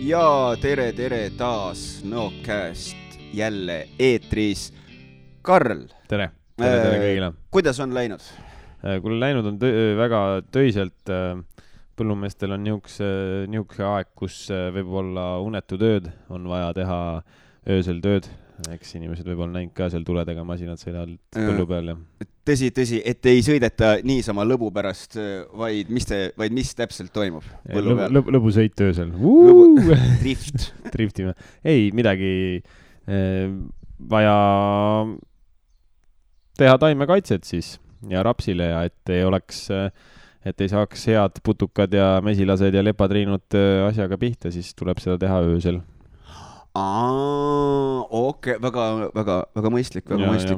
Ja tere taas Nõocast jälle eetris. Karl. Tere kõigile. Kuidas on läinud? Kui läinud on väga töiselt. Põllumeestel on niisuguse aeg, kus võib olla unetu tööd, on vaja teha öösel tööd. Eks inimesed võib olla näinud ka seal tuledega masinad sõidavad põllu peal. Ja. Tõsi, et ei sõideta niisama lõbu pärast, vaid mis täpselt toimub põllu peal? Lõbusõit öösel. Drift. Driftime. Ei, midagi vaja teha taimekaitset siis ja rapsile ja et ei saaks head putukad ja mesilased ja lepatriinud asjaga pihta, siis tuleb seda teha öösel. Okei, väga mõistlik,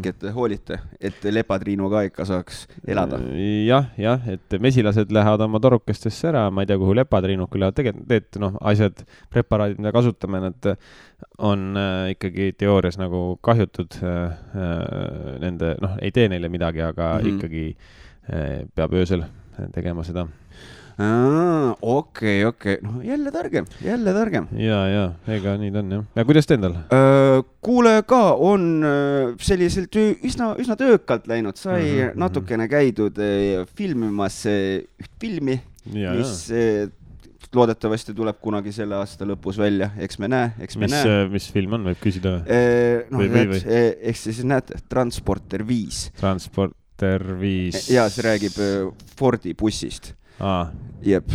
et hoolite, et lepatriinu ka ikka saaks elada. Jah, et mesilased lähevad oma torukestesse ära, ma ei tea, kuhu lepatriinud küll tegelikult, asjad, preparaadid, mida kasutame, nad on ikkagi teoorias nagu kahjutud nende, ei tee neile midagi, aga ikkagi peab öösel tegema seda. Okei. Jälle targem. Ja, ega nii on, jah. Ja kuidas te endal? Kuule ka, on selliselt üsna töökalt läinud. Sai natukene käidud filmimas üht filmi, mis loodetavasti tuleb kunagi selle aasta lõpus välja. Eks me näe. Mis film on, võib küsida? Eks siis näed, Transporter 5. Transporter 5. Ja see räägib Fordi bussist. Jep.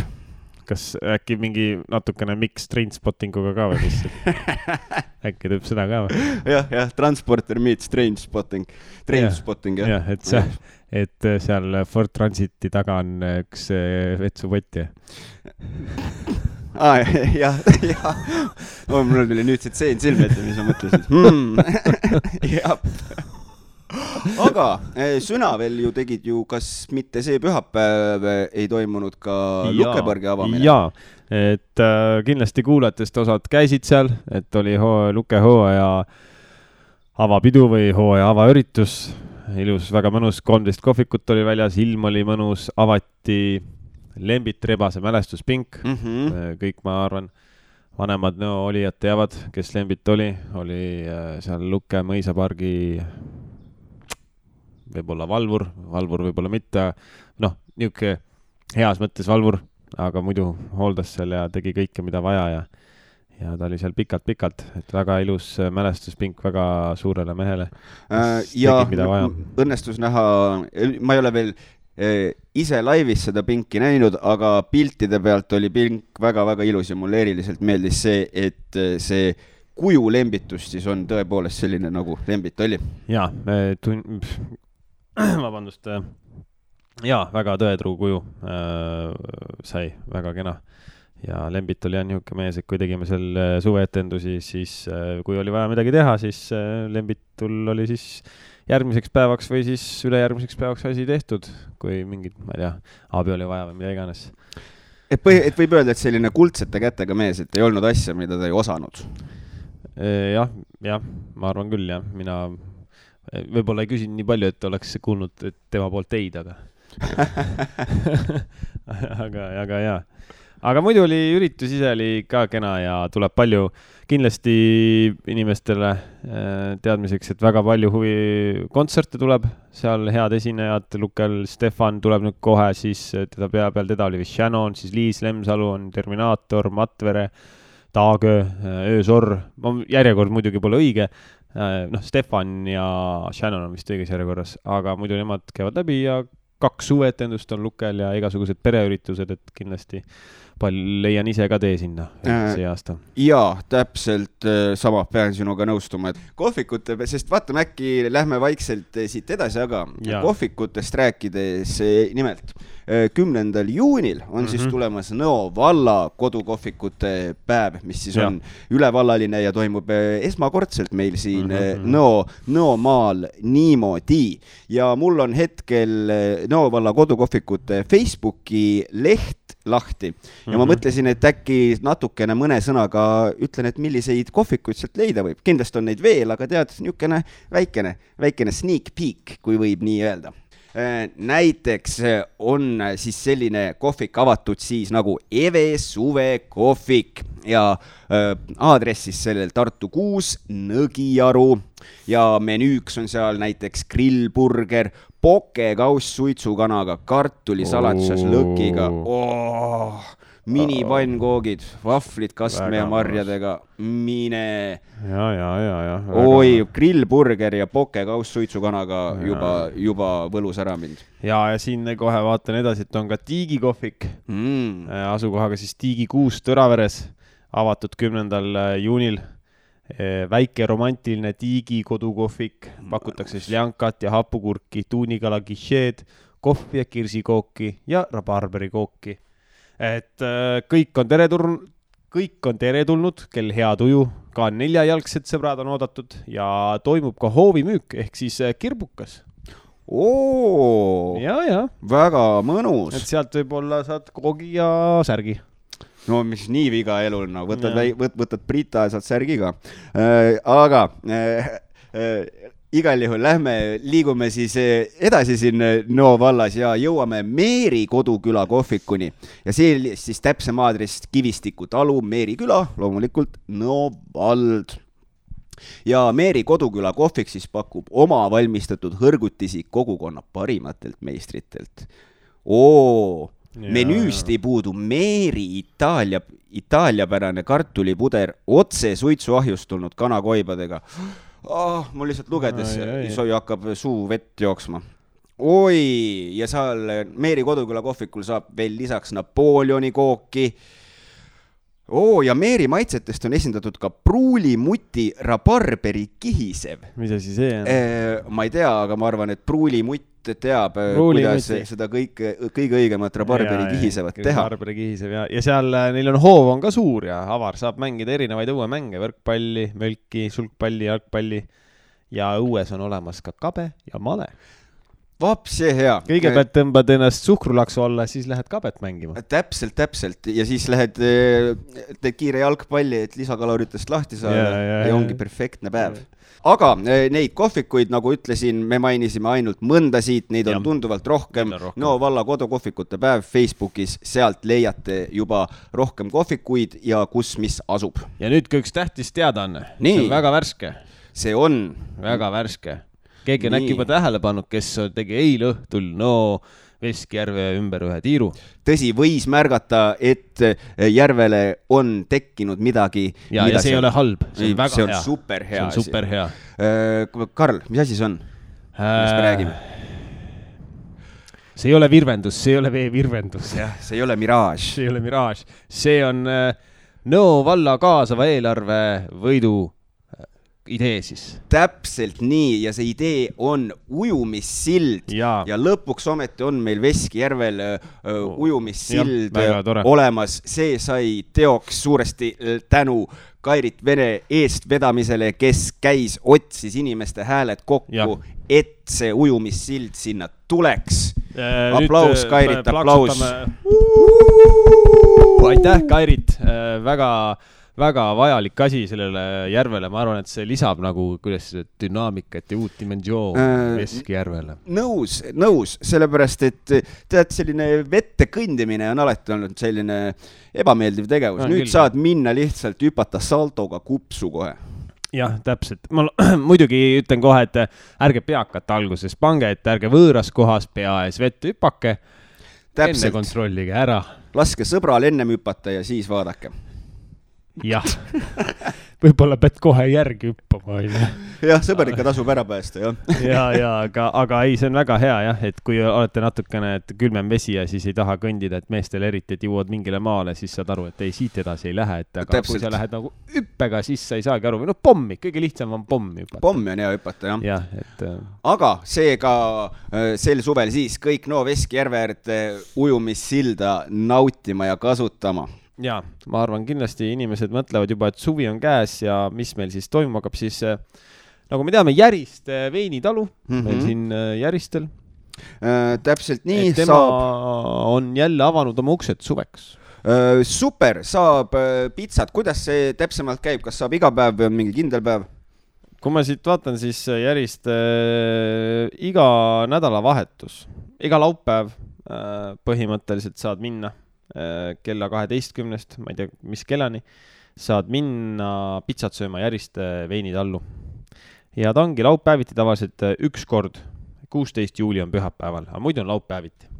Kas äkki mingi natukene mix Trainspottinguga ka või mis? Äkki teeb seda ka või? Jah, Transporter meets Trainspotting. Jah, et seal Ford Transiti taga on üks vetsupott. Jah. Mul tuli nüüd see tseen silme ette, mis ma mõtlesin. Jah. Aga sõna veel ju tegid ju, kas mitte see pühapäev ei toimunud ka Lukebõrgi avamine? Jaa, et kindlasti kuulajatest osad käisid seal, et oli Luke hooaja avapidu või hooaja avaüritus. Ilus, väga mõnus, 13 kohvikut oli väljas, ilm oli mõnus, avati Lembit Rebase mälestuspink. Kõik, ma arvan, vanemad olijad teavad, kes Lembit oli seal Luke mõisapargi võib-olla valvur võib-olla mitte, niuke heas mõttes valvur, aga muidu hooldas seal ja tegi kõike, mida vaja ja ta oli seal pikalt, et väga ilus mälestuspink väga suurele mehele. Ja õnnestus näha, ma ei ole veel ise laivis seda pinki näinud, aga piltide pealt oli pink väga ilus ja mulle eriliselt meeldis see, et see kuju Lembitus siis on tõepoolest selline nagu Lembit oli. Jaa, vabandust, väga tõetruu kuju sai, väga kena. Ja Lembit oli niisugune mees, et kui tegime seal suveetendusi, siis kui oli vaja midagi teha, siis Lembitul oli siis järgmiseks päevaks või siis ülejärgmiseks päevaks asi tehtud, kui mingid, ma ei tea, abi oli vaja või mida iganes. Et võib öelda, et selline kuldsete kätega mees, et ei olnud asja, mida ta ei osanud? Jah, ma arvan küll, jah. Mina võib-olla ei küsinud nii palju, et oleks kuulnud et tema poolt teid, aga jaa. Aga muidu oli üritus ise oli ka kena ja tuleb palju kindlasti inimestele teadmiseks, et väga palju kontserte tuleb, seal head esinejad, Lukel Stefan tuleb nüüd kohe, siis teda oli vist Shannon, siis Liis Lemsalu on Terminaator, Matvere, Taagö, Öösorr, järjekord muidugi pole õige, Stefan ja Shannon on vist õiges järjekorras, aga muidu nemad käivad läbi ja 2 suveetendust on Lukel ja igasugused pereüritused, et kindlasti leian ise ka tee sinna see aasta. Jaa, täpselt sama pean sinuga nõustuma, et kohvikute, sest vaatame äkki lähme vaikselt siit edasi, aga kohvikutest rääkides nimelt 10. juunil on siis tulemas Nõo valla kodukohvikute päev, mis siis on ülevallaline ja toimub esmakordselt meil siin Nõo maal niimoodi. Ja mul on hetkel Nõo valla kodukohvikute Facebooki leht lahti. Ja ma mõtlesin, et äkki natukene mõne sõnaga ütlen, et milliseid kohvikuid sealt leida võib. Kindlasti on neid veel, aga tead, niisugune väikene sneak peek, kui võib nii öelda. näiteks on siis selline kohvik avatud siis nagu Eve Suve kohvik ja aadress siis sellel Tartu 6 Nõgiaru ja menüüks on seal näiteks grillburger, pokekauss suitsukanaga, kartulisalatsas lõkiga, minipannkoogid, vahvlid kastme ja marjadega, mine. Ja. Oi, grillburger ja pokekauss suitsukanaga juba võlus ära mind. Ja siin kohe vaatan edasi, et on ka Tiigi kohvik, asukohaga siis Tiigi 6 Tõraveres, avatud 10. juunil. Väike romantiline Tiigi kodukohvik, pakutakse sljankat ja hapukurki, tuunikala guichet, kohvi ja kirsikooki ja rabarberikooki. Et kõik on teretulnud, kel hea tuju, ka 4-jalgsed sõbrad on oodatud ja toimub ka hoovimüük ehk siis kirbukas. Ja. Väga mõnus. Et sealt võib-olla saad koogi ja särgi. No mis nii viga elul, no võtad Brita ja saad särgi ka. Aga igal juhul liigume siis edasi siin Nõo vallas ja jõuame Meeri Koduküla kohvikuni. Ja see siis täpsem aadress Kivistiku talu, Meeri küla, loomulikult Nõo vald. Ja Meeri Koduküla kohvik siis pakub oma valmistatud hõrgutisi kogukonna parimatelt meistritelt. Menüüst ei puudu Meeri itaaliapärane kartulipuder otse suitsuahjust tulnud kanakoibadega. Mul lihtsalt lugedes soi hakkab suu vett jooksma. Ja seal Meeri Koduküla kohvikul saab veel lisaks Napoleoni kooki. Ja Meeri maitsetest on esindatud ka pruulimuti rabarberi kihisev. Mis asi see on? Ma ei tea, aga ma arvan, et pruulimutt teab, kuidas seda kõige õigemat rabarberi kihisevat teha. Rabarberi kihisev ja seal neil on hoov on ka suur ja avar saab mängida erinevaid õuemänge, võrkpalli, mölki, sulgpalli, jalgpalli ja õues on olemas ka kabe ja male. Vaps, see hea. Kõigepealt tõmbad ennast suhkrulaksu alla, siis lähed kabet mängima. Täpselt. Ja siis teed kiire jalgpalli, et lisakaloritest lahti saada ja ongi perfektne päev. Aga neid kohvikuid, nagu ütlesin, me mainisime ainult mõnda siit, neid on tunduvalt rohkem. Nõo valla kodukohvikute päev Facebookis, sealt leiate juba rohkem kohvikuid ja kus mis asub. Ja nüüd üks tähtis teadaanne. See on väga värske. See on väga värske. Keegi on äkki juba tähele pannud, kes tegi eile õhtul Veskjärve ümber ühe tiiru. Tõsi, võis märgata, et järvele on tekkinud midagi. Ja see ei ole halb. See on väga hea. See on super hea. See on super hea. Karl, mis asi see on? Mis me räägime? See ei ole virvendus, see ei ole veevirvendus. See ei ole miraaž. See ei ole miraaž. See on Nõo valla kaasava eelarve võidu idee siis. Täpselt nii ja see idee on ujumissild ja lõpuks ometi on meil Veskjärvel ujumissild olemas. See sai teoks suuresti tänu Kairit Vene eestvedamisele, kes käis, otsis inimeste hääled kokku, et see ujumissild sinna tuleks. Aplaus, Kairit, aplaus. Aitäh, Kairit, väga vajalik asi sellele järvele. Ma arvan, et see lisab nagu kuidas dünaamikat ja uut dimensioon Veskjärvele. Nõus, sellepärast, et tead, selline vette kõndimine on alati olnud selline ebameeldiv tegevus. Nüüd saad minna lihtsalt hüpata saltoga kupsu kohe. Jah, täpselt. Ma muidugi ütlen kohe, et ärge peakata alguses pange, et ärge võõras kohas pea ees vett hüpake. Täpselt. Enne kontrollige ära. Laske sõbral ennem hüpata ja siis vaadake. Jah, võib-olla pead kohe järgi hüppama. Jah, sõber ikka tasub ära päästa, aga ei, see on väga hea, et kui olete natukene külmem vesi ja siis ei taha kõndida, et meestel eriti, et jõuad mingile maale, siis saad aru, et ei, siit edasi ei lähe, et aga kui sa lähed nagu hüppega, siis sa ei saagi aru, või pommi, kõige lihtsam on pommi hüpata. Pommi on hea hüpata, Aga seega sel suvel siis kõik Nõo Veskjärve äärde ujumissilda nautima ja kasutama. Ja, ma arvan, kindlasti inimesed mõtlevad juba, et suvi on käes ja mis meil siis toimuma hakkab, siis nagu me teame, Järist veinitalu, meil siin Järistel. Täpselt nii, tema on jälle avanud oma uksed suveks. Super, saab pitsat. Kuidas see täpsemalt käib? Kas saab iga päev või on mingi kindel päev? kui ma siit vaatan, siis järjest iga nädalavahetus, iga laupäev põhimõtteliselt saad minna kella 12, ma ei tea, mis kellani, saad minna pitsat sööma Järiste veinitallu. Ja ta ongi laupäeviti tavaliselt üks kord, 16 juuli on pühapäeval, aga muidu on laupäeviti.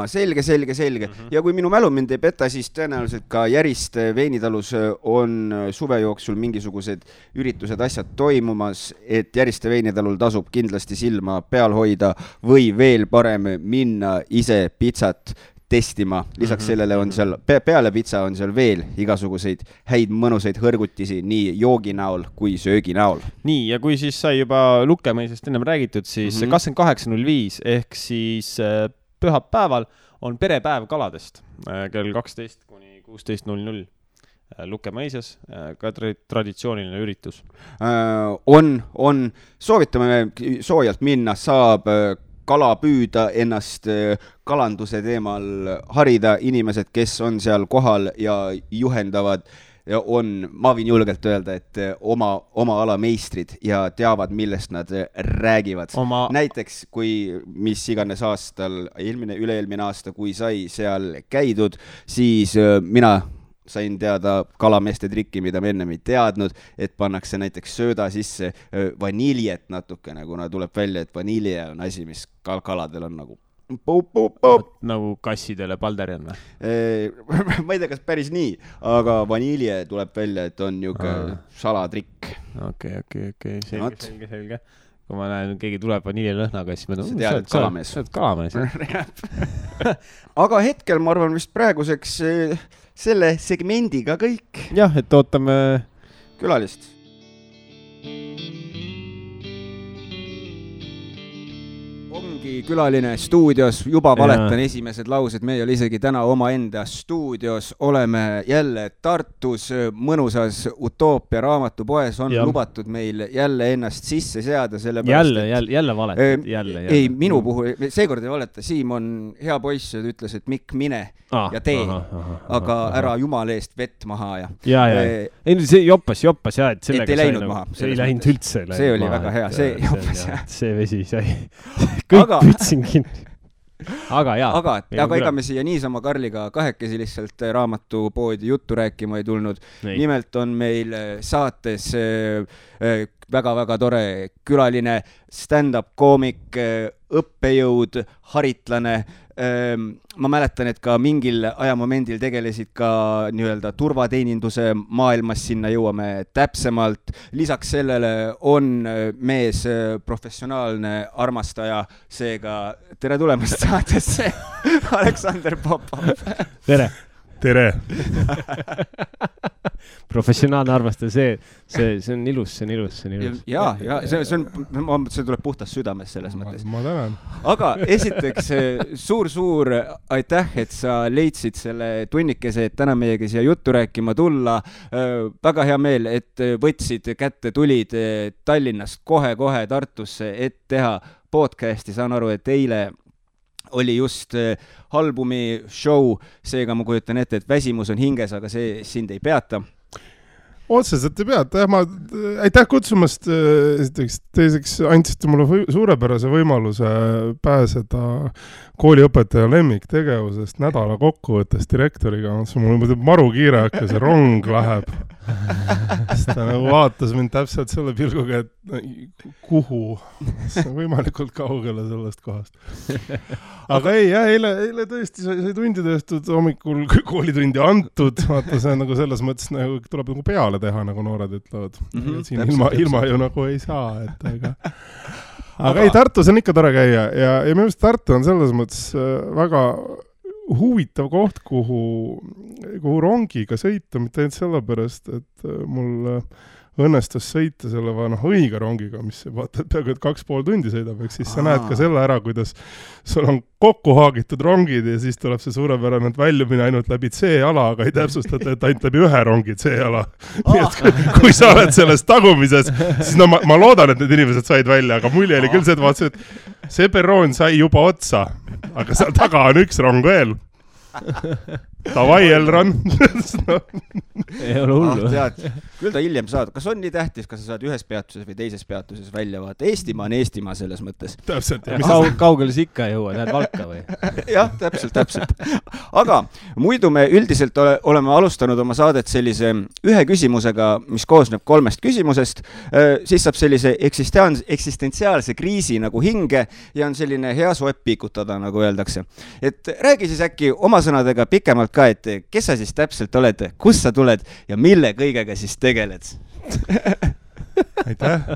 Selge. Ja kui minu mälu mind ei peta, siis tõenäoliselt ka Järiste veinitalus on suve jooksul mingisugused üritused, asjad toimumas, et Järiste veinitalul tasub kindlasti silma peal hoida või veel parem minna ise pitsat testima. Lisaks sellele on seal, peale pitsa on seal veel igasuguseid häid mõnusaid hõrgutisi nii joogi näol kui söögi näol. Nii, ja kui siis sai juba Lukemõisast ennem räägitud, siis 28.05 ehk siis pühapäeval on perepäev kaladest kell 12 kuni 16.00 Lukemõisas, ka traditsiooniline üritus. Soovitame soojalt minna, saab kala püüda, ennast kalanduse teemal harida, inimesed, kes on seal kohal ja juhendavad, ma võin julgelt öelda, et oma ala meistrid ja teavad, millest nad räägivad. Näiteks, kui mis iganes aastal, üle-eelmine aasta, kui sai seal käidud, siis mina sain teada kalameeste trikki, mida me ennem ei teadnud, et pannakse näiteks sööda sisse vaniljet natukene, kuna tuleb välja, et vanilje on asi, mis kaladel on nagu nagu kassidele Balderian või? Ma ei tea, kas päris nii, aga vanilje tuleb välja, et on niisugune salatrikk. Okei. Selge. Kui ma näen, keegi tuleb vaniljelõhnaga, siis ma tead, et kalamees. Kalamees. Aga hetkel, ma arvan, vist praeguseks selle segmendiga kõik. Jah, et ootame külalist. Ongi külaline stuudios, juba valetan esimesed laused, me ei ole isegi täna omaenda stuudios, oleme jälle Tartus mõnusas Utoopia raamatupoes, on lubatud meil jälle ennast sisse seada, jälle valetad, jälle. Ei, minu puhul, seekord ei valeta, Siim on hea poiss ja ütles, et Mikk, mine ja tee, aga ära jumala eest vett maha ja. Ei, see joppas ja, et sellega ei läinud maha. See ei läinud üldse. See oli väga hea, see joppas ja. See vesi sai. Kõik pütsin kinni. Aga ega me siia niisama Karliga kahekesi lihtsalt raamatupoodi juttu rääkima ei tulnud. Nimelt on meil saates väga-väga tore külaline stand-up koomik, õppejõud, haritlane. Ma mäletan, et ka mingil ajamomendil tegelesid ka nii-öelda turvateeninduse maailmas, sinna jõuame täpsemalt. Lisaks sellele on mees professionaalne armastaja, seega tere tulemast saatesse, Aleksander Popov. Tere. Professionaalne armastaja, see on ilus. Ja, see tuleb puhtast südames selles mõttes. Ma tänan. Aga esiteks suur aitäh, et sa leidsid selle tunnikese, et täna meiega siia juttu rääkima tulla. Väga hea meel, et võtsid kätte, tulid Tallinnast kohe Tartusse, et teha podcasti. Saan aru, et eile oli just albumi show, seega ma kujutan ette, et väsimus on hinges, aga see sind ei peata. Otseselt ei peata, aitäh kutsumast, teiseks andsite mulle suurepärase võimaluse pääseda kooliõpetaja lemmiktegevusest nädala kokkuvõttes direktoriga. Mul muidu maru kiire hakka, see rong läheb. Ta nagu vaatas mind täpselt selle pilguga, et kuhu, võimalikult kaugele sellest kohast. Aga eile tõesti sai tundi tõestud, hommikul koolitundi antud, vaata see nagu selles mõttes nagu tuleb nagu peale teha, nagu noored ütlevad. Siin ilma ju nagu ei saa, aga ei, Tartus on ikka tore käia ja minu arust Tartu on selles mõttes väga huvitav koht, kuhu rongiga sõita, mitte ainult sellepärast, et mul õnnestus sõita selle õige rongiga, mis vaata, et peaaegu 2,5 tundi sõidab, eks siis sa näed ka selle ära, kuidas sul on kokku haagitud rongid ja siis tuleb see suurepärane väljumine ainult läbi C-ala, aga ei täpsustata, et ainult läbi ühe rongi C-ala. Nii et kui sa oled selles tagumises, siis ma loodan, et need inimesed said välja, aga mulje oli küll see, et vaatasin, et see perroon sai juba otsa, aga seal taga on üks rong veel. Davai, Elron. Ei ole hullu. Küll ta hiljem saad. Kas on nii tähtis, kas sa saad ühes peatuses või teises peatuses välja vaata? Eestimaa on Eestimaa selles mõttes. Täpselt. Kaugele sa ikka jõua, lähed Valka või? Jah, täpselt. Aga muidu me üldiselt oleme alustanud oma saadet sellise ühe küsimusega, mis koosneb 3 küsimusest. Siis saab sellise eksistentsiaalse kriisi nagu hinge ja on selline hea soep piikutada, nagu öeldakse. Et räägi siis äkki oma sõnadega pikemalt ka, et kes sa siis täpselt oled, kus sa tuled ja mille kõigega siis tegeled? Aitäh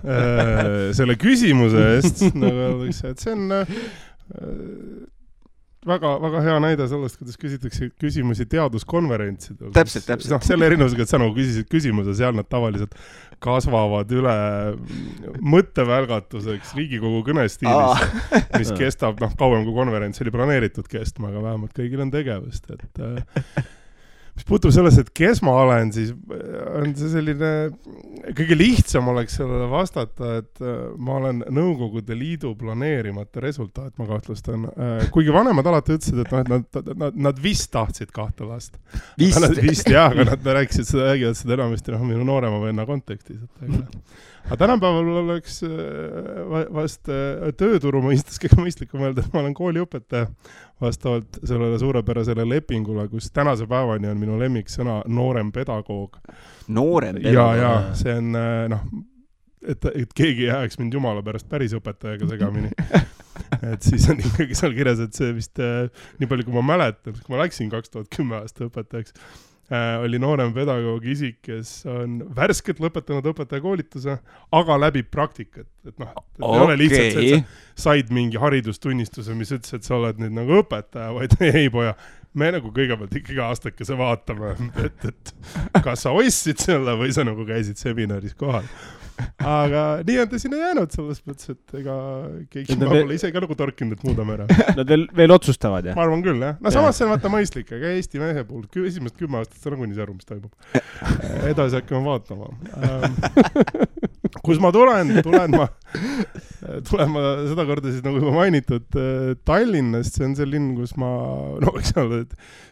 selle küsimuse eest, nagu öeldakse, et see on väga hea näide sellest, kuidas küsitakse küsimusi teaduskonverentsidel. Täpselt. Selle erinevusega, et sa nagu küsisid küsimuse, seal nad tavaliselt kasvavad üle mõttevälgatuseks Riigikogu kõnestiilis, mis kestab kauem kui konverents oli planeeritud kestma, aga vähemalt kõigil on tegevust. Mis puutub selles, et kes ma olen, siis on see selline, kõige lihtsam oleks sellele vastata, et ma olen Nõukogude Liidu planeerimata resultaat, ma kahtlustan. Kuigi vanemad alati ütlesid, et nad vist tahtsid 2 last. Vist, jah, aga nad räägivad seda enamasti minu noorema venna kontekstis. Aga tänapäeval oleks vast tööturu mõistes kõige mõistlikum öelda, et ma olen kooliõpetaja vastavalt sellele suurepärasele lepingule, kus tänase päevani on minu lemmiksõna noorem pedagoog. Noorem pedagoog? Ja, see on, et keegi jääks mind jumala pärast päris õpetajaga segamini. Et siis on ikkagi seal kirjas, et see vist nii palju, kui ma mäletan, kui ma läksin 2010 aasta õpetajaks, oli noorem pedagoog isik, kes on värskelt lõpetanud õpetajakoolituse, aga läbib praktikat. Et ei ole lihtsalt, et sa said mingi haridustunnistuse, mis ütles, et sa oled nüüd nagu õpetaja, vaid ei poja. Me nagu kõigepealt ikkagi aastakese vaatame, et kas sa ostsid selle või sa nagu käisid seminaris kohal. Aga nii on ta sinna jäänud selles mõttes, et ega keegi ma pole ise ka nagu torkinud, et muudame ära. Nad veel otsustavad, jah? Ma arvan küll, jah. No samas see on vaata mõistlik, aga Eesti mehe puhul esimest 10 aastat sa nagu nii aru, mis toimub. Edasi hakkame vaatama. Kus ma tulen ma seda korda siis nagu juba mainitud Tallinnast, see on see linn, kus ma eks ole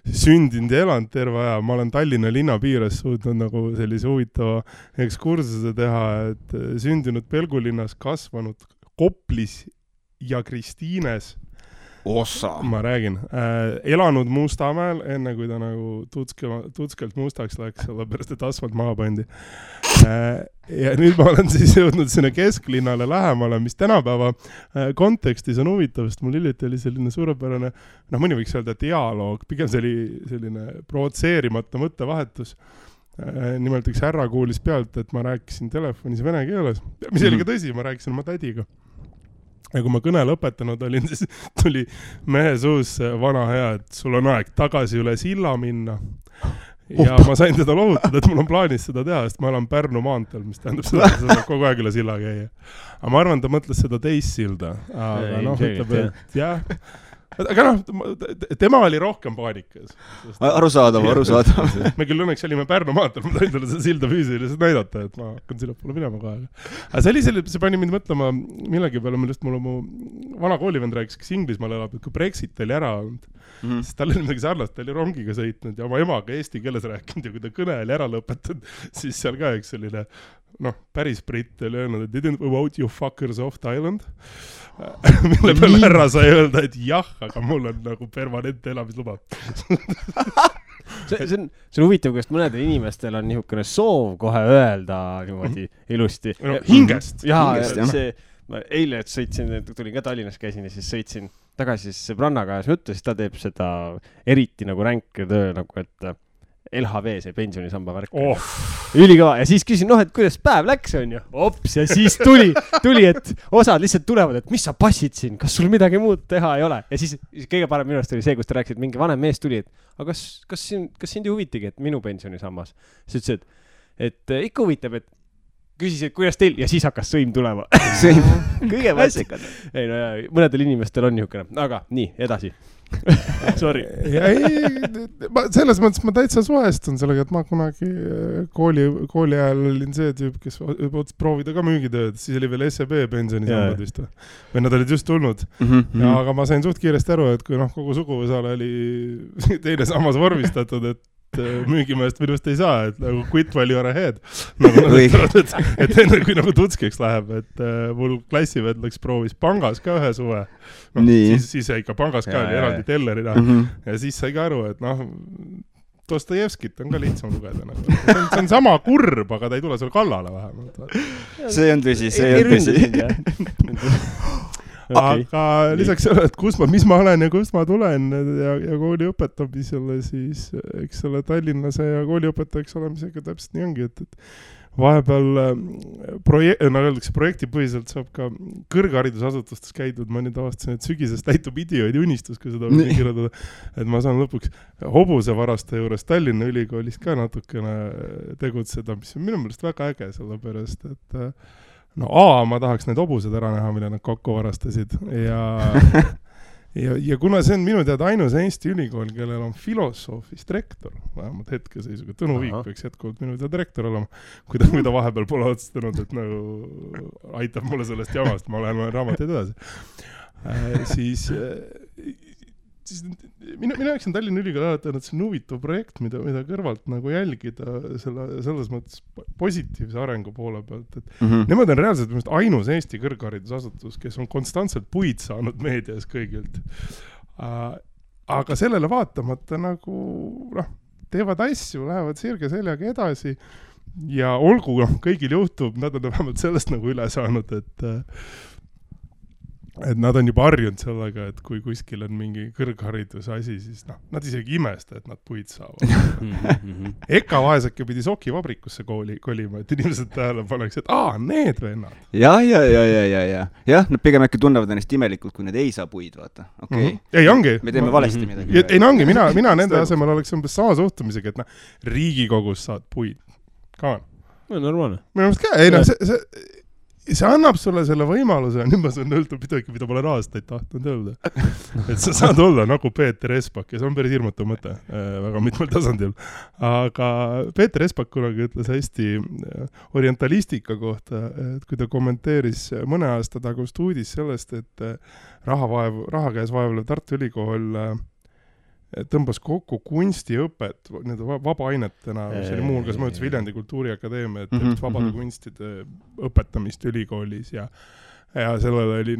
sündinud ja elanud terve aja. Ma olen Tallinna linna piires suutnud nagu sellise huvitava ekskursuse teha, et sündinud Pelgulinnas, kasvanud Koplis ja Kristiines. Ma räägin. Elanud Mustamäel, enne kui ta nagu tutskelt mustaks läks, sellepärast, et asfalt maha pandi. Ja nüüd ma olen siis jõudnud sinna kesklinnale lähemale, mis tänapäeva kontekstis on huvitav, sest mul hiljuti oli selline suurepärane, mõni võiks öelda dialoog, pigem see oli selline provotseerimata mõttevahetus. Nimelt üks härra kuulis pealt, et ma rääkisin telefonis vene keeles, mis oli ka tõsi, ma rääkisin oma tädiga. Ja kui ma kõne lõpetanud olin, siis tuli mehe suus vana hea, et sul on aeg tagasi üle silla minna. Ja ma sain teda lohutada, et mul on plaanis seda teha, sest ma elan Pärnu maanteel, mis tähendab seda, et seda kogu aeg üle silla käia. Aga ma arvan, ta mõtles seda teist silda. Aga ütleb, et jah. Aga tema oli rohkem paanikas. Arusaadav. Me küll õnneks olime Pärnu maanteel, ma sain talle seda silda füüsiliselt näidata, et ma hakkan sinna poole minema kohe. Aga see pani mind mõtlema millegi peale, millest mul mu vana koolivend rääkis, kes Inglismaal elab, et kui Brexit oli ära olnud, siis tal oli midagi sarnast, ta oli rongiga sõitnud ja oma emaga eesti keeles rääkinud ja kui ta kõne oli ära lõpetanud, siis seal ka üks selline päris britt oli öelnud, et didn't vote you fuckers off Thailand. Mille peale härra sai öelda, et jah, aga mul on nagu permanent elamisluba. See on huvitav, kuidas mõnedel inimestel on niisugune soov kohe öelda niimoodi ilusti. Hingest. Ma eile tulin ka Tallinnas käisin ja siis sõitsin tagasi sõbrannaga ja juttu, siis ta teeb seda eriti nagu ränk töö, nagu et LHV, see pensionisamba värk. Ülikõva. Ja siis küsin, et kuidas päev läks, on ju? Ops, ja siis tuli, et osad lihtsalt tulevad, et mis sa passid siin, kas sul midagi muud teha ei ole? Ja siis kõige parem minu arust oli see, kus ta rääkis, et mingi vanem mees tuli, et aga kas sind ei huvitigi, et minu pensionisammas? Siis ütles, et ikka huvitab, et küsis, et kuidas teil, ja siis hakkas sõim tulema. Sõim. Kõige vassikad. Ei, mõnedel inimestel on niisugune. Aga nii, edasi. Sorry. Selles mõttes ma täitsa suhestun sellega, et ma kunagi kooli ajal olin see tüüp, kes ots proovida ka müügitööd, siis oli veel SEB pensionisambad vist või nad olid just tulnud. Aga ma sain suht kiiresti aru, et kui kogu suguvõsale oli teine sammas vormistatud, et müügimeest minust ei saa, et nagu quit while you are ahead. Et enne kui tutskiks läheb, et mul klassived läks proovis pangas ka ühe suve. Siis jäi ka pangas ka eraldi tellerina ja siis sai ka aru, et Dostojevskit on ka lihtsam lugeda. See on sama kurb, aga ta ei tule sulle kallale vähemalt. See on tõsi, see on tõsi. Okay. Aga lisaks selle, et mis ma olen ja kust ma tulen ja kooli õpetamisele, siis eks selle Tallinnase ja kooli õpetajaks olemisega täpselt nii ongi, et vahepeal projektipõhiselt saab ka kõrgharidusasutustes käidud, ma nüüd avastasin, et sügisest täitub idioodi unistus, kui seda võin kirjutada, et ma saan lõpuks hobusevaraste juures Tallinna Ülikoolis ka natukene tegutseda, mis on minu meelest väga äge, sellepärast, et ma tahaks need hobused ära näha, mille nad kokku varastasid ja kuna see on minu teada ainus Eesti ülikool, kellel on filosoofist rektor, vähemalt hetkeseisuga, Tõnu Viik peaks jätkuvalt minu teada rektor olema, kui ta vahepeal pole otsustanud, et aitab mulle sellest jamast, ma lähen raamateid edasi. Siis minu jaoks on Tallinna Ülikool alati, et see on huvitav projekt, mida kõrvalt jälgida selles mõttes positiivse arengu poole pealt. Nemad on reaalselt ainus Eesti kõrgharidusasutus, kes on konstantselt puid saanud meedias kõigilt. Aga sellele vaatamata teevad asju, lähevad sirge seljaga edasi ja olgu kõigil juhtub, nad on vähemalt sellest üle saanud, et nad on juba harjunud sellega, et kui kuskil on mingi kõrghariduse asi, siis nad isegi imesta, et nad puid saavad. Eka vaesake pidi sokivabrikusse kolima, et inimesed tähele paneks, et need vennad. Ja, nad pigem äkki tunnevad ennast imelikult, kui need ei saa puid, vaata. Okay. Ei, ongi. Me teeme valesti midagi. Ei, ongi, mina nende asemel oleks umbes sama suhtumisega, et Riigikogus saad puid. Ka on. Normaalne. Minu meelest ka, see annab sulle selle võimaluse, nüüd ma saan öelda midagi, mida ma olen aastaid tahtnud öelda. Et sa saad olla nagu Peeter Espak ja see on päris hirmutu mõte väga mitmel tasandil. Aga Peeter Espak kunagi ütles hästi orientalistika kohta, et kui ta kommenteeris mõne aasta tagust uudis sellest, et raha käes vaevlev Tartu Ülikool tõmbas kokku kunstiõpet vabaainetena, mis oli muu hulgas mõjutas Viljandi Kultuuriakadeemia, et vabade kunstide õpetamist ülikoolis ja sellele oli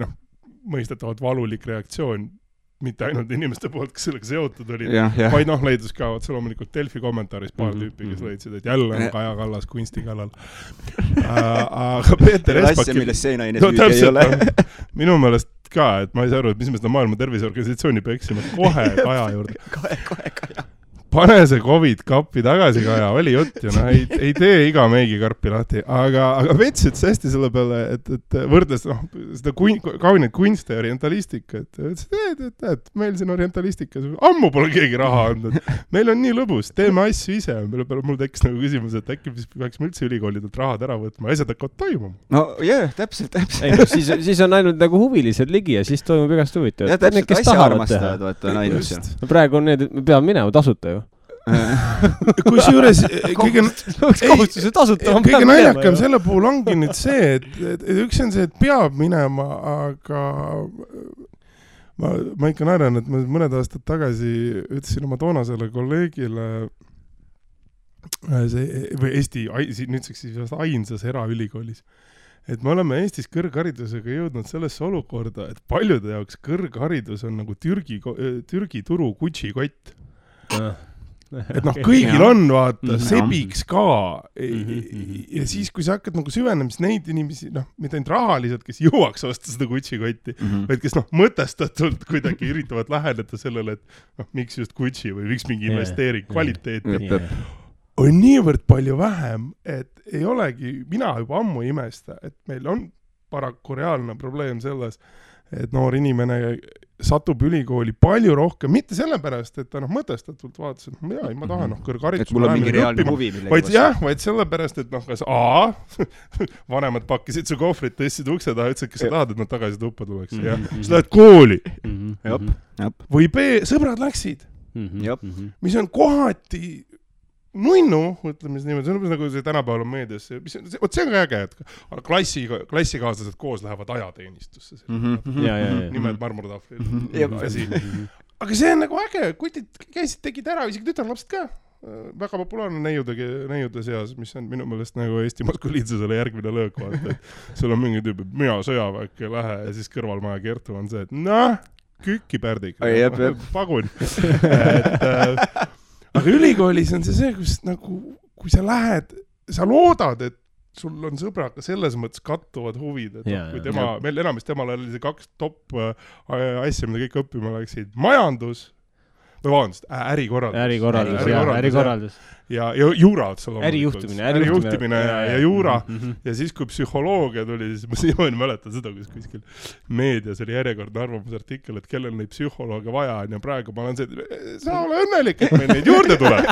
mõistetavalt valulik reaktsioon mitte ainult inimeste poolt, kes sellega seotud olid, vaid leidus ka loomulikult Delfi kommentaaris paar tüüpi, kes leidsid, et jälle on Kaja Kallas kunsti kallal. Aga Peeter Espak... Asja, milles see naine süüdi ei ole. Minu meelest ka, et ma ei saa aru, et mis me seda Maailma Terviseorganisatsiooni peksime kohe Kaja juurde. Kohe Kaja. Pane see COVID-kappi tagasi, Kaja, oli jutt ju, ei tee iga meigikarpi lahti, aga Vets ütles hästi selle peale, et võrdles seda kauniid kunste ja orientalistika, et meil siin orientalistika, ammu pole keegi raha andnud, meil on nii lõbus, teeme asju ise, mille peale mul tekkis küsimus, et äkki peaksime üldse ülikoolidelt rahad ära võtma, asjad hakkavad toimuma. No jah, täpselt. Siis on ainult huvilised ligi ja siis toimub igast huvitav. Ja täpselt asja armastavad, vaata on ainus. Praegu on need, me peame minema tasuta ju. Kusjuures kõige naljakam selle puhul ongi nüüd see, et üks on see, et peab minema, aga ma ikka naeran, et ma mõned aastad tagasi ütlesin oma toonasele kolleegile või Eesti, nüüdseks siis ainsas eraülikoolis, et me oleme Eestis kõrgharidusega jõudnud sellesse olukorda, et paljude jaoks kõrgharidus on nagu Türgi turu Gucci-kott. Et kõigil on, vaata, sebiks ka ja siis, kui sa hakkad süvenemist neid inimesi, mitte ainult rahaliselt, kes jõuaks osta seda Gucci-kotti, vaid kes mõtestatult kuidagi üritavad läheneda sellele, et miks just Gucci või miks mingi investeering kvaliteeti on niivõrd palju vähem, et ei olegi, mina juba ammu imesta, et meil on paraku reaalne probleem selles, et noor inimene satub ülikooli palju rohkem, mitte sellepärast, et ta mõtestatult vaatas, et ma tahan kõrgharidus. Et mul on mingi reaalne huvi millegi vastu. Vaid sellepärast, et kas vanemad pakkisid su kohvrit, tõstsid ukse taha, ütlesid, kes sa tahad, et nad tagasi tuppa tuleks. Ja sa lähed kooli. Või B, sõbrad läksid. Mis on kohati nunnu, ütleme siis niimoodi, see on nagu see tänapäeval on meedias, see on ka äge, et klassikaaslased koos lähevad ajateenistusse. Nimed marmortahvlil. Aga see on nagu äge, kutid käisid, tegid ära, isegi tütarlapsed ka. Väga populaarne neiude seas, mis on minu meelest nagu Eesti maskuliinsusele järgmine löök vaata, et sul on mingi tüüp, et mina sõjaväkke ei lähe ja siis kõrvalmaja Kertu on see, et kükki pärdik, pagun. Aga ülikoolis on see, kus nagu, kui sa lähed, sa loodad, et sul on sõbraga selles mõttes kattuvad huvid, et kui meil enamasti temal oli see 2 top asja, mida kõik õppima läksid, majandus, või vabandust, ärikorraldus. Ja juura otsa ärijuhtimine ja juura. Ja siis, kui psühholoogia tuli, siis ma siiamaani mäletan seda, kus kuskil meedias oli järjekordne arvamusartikkel, et kellel neid psühholoogia vaja on ja praegu ma olen see, sa ole õnnelik, et meil neid juurde tuleb.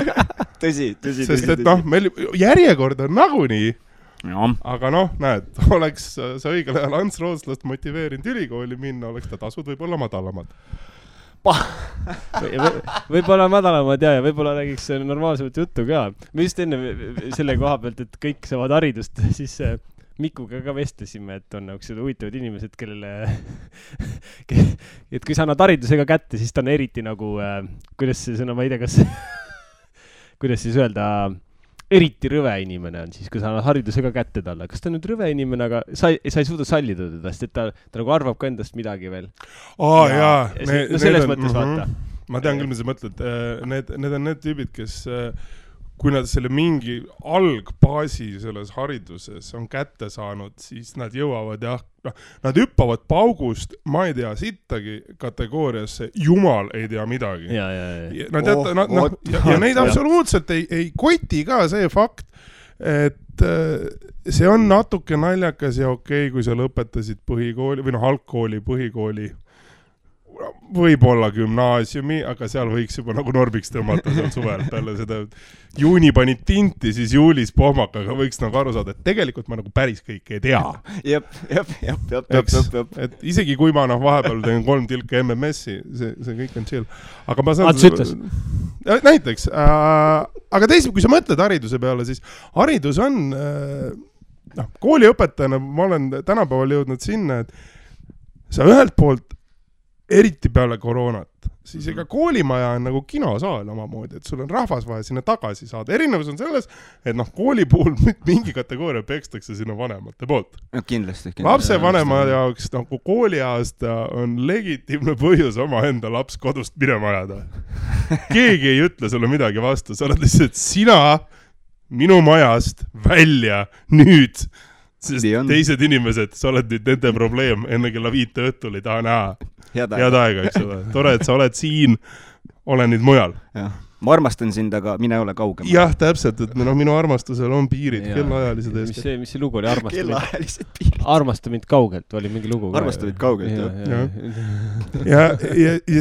Tõsi. Sest et meil järjekord on nagunii, aga näed, oleks sa õigel ajal Ants Rootslast motiveerinud ülikooli minna, oleks ta tasud võib-olla madalamad. Võib-olla madalamad ja võib-olla räägiks normaalsemat juttu ka. Me just enne selle koha pealt, et kõik saavad haridust, siis Mikuga ka vestlesime, et on nagu huvitavad inimesed, kellele et kui sa annad haridusega kätte, siis ta on eriti nagu, kuidas see sõna, ma ei tea, kas kuidas siis öelda, eriti rõve inimene on siis, kui sa annad haridusega kätte talle. Kas ta on nüüd rõve inimene, aga sa ei suuda sallida teda, sest ta nagu arvab ka endast midagi veel. Selles mõttes vaata. Ma tean küll, mis sa mõtled. Need on need tüübid, kes kui nad selle mingi algbaasi selles hariduses on kätte saanud, siis nad jõuavad nad hüppavad paugust, ma ei tea, sittagi kategooriasse, jumal ei tea midagi. Ja neid absoluutselt ei koti ka see fakt, et see on natuke naljakas ja okei, kui sa lõpetasid põhikooli või algkooli, põhikooli, võib-olla gümnaasiumi, aga seal võiks juba nagu normiks tõmmata seal suvel peale seda juuni panid tinti, siis juulis pohmakaga võiks nagu aru saada, et tegelikult ma nagu päris kõike ei tea. Et isegi kui ma vahepeal teen 3 tilka MMS-i, see kõik on chill. Aga ma saan... Näiteks. Aga teisalt, kui sa mõtled hariduse peale, siis haridus on... kooliõpetajana ma olen tänapäeval jõudnud sinna, et sa ühelt poolt eriti peale koroonat, siis ega koolimaja on nagu kinosaal omamoodi, et sul on rahvas vaja sinna tagasi saada. Erinevus on selles, et kooli puhul mingi kategooria pekstakse sinna vanemate poolt. Kindlasti. Lapse vanema jaoks nagu kooliaasta on legitiimne põhjus oma enda laps kodust minema ajada. Keegi ei ütle sulle midagi vastu, sa oled lihtsalt sina minu majast välja nüüd. Sest teised inimesed, sa oled nüüd nende probleem, enne kella 5 õhtul ei taha näha. Head aega, eks ole. Tore, et sa oled siin, ole nüüd mujal. Ma armastan sind, aga mine ole kaugem. Jah, täpselt, et minu armastusel on piirid, kellaajalised eest. Mis see lugu oli? Kellaajalised piirid. Armasta mind kaugelt, oli mingi lugu. Armasta mind kaugelt, jah. Ja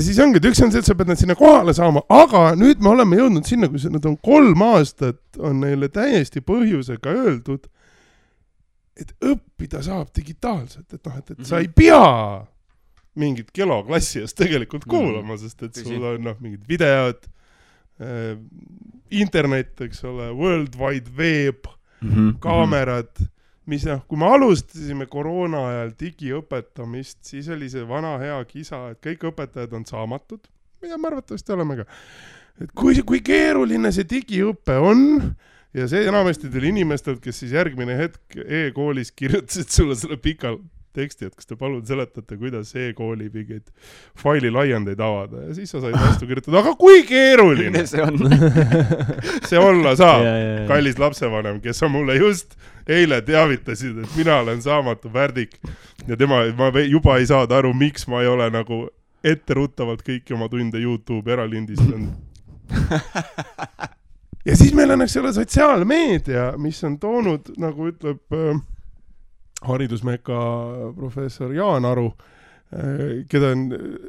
siis ongi, et üks on see, et sa pead nad sinna kohale saama, aga nüüd me oleme jõudnud sinna, kui nad on 3 aastat, on neile täiesti põhjusega öeldud, et õppida saab digitaalselt, et sa ei pea mingit keloklassi eest tegelikult kuulama, sest et sul on mingid videod, internet, eks ole, World Wide Web, kaamerad, mis kui me alustasime koroona ajal digiõpetamist, siis oli see vana hea kisa, et kõik õpetajad on saamatud, mida me arvatavasti oleme ka. Et kui keeruline see digiõpe on, ja see enamasti tuli inimestelt, kes siis järgmine hetk e-koolis kirjutasid sulle selle pika teksti, et kas te palun seletate, kuidas e-kooli mingeid faili laiendeid avada. Ja siis sa said vastu kirjutada, aga kui keeruline see on? See olla saab, kallis lapsevanem, kes on mulle just eile teavitasid, et mina olen saamatu värdik ja ma juba ei saada aru, miks ma ei ole nagu etteruttavalt kõiki oma tunde YouTube eralindistanud. Ja siis meil on selle sotsiaalmeedia, mis on toonud, nagu ütleb haridusmeka professor Jaan Aru, keda on,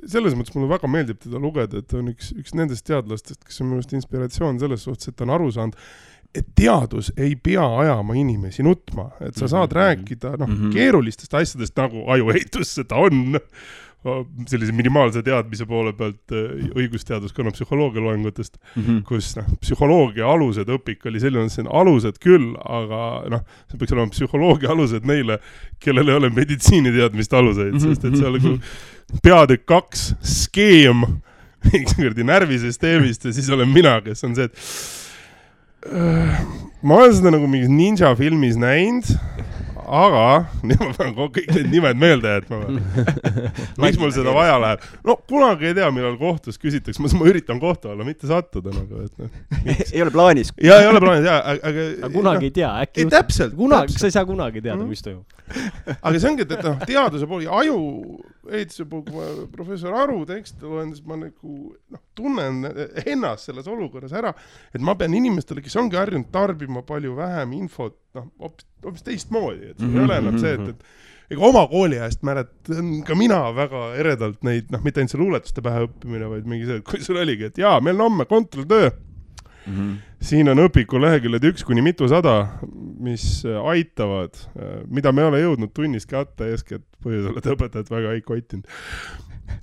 selles mõttes mulle väga meeldib teda lugeda, et on üks nendest teadlastest, kes on minu arust inspiratsioon selles suhtes, et ta on aru saanud, et teadus ei pea ajama inimesi nutma, et sa saad rääkida keerulistest asjadest nagu ajueitus seda on, sellise minimaalse teadmise poole pealt õigusteaduskonna psühholoogia loengutest, kus psühholoogia alused õpik oli selline, see on alused küll, aga see peaks olema psühholoogia alused neile, kellel ei ole meditsiiniteadmist aluseid, sest et see oli peatükk 2 skeem närvisüsteemist ja siis olen mina, kes on see, et ma olen seda nagu mingis ninja filmis näinud, aga ma pean kõik need nimed meelde jätma. Miks mul seda vaja läheb? No kunagi ei tea, millal kohtus küsitakse. Ma üritan kohtu olla, mitte sattuda. Ei ole plaanis. Ja ei ole plaanis, aga kunagi ei tea. Ei, täpselt. Sa ei saa kunagi teada, mis toimub. Aga see ongi, et teaduse pool ja aju ehituse pool, kui ma professor Aru tekste loen, siis ma tunnen ennast selles olukorras ära, et ma pean inimestele, kes ongi harjunud tarbima palju vähem infot, hoopis teistmoodi, et see ei ole enam see, et ega oma kooli ajast mäletan ka mina väga eredalt neid, mitte ainult see luuletuste pähe õppimine, vaid mingi see, et kui sul oligi, et jaa, meil on homme kontrolltöö. Siin on õpiku leheküljed 1 kuni mitu 100, mis aitavad, mida me ei ole jõudnud tunnis kätte eeskätt põhjusel, et õpetajad väga ei koitinud.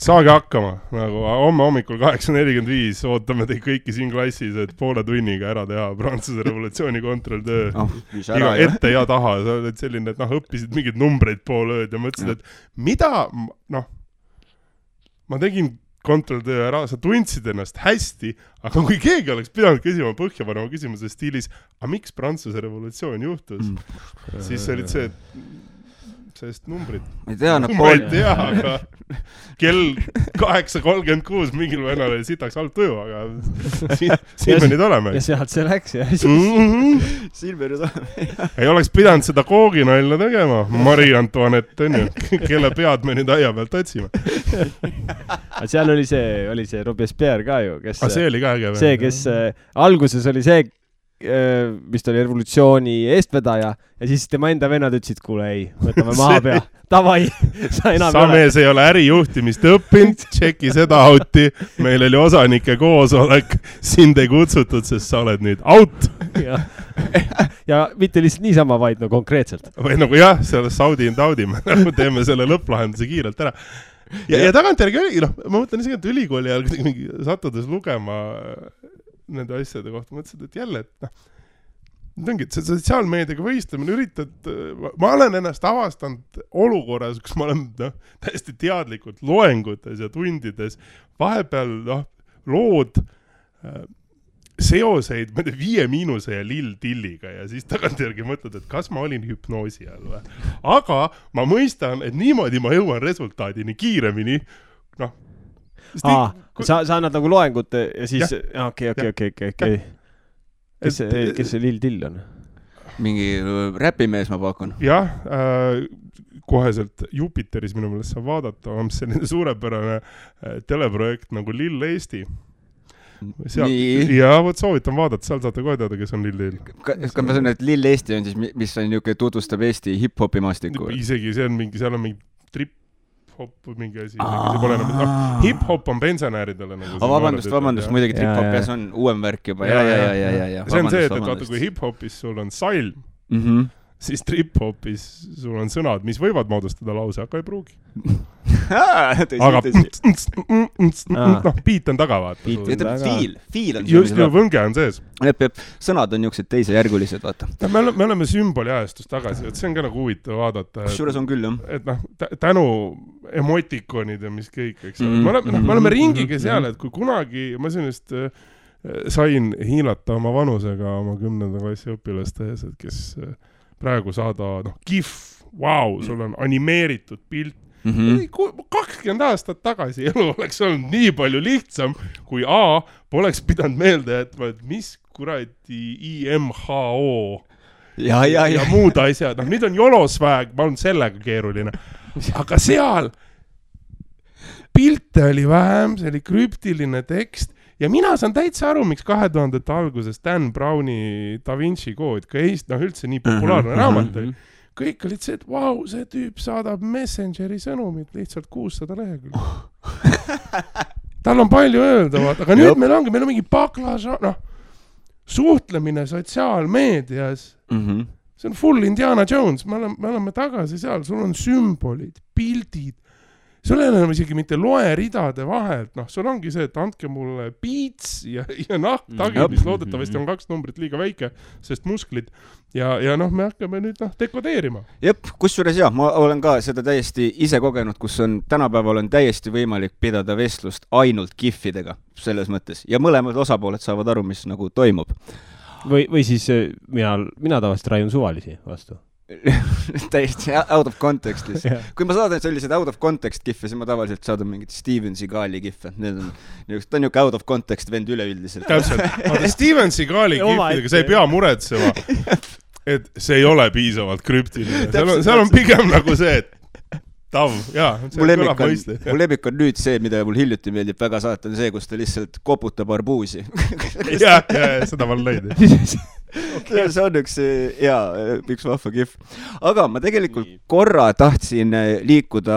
Saage hakkama, nagu homme hommikul 8.45 ootame teid kõiki siin klassis, et poole tunniga ära teha Prantsuse revolutsiooni kontrolltöö. Iga ette ja taha, sa oled selline, et õppisid mingid numbreid pool ööd ja mõtlesid, et mida, ma tegin kontrolltöö ära, sa tundsid ennast hästi, aga kui keegi oleks pidanud küsima põhjapanema küsimuse stiilis, aga miks Prantsuse revolutsioon juhtus, siis olid see, sest numbrid. Ma ei tea, ma ei tea, aga kell 8.36 mingil vennal oli sitaks halb tuju, aga siin me nüüd oleme. Ja sealt see läks, jah. Siin me nüüd oleme. Ei oleks pidanud seda kooginailla tegema. Marie Antoinette, on ju, kelle pead me nüüd aia pealt otsime. Seal oli see Robespierre ka ju, kes... see oli ka äge. See, kes alguses oli see, mis oli revolutsiooni eestvedaja ja siis tema enda vennad ütlesid, kuule ei, võtame maha pea. Tavai, sa enam sa mees ei ole ärijuhtimist õppinud, tšeki seda auti, meil oli osanike koosolek, sind ei kutsutud, sest sa oled nüüd out. Ja mitte lihtsalt niisama, vaid konkreetselt. Või nagu jah, selle saudi and audi, me teeme selle lõpplahenduse kiirelt ära. Ja tagantjärgi oli, ma mõtlen isegi, et ülikooli ajal mingi sattudes lugema nende asjade kohta, mõtlesid, et jälle, et see sotsiaalmeediaga võistlemine üritad, ma olen ennast avastanud olukorras, kus ma olen täiesti teadlikult loengutes ja tundides, vahepeal lood seoseid 5 ja lill tilliga ja siis tagantjärgi mõtled, et kas ma olin hüpnoosi all või. Aga ma mõistan, et niimoodi ma jõuan resultaadini kiiremini, sa annad nagu loengut ja siis... Okei. Kes see lill till on? Mingi räpimees ma pakun. Jah, koheselt Jupiteris minu meelest saab vaadata, on selline suurepärane teleprojekt nagu Lill Eesti. Ja võt soovitan vaadata, seal saate kohe teada, kes on Lill Lill. Kas ma sain, et Lill Eesti on siis, mis on niuke tutvustab Eesti hip-hopi maastiku? Isegi see on mingi, seal on mingi trip hip-hop mingi asi. Hip-hop on pensionääridele. Vabandust, muidugi trip-hop ja see on uuem värk juba. Ja. See on see, et vaata, kui hip-hopis sul on salm, siis trip-hopis sul on sõnad, mis võivad moodustada lause, aga ei pruugi. Aga beat on taga, vaata. Fiil on just ju võnge on sees. Sõnad on niuksed teisejärgulised, vaata. Me oleme sümboli ajastust tagasi, et see on ka nagu huvitav vaadata. Kusjuures on küll, jah. Et tänu emotikonid ja mis kõik, eks. Me oleme ringiga seal, et kui kunagi, ma sinust sain hiilata oma vanusega oma 10. klassi õpilaste ees, et kes praegu saada, GIF, sul on animeeritud pilt. 20 aastat tagasi elu oleks olnud nii palju lihtsam, kui poleks pidanud meelde, et mis kuradi IMHO ja muud asjad. Nüüd on jolosväeg, ma olen sellega keeruline. Aga seal pilte oli vähem, see oli krüptiline tekst ja mina saan täitsa aru, miks 2000-te alguses Dan Browni Da Vinci kood, ka üldse nii populaarne raamat oli. kõik olid see, et vau, see tüüp saadab Messengeri sõnumit lihtsalt 600 lehekülge. Tal on palju öelda, aga nüüd meil on mingi baklaža, suhtlemine sotsiaalmeedias. See on full Indiana Jones, me oleme tagasi seal, sul on sümbolid, pildid. Sul ei ole isegi mitte loeridade vahelt, sul ongi see, et andke mulle piits ja tagi, mis loodetavasti on 2 numbrit liiga väike, sest musklid ja me hakkame nüüd dekodeerima. Jep, kusjuures ma olen ka seda täiesti ise kogenud, kus tänapäeval on täiesti võimalik pidada vestlust ainult gifidega selles mõttes ja mõlemad osapooled saavad aru, mis nagu toimub. Või siis mina tavaliselt raiun suvalisi vastu. Täiesti out of context lihtsalt. Kui ma saadan sellised out of context giffe, siis ma tavaliselt saadan mingit Steven Seagali giffe. Ta on niuke out of context vend üleüldiselt. Täpselt. Steven Seagali giffidega, see ei pea muretsema, et see ei ole piisavalt krüptiline. Seal on pigem nagu see, et mu lemmik on nüüd see, mida mul hiljuti meeldib väga saata, on see, kus ta lihtsalt koputab arbuusi. Seda ma lõid. Okay. See on üks vahva gif. Aga ma tegelikult korra tahtsin liikuda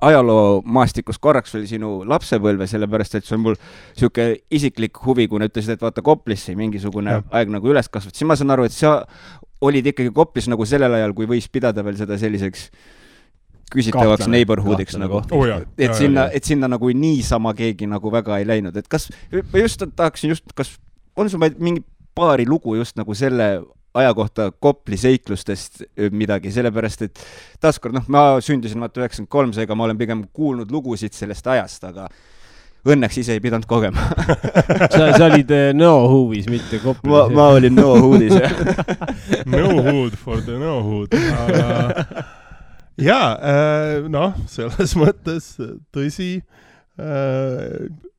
ajaloomaastikust korraks veel sinu lapsepõlve, sellepärast, et see on mul siuke isiklik huvi, kui ütlesid, et vaata Koplisse mingisugune aeg nagu üles kasvat. Siis ma saan aru, et sa olid ikkagi Koplis nagu sellel ajal, kui võis pidada veel seda selliseks küsitavaks neighborhoodiks nagu. Et sinna nagu niisama keegi nagu väga ei läinud. Et kas on sul mingi paari lugu just nagu selle aja kohta Kopli seiklustest midagi, sellepärast, et taaskord, ma sündisin 93, seega ma olen pigem kuulnud lugusid sellest ajast, aga õnneks ise ei pidanud kogema. Sa olid no-hoovis, mitte Koplis. Ma olin no-hoodis, No-hood for the no-hood. Selles mõttes tõsi,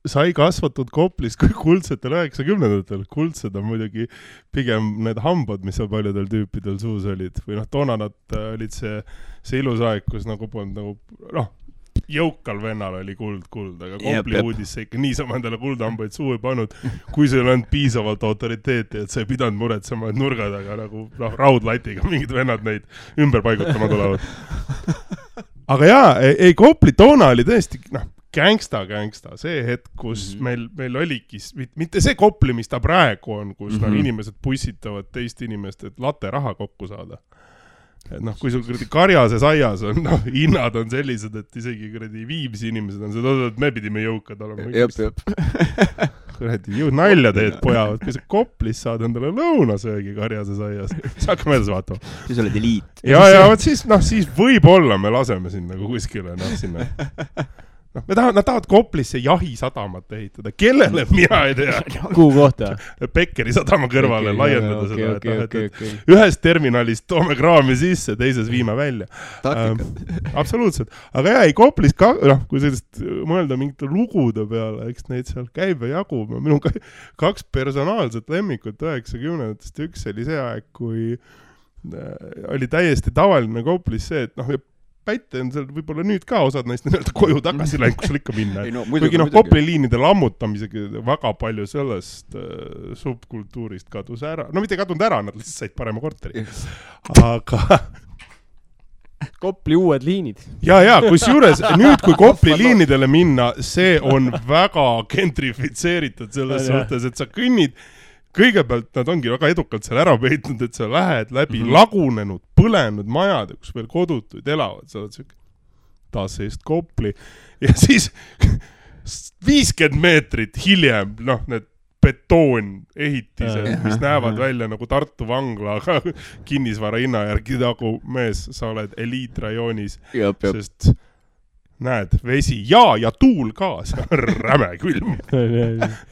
sai kasvatud Koplis kui kuldsetel 90-ndatel. Kuldsed on muidugi pigem need hambad, mis paljudel tüüpidel suus olid. Või toona nad olid see ilus aeg, kus nagu polnud jõukal vennal oli kuld, aga Kopli uudis see ikka niisama endale kuldhambaid suu ei pannud, kui see ei olnud piisavalt autoriteeti, et sa ei pidanud muretsema, et nurgad, aga nagu raudlatiga mingid vennad neid ümber paigutama tulevad. Aga Kopli toona oli tõesti, gangsta, see hetk, kus meil oligi, mitte see Kopli, mis ta praegu on, kus inimesed pussitavad teist inimest, et latte raha kokku saada. Et kui sul karjases aias on, hinnad on sellised, et isegi Viimsi inimesed on seda, et me pidime jõukad olema. Nalja teed pojavad, kui sa Koplis saad endale lõunasöögi karjases aias, siis hakkame edasi vaatama. Siis oled eliit. Ja siis võib-olla me laseme sinna kuskile, sinna. Nad tahavad Koplisse jahisadamat ehitada. Kellele mina ei tea. Kuhu kohta? Pekkeri sadama kõrvale laiendada seda. Okay. Ühest terminalist toome kraami sisse, teises viime välja. Absoluutselt. Aga Koplis, kui sellist mõelda mingite lugude peale, eks neid seal käib ja jagub. Minul 2 personaalset lemmikut 90-ndast. Üks oli see aeg, kui oli täiesti tavaline Koplis see, et Päite on seal võib-olla nüüd ka osad neist koju tagasi läinud, kus sul ikka minna. Kuigi Kopli liinide lammutamisega väga palju sellest subkultuurist kadus ära. Mitte kadunud ära, nad lihtsalt said parema korteri. Aga Kopli uued liinid. Kus juures nüüd, kui Kopli liinidele minna, see on väga gentrifitseeritud selles suhtes, et sa kõnnid. Kõigepealt nad ongi väga edukalt seal ära peitnud, et sa lähed läbi lagunenud, põlenud majad, kus veel kodutuid elavad. Sa oled siuke taas seest Kopli. Ja siis 50 meetrit hiljem, need betoonehitised, mis näevad välja nagu Tartu vangla, aga kinnisvara hinna järgi nagu mees, sa oled eliitrajoonis. Sest näed, vesi ja tuul ka, see on räme külm.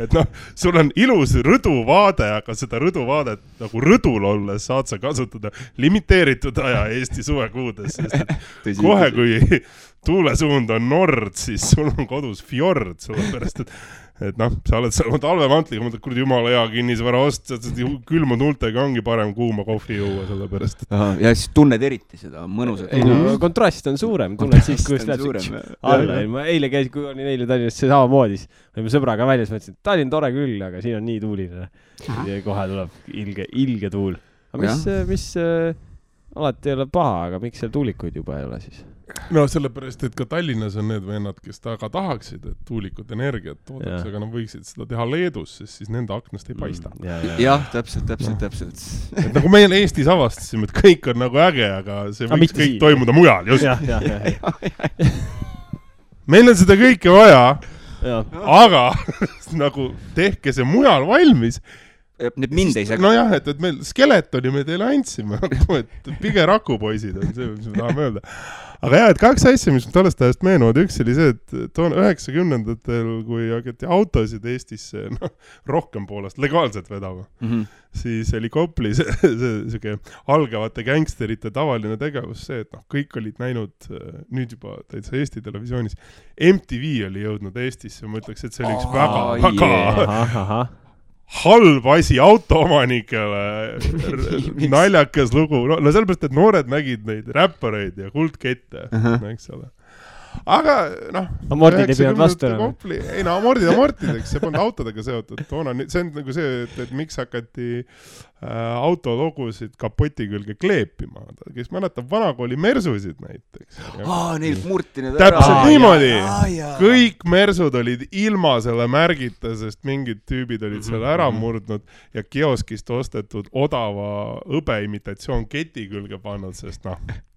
Et sul on ilus rõduvaade, aga seda rõduvaadet nagu rõdul olles saad sa kasutada limiteeritud aja Eesti suvekuudes, sest kohe kui tuulesuund on nord, siis sul on kodus fjord, sellepärast, et sa oled seal talvemantliga, mõtled, kuradi jumala hea kinnisvara ost, külmunud huultega ongi parem kuuma kohvi juua, sellepärast. Ja siis tunned eriti seda mõnusat. Kontrast on suurem, tunned siis, kui lähed alla. Ma eile käisin, kui olin eile Tallinnas samamoodi, olime sõbraga väljas, mõtlesin, et Tallinn tore küll, aga siin on nii tuuline. Ja kohe tuleb ilge tuul. Aga alati ei ole paha, aga miks seal tuulikuid juba ei ole siis? No sellepärast, et ka Tallinnas on need vennad, kes taga tahaksid, et tuulikud energiat toodaks, aga nad võiksid seda teha Leedus, sest siis nende aknast ei paista. Jah, täpselt. Et nagu meil Eestis avastasime, et kõik on nagu äge, aga see võiks kõik toimuda mujal, just. Meil on seda kõike vaja, aga nagu tehke see mujal valmis. Need mind ei saa. No jah, et meil skeletoni me teile andsime, et pige rakupoisid on see, mis me tahame öelda. Aga jah, et 2 asja, mis tollest ajast meenuvad, üks oli see, et 90-ndatel, kui hakati autosid Eestisse rohkem poolest legaalselt vedama, siis oli Kopli see algavate gängsterite tavaline tegevus see, et kõik olid näinud nüüd juba täitsa Eesti televisioonis. MTV oli jõudnud Eestisse, ma ütleks, et see oli üks väga halb asi autoomanikele, naljakas lugu. No sellepärast, et noored nägid neid räppareid ja kuldkette, eks ole. Aga Amordid ei pidanud vastu enam. Ei amordid amortideks, see polnud autodega seotud. See on nagu see, et miks hakati autologusid kapoti külge kleepima. Kes mäletab vanakooli mersusid näiteks. Neilt murti need ära. Täpselt niimoodi. Kõik mersud olid ilma selle märgita, sest mingid tüübid olid selle ära murdnud ja kioskist ostetud odava õbeimitatsioon keti külge pannud, sest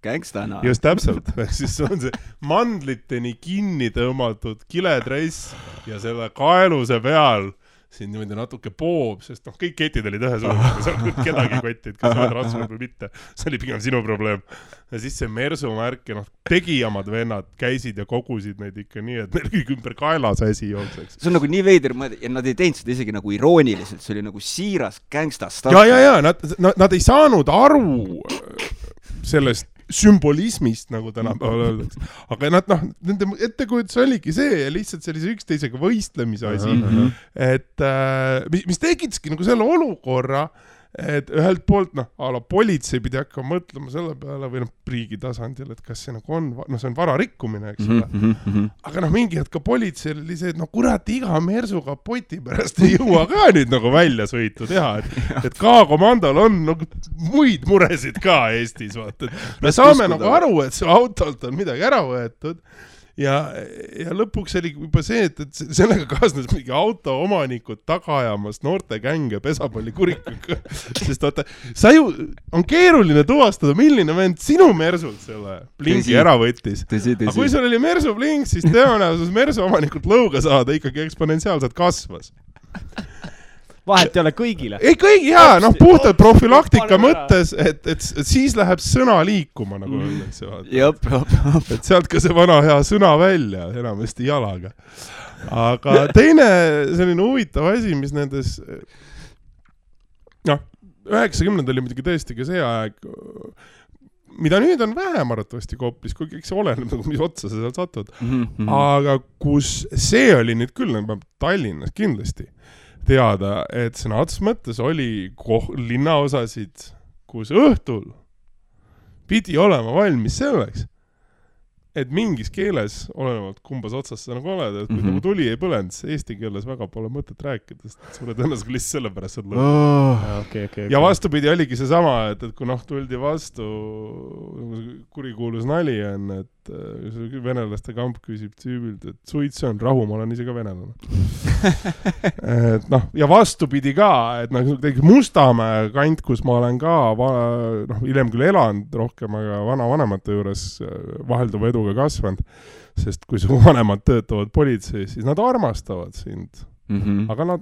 gängstana. Just täpselt. Siis on see mandliteni kinni tõmmatud kiledress ja selle kaeluse peal siin niimoodi natuke poob, sest kõik ketid olid ühe suurega, sa oled kedagi kotid, kas oled rasvanud või mitte. See oli pigem sinu probleem. Ja siis see mersumärk ja tegijamad vennad käisid ja kogusid neid ikka nii, et neil kõik ümber kaelas asi jookseks. See on nagu nii veider, ja nad ei teinud seda isegi nagu irooniliselt, see oli nagu siiras gängstast. Ja, nad ei saanud aru sellest sümbolismist, nagu tänapäeval öeldakse. Aga nende ettekujutus oligi see ja lihtsalt sellise üksteisega võistlemise asi, et mis tekitaski nagu selle olukorra, et ühelt poolt, politsei pidi hakkama mõtlema selle peale või riigi tasandil, et kas see nagu on, see on vararikkumine, eks ole. Aga mingi hetk ka politseil oli see, et kurat, iga mersuga poti pärast ei jõua ka nüüd nagu välja sõitu teha, et K-komandol on muid muresid ka Eestis, vaata. Me saame nagu aru, et see autolt on midagi ära võetud. Ja lõpuks oli juba see, et sellega kaasnes mingi autoomanikud taga ajamas noorte gänge pesapalli kurikuga. Sest vaata, on keeruline tuvastada, milline vend sinu mersult selle blingi ära võttis. Aga kui sul oli mersu blink, siis tõenäosus mersu omanikult lõuga saada ikkagi eksponentsiaalselt kasvas. Vahet ei ole kõigile. Ei kõigi, puhtalt profilaktika mõttes, et siis läheb sõna liikuma, nagu öeldakse. Et sealt ka see vana hea sõna välja, enamasti jalaga. Aga teine selline huvitav asi, mis nendes 90 oli muidugi tõesti ka see aeg, mida nüüd on vähem arvatavasti Koplis, kui kõik see oleneb, mis otsa sa seal satud. Aga kus see oli nüüd küll, Tallinnas kindlasti teada, et sõna otsas mõttes oli linnaosasid, kus õhtul pidi olema valmis selleks, et mingis keeles, olenevalt kumbas otsas sa nagu oled, et kui nagu tuli ei põlend, eesti keeles väga pole mõtet rääkida, sest suure tõenäoliselt lihtsalt sellepärast saad lõpuks. Ja vastupidi oligi see sama, et kui tuldi vastu, kurikuulus nali on, et venelaste kamp küsib tüübilt, et suits on rahu, ma olen ise ka venelane. Ja vastupidi ka, et Mustamäe kant, kus ma olen ka hiljem küll elanud rohkem, aga vanavanemate juures vahelduva edu kasvanud, sest kui su vanemad töötavad politseis, siis nad armastavad sind. Aga nad,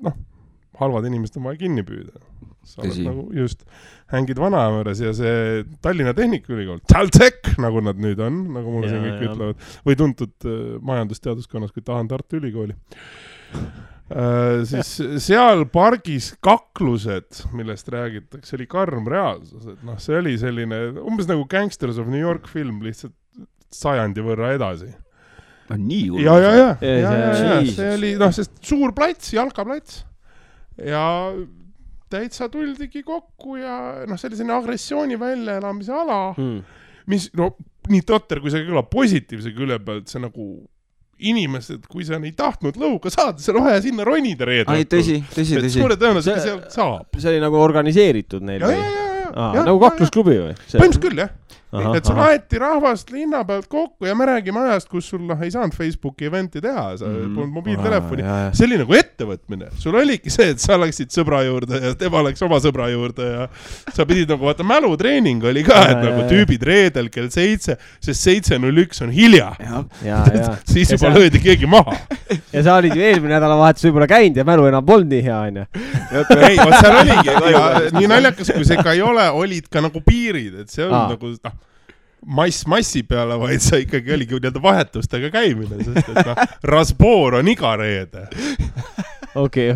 halvad inimesed on vaja kinni püüda. Sa oled nagu just hängid vanaämõres ja see Tallinna Tehnikaülikool, TalTech, nagu nad nüüd on, nagu mulle siin kõik ütlevad, või tuntud majandusteaduskonnas, kui tahan Tartu Ülikooli. Siis seal pargis kaklused, millest räägitakse, oli karm reaalsus. Et see oli selline, umbes nagu Gangsters of New York film, lihtsalt sajandi võrra edasi. Nii juurde? Ja. See oli, sest suur plats, jalkaplats. Ja täitsa tuldigi kokku ja see oli selline agressiooni väljaelamise ala, mis, nii totter, kui see kõlab positiivse külje pealt, see nagu inimesed, kui sa ei tahtnud lõuga saada, see on vaja sinna ronida reedel. Tõsi. Suure tõenäoliselt seal saab. See oli nagu organiseeritud neil. nagu kaklusklubi või? Põhimõtteliselt küll, jah. Et sul aeti rahvast linna pealt kokku ja me räägime ajast, kus sul ei saanud Facebooki eventi teha, sa polnud mobiiltelefoni. See oli nagu ettevõtmine. Sul oligi see, et sa läksid sõbra juurde ja tema läks oma sõbra juurde ja sa pidid nagu, vaata, mälutreening oli ka, et nagu tüübid reedel kell 7, sest 7.01 on hilja. Siis juba löödi keegi maha. Ja sa olid ju eelmine nädalavahetus võib-olla käinud ja mälu enam polnud nii hea, on ju. Ei, seal oligi. Nii naljakas, kui see ka ei ole, olid ka nagu piirid, et see on nagu, massi peale, vaid sa ikkagi oligi nii-öelda vahetustega käimine, sest et rasboor on iga reede. Okay.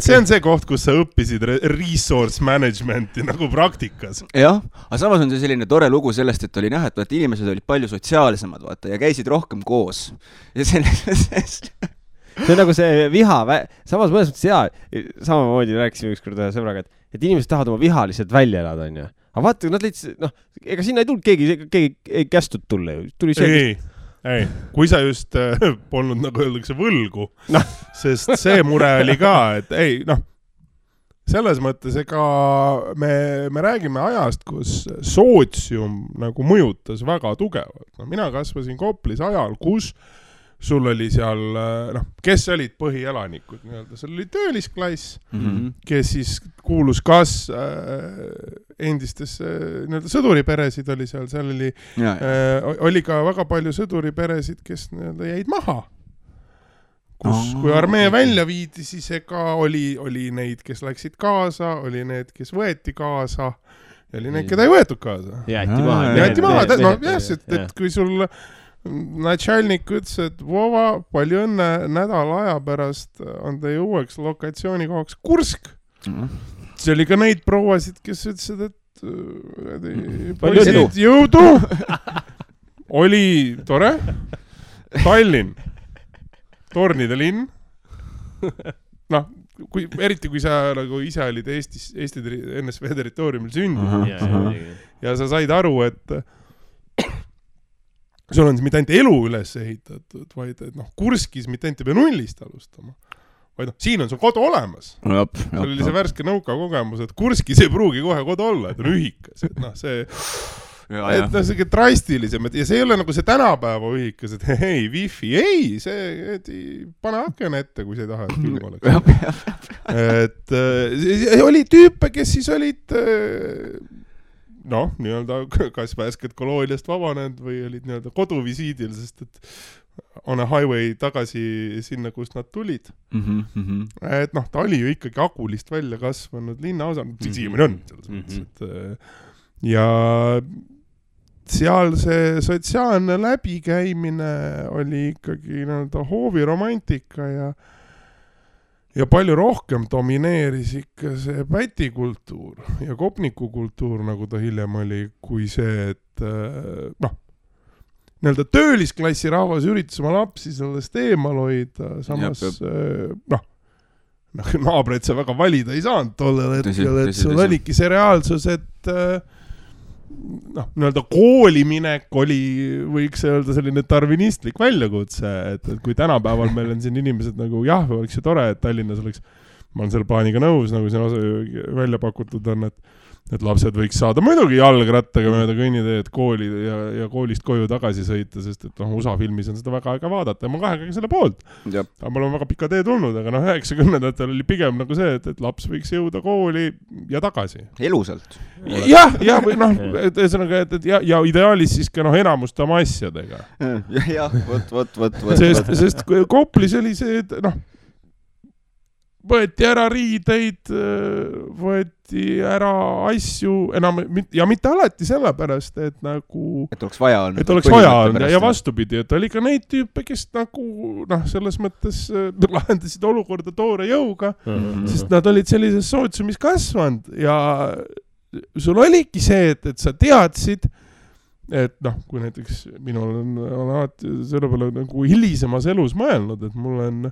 See on see koht, kus sa õppisid resource managementi nagu praktikas. Jah, aga samas on see selline tore lugu sellest, et oli näha, et inimesed olid palju sotsiaalsemad, vaata, ja käisid rohkem koos. Ja see on nagu see viha, samas mõnes mõttes samamoodi rääkisime ükskord ühe sõbraga, et inimesed tahavad oma viha lihtsalt välja elada, on ju. Aga vaata, nad leidsid, ega sinna ei tulnud keegi ei kästud tulla ju. Tuli see, ei, kui sa just polnud, nagu öeldakse, võlgu, sest see mure oli ka, et selles mõttes, ega me räägime ajast, kus sootsium nagu mõjutas väga tugevalt. Mina kasvasin Koplis ajal, kus sul oli seal, kes olid põhielanikud, seal oli töölisklass, kes siis kuulus kas endistesse sõduriperesid oli seal oli ka väga palju sõduriperesid, kes jäid maha. Kui armee välja viidi, siis ega oli neid, kes läksid kaasa, oli need, kes võeti kaasa, ja oli need, keda ei võetud kaasa. Jäeti maha, et kui sul Natšalnik ütles, et Vova, palju õnne, nädala aja pärast on teie uueks lokatsioonikohaks Kursk. See oli ka neid prouasid, kes ütlesid, et poisid jõudu. Oli tore. Tallinn. Tornide linn. Eriti kui sa nagu ise olid Eesti NSV territooriumil sündinud. Ja sa said aru, et sul on mitte ainult elu üles ehitatud, vaid Kurskis mitte ainult ei pea nullist alustama. Vaid siin on sul kodu olemas. Sul oli see värske nõuka kogemus, et Kurskis ei pruugi kohe kodu olla, et on ühikas. Et see drastilisem, ja see ei ole nagu see tänapäeva ühikas, et hei, wifi, see pane aken ette, kui sa ei taha, et külm oleks. Et oli tüüpe, kes siis olid nii-öelda kas värsked kolooniast vabanenud või olid nii-öelda koduvisiidil, sest et on a highway tagasi sinna, kust nad tulid. Et ta oli ju ikkagi Agulist välja kasvanud linnaosa, siiamaani on selles mõttes, ja seal see sotsiaalne läbikäimine oli ikkagi nii-öelda hooviromantika ja palju rohkem domineeris ikka see pätikultuur ja kopnikukultuur, nagu ta hiljem oli, kui see, et nii-öelda töölisklassi rahvas üritas oma lapsi sellest eemal hoida, samas naabreid sa väga valida ei saanud tollel hetkel, et sul oligi see reaalsus, et nii-öelda kooliminek oli, võiks öelda, selline darwinistlik väljakutse, et kui tänapäeval meil on siin inimesed nagu oleks ju tore, et Tallinnas oleks, ma olen selle plaaniga nõus, nagu siin välja pakutud on, et lapsed võiks saada muidugi jalgrattaga mööda kõnniteed kooli ja koolist koju tagasi sõita, sest et USA filmis on seda väga aega vaadata ja ma kahega selle poolt. Aga mul on väga pika tee tulnud, aga 90-ndatel oli pigem nagu see, et laps võiks jõuda kooli ja tagasi. Elusalt. Ja ideaalis siis ka enamust oma asjadega. Võt. Sest Koplis oli see, et võeti ära riideid, võeti ära asju enam, ja mitte alati sellepärast, et nagu et oleks vaja olnud ja vastupidi, et oli ka neid tüüpe, kes nagu selles mõttes lahendasid olukorda toore jõuga, sest nad olid sellises sootsiumis kasvanud ja sul oligi see, et sa teadsid, et kui näiteks minul on alati selle peale nagu hilisemas elus mõelnud, et mul on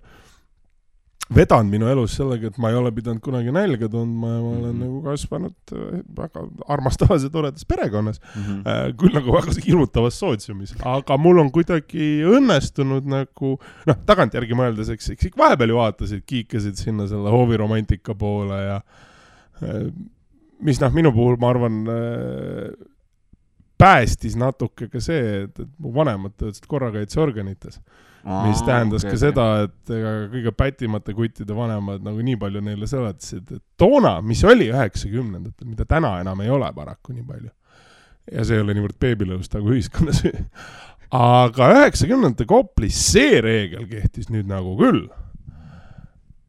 vedanud minu elus sellega, et ma ei ole pidanud kunagi nälga tundma ja ma olen nagu kasvanud väga armastavas ja toredas perekonnas, küll nagu väga hirmutavas sootsiumis, aga mul on kuidagi õnnestunud nagu, tagantjärgi mõeldes, eks vahepeal ju vaatasid, kiikasid sinna selle hooviromantika poole ja mis minu puhul, ma arvan, päästis natuke ka see, et mu vanemad töötasid korrakaitseorganites. Mis tähendas ka seda, et kõige pätimate kuttide vanemad nagu nii palju neile seletasid, et toona, mis oli 90-ndatel, mida täna enam ei ole paraku nii palju. Ja see ei ole niivõrd beebilõust nagu ühiskonnas. Aga 90-ndate Koplis see reegel kehtis nüüd nagu küll,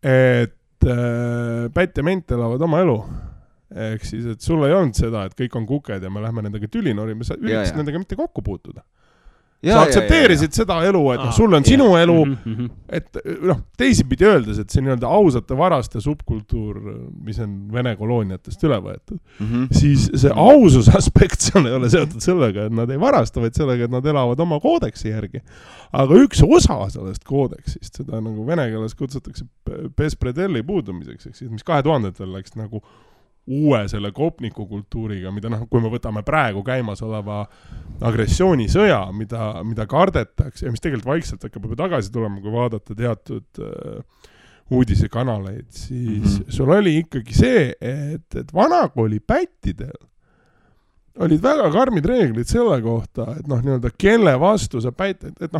et pätt ja ment elavad oma elu. Ehk siis, et sul ei olnud seda, et kõik on kuked ja me lähme nendega tülinorima, sa üritasid nendega mitte kokku puutuda. Sa aktsepteerisid seda elu, et sul on sinu elu, et teisipidi öeldes, et see nii-öelda ausate varaste subkultuur, mis on Vene kolooniatest üle võetud, siis see ausus aspekt seal ei ole seotud sellega, et nad ei varasta, vaid sellega, et nad elavad oma koodeksi järgi. Aga üks osa sellest koodeksist, seda nagu vene keeles kutsutakse bespredelli puudumiseks, mis 2000-tel läks nagu uue selle kopniku kultuuriga, mida kui me võtame praegu käimas oleva agressioonisõja, mida kardetakse ja mis tegelikult vaikselt hakkab juba tagasi tulema, kui vaadata teatud uudisekanaleid, siis sul oli ikkagi see, et vanakooli pättidel olid väga karmid reeglid selle kohta, et nii-öelda kelle vastu sa pätt, et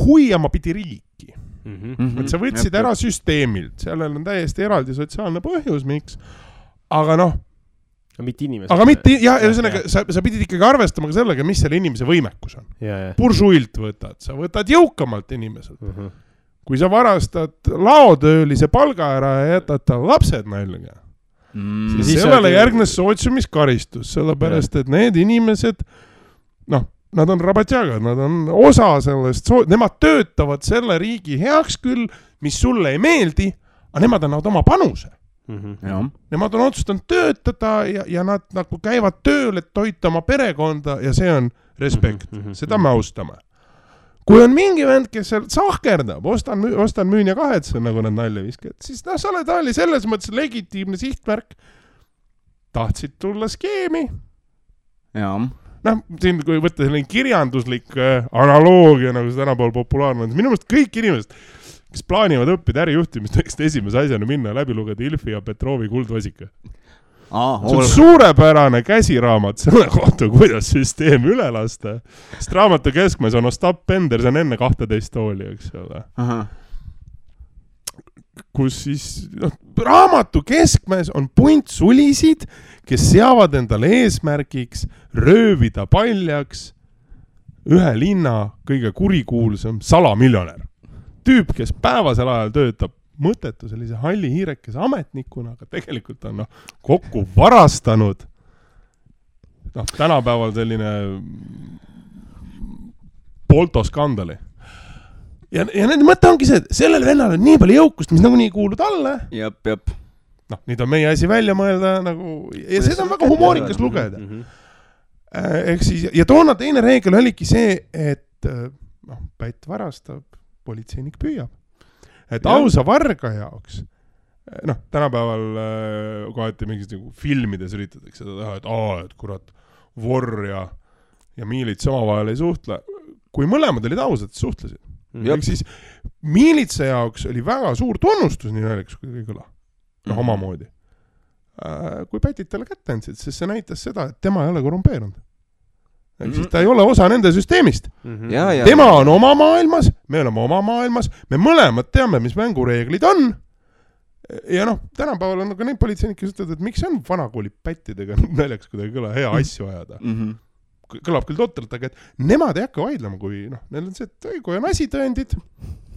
huiama pidi riiki. Et sa võtsid ära süsteemilt, sellel on täiesti eraldi sotsiaalne põhjus, miks aga mitte inimesed. Aga mitte, ühesõnaga, sa pidid ikkagi arvestama ka sellega, mis selle inimese võimekus on. Buržuilt sa võtad jõukamalt inimeselt. Kui sa varastad laotöölise palga ära ja jätad tal lapsed nälga, siis sellele järgnes sootsiumiskaristus, sellepärast, et need inimesed, nad on rabatjagad, nad on osa sellest, nemad töötavad selle riigi heaks küll, mis sulle ei meeldi, aga nemad annavad oma panuse. Nemad on otsustanud töötada ja nad nagu käivad tööl, et toita oma perekonda ja see on respekt. Seda me austame. Kui on mingi vend, kes sahkerdab, ostan, müün ja kahetsen, nagu nad nalja viskavad, siis sa oli selles mõttes legitiimne sihtmärk. Tahtsid tulla skeemi. Siin kui võtta selline kirjanduslik analoogia, nagu see tänapäeval populaarne on, minu meelest kõik inimesed, kes plaanivad õppida ärijuhtimist, võiksid esimese asjana minna läbi lugeda Ilfi ja Petrovi Kuldvasika. See on suurepärane käsiraamat selle kohta, kuidas süsteem üle lasta. Sest raamatu keskmes on Ostap Bender, see on enne 12 tooli, eks ole. Kus siis raamatu keskmes on punt sulisid, kes seavad endale eesmärgiks röövida paljaks ühe linna kõige kurikuulsam salamiljonär. Tüüp, kes päevasel ajal töötab mõttetu sellise halli hiirekese ametnikuna, aga tegelikult on kokku varastanud tänapäeval selline poltoskandali. Ja nende mõte ongi see, et sellel vennal on nii palju jõukust, mis nagu nii kuulud alla. Jep. Nüüd on meie asi välja mõelda ja seda on väga humoorikas lugeda. Ehk siis, ja toona teine reegel oligi see, et pätt varastab, politseinik püüab. Et ausa varga jaoks, tänapäeval kohati mingis filmides üritatakse seda teha, et kurat, vorr ja miilits omavahel ei suhtle. Kui mõlemad olid ausad, suhtlesid. Ehk siis miilitsa jaoks oli väga suur tunnustus, nii naljakas kui kõla. Omamoodi. Kui pätid talle kätte andsid, siis see näitas seda, et tema ei ole korrumpeerunud. Siis ta ei ole osa nende süsteemist. Tema on oma maailmas, me oleme oma maailmas, me mõlemad teame, mis mängureeglid on. Ja tänapäeval on ka neid politseinikke ütlevad, et miks on vanakooli pättidega näljaks kuidagi kõla hea asju ajada. Kõlab küll totralt, aga et nemad ei hakka vaidlema, kui neil on see, et kui on asitõendid.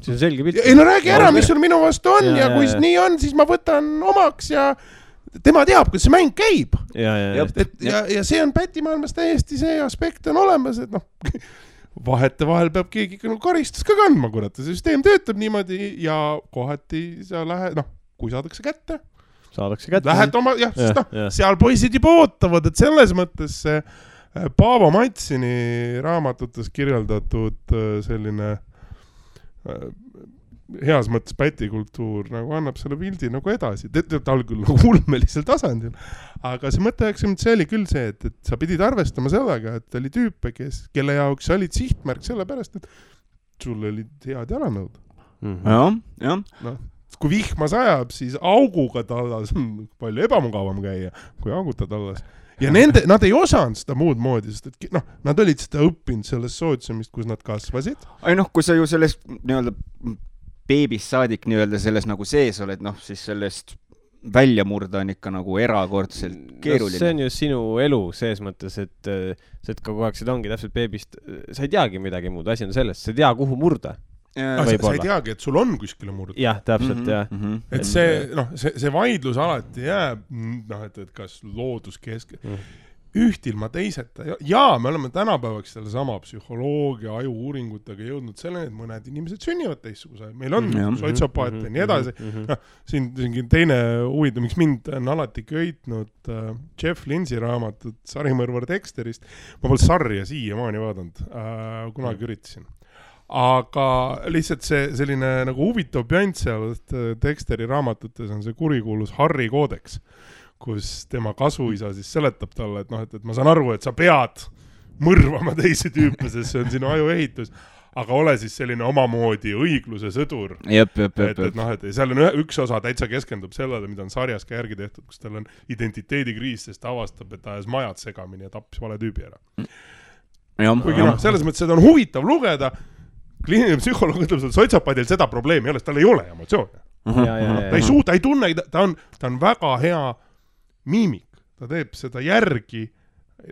See on selge pilt. Ei räägi ära, mis sul minu vastu on ja kui nii on, siis ma võtan omaks ja tema teab, kuidas see mäng käib. Ja see on pätimaailmas täiesti see aspekt on olemas, et vahete vahel peab keegi karistus ka kandma, kurat. See süsteem töötab niimoodi ja kohati sa lähed, kui saadakse kätte. Lähed oma, seal poisid juba ootavad, et selles mõttes see Paavo Matsini raamatutes kirjeldatud selline heas mõttes pätikultuur annab selle pildi edasi. Ta oli küll ulmelisel tasandil, aga see mõte see oli küll see, et sa pidid arvestama sellega, et oli tüüpe, kelle jaoks olid sihtmärk sellepärast, et sul olid head jalanõud. kui vihma sajab, siis auguga tallas on palju ebamugavam käia, kui auguta tallas. Ja nad ei osanud seda muud moodi, sest et nad olid seda õppinud sellest sootsiumist, kus nad kasvasid. Ai kui sa ju sellest nii-öelda beebist saadik nii-öelda selles nagu sees oled, siis sellest välja murda on ikka nagu erakordselt keeruline. See on ju sinu elu sees mõttes, et kogu aeg seda ongi täpselt beebist, sa ei teagi midagi muud, asi on sellest, sa ei tea, kuhu murda. Sa ei teagi, et sul on kuskile murda. Jah, täpselt, jah. Et see vaidlus alati jääb, et kas looduskesk... Ühtilma teiseta. Ja me oleme tänapäevaks selle sama psühholoogia, ajuuuringutega jõudnud selleni, et mõned inimesed sünnivad teistsuguse. Meil on sotsiopaate ja nii edasi. Siin teine huvitav, miks mind on alati köitnud Jeff Lindsay raamatut Sarimõrvar Dexterist. Ma pole sarja siiamaani vaadanud, kunagi üritasin. Aga lihtsalt see selline nagu huvitav pjant seal Dexteri raamatutes on see kurikuulus Harry koodeks, kus tema kasuisa siis seletab talle, et ma saan aru, et sa pead mõrvama teisi tüüpe, sest see on sinu ajuehitus, aga ole siis selline omamoodi õigluse sõdur. Et seal on üks osa täitsa keskendub sellele, mida on sarjas ka järgi tehtud, kus tal on identiteedikriis, sest ta avastab, et ta ajas majad segamini ja tappis vale tüübi ära. Kuigi selles mõttes seda on huvitav lugeda, kliiniline psühholoog ütleb, et sotsiopaadil seda probleemi ei ole, tal ei ole emotsioone. Ta ei suuda, ta ei tunne, ta on väga hea miimik, ta teeb seda järgi,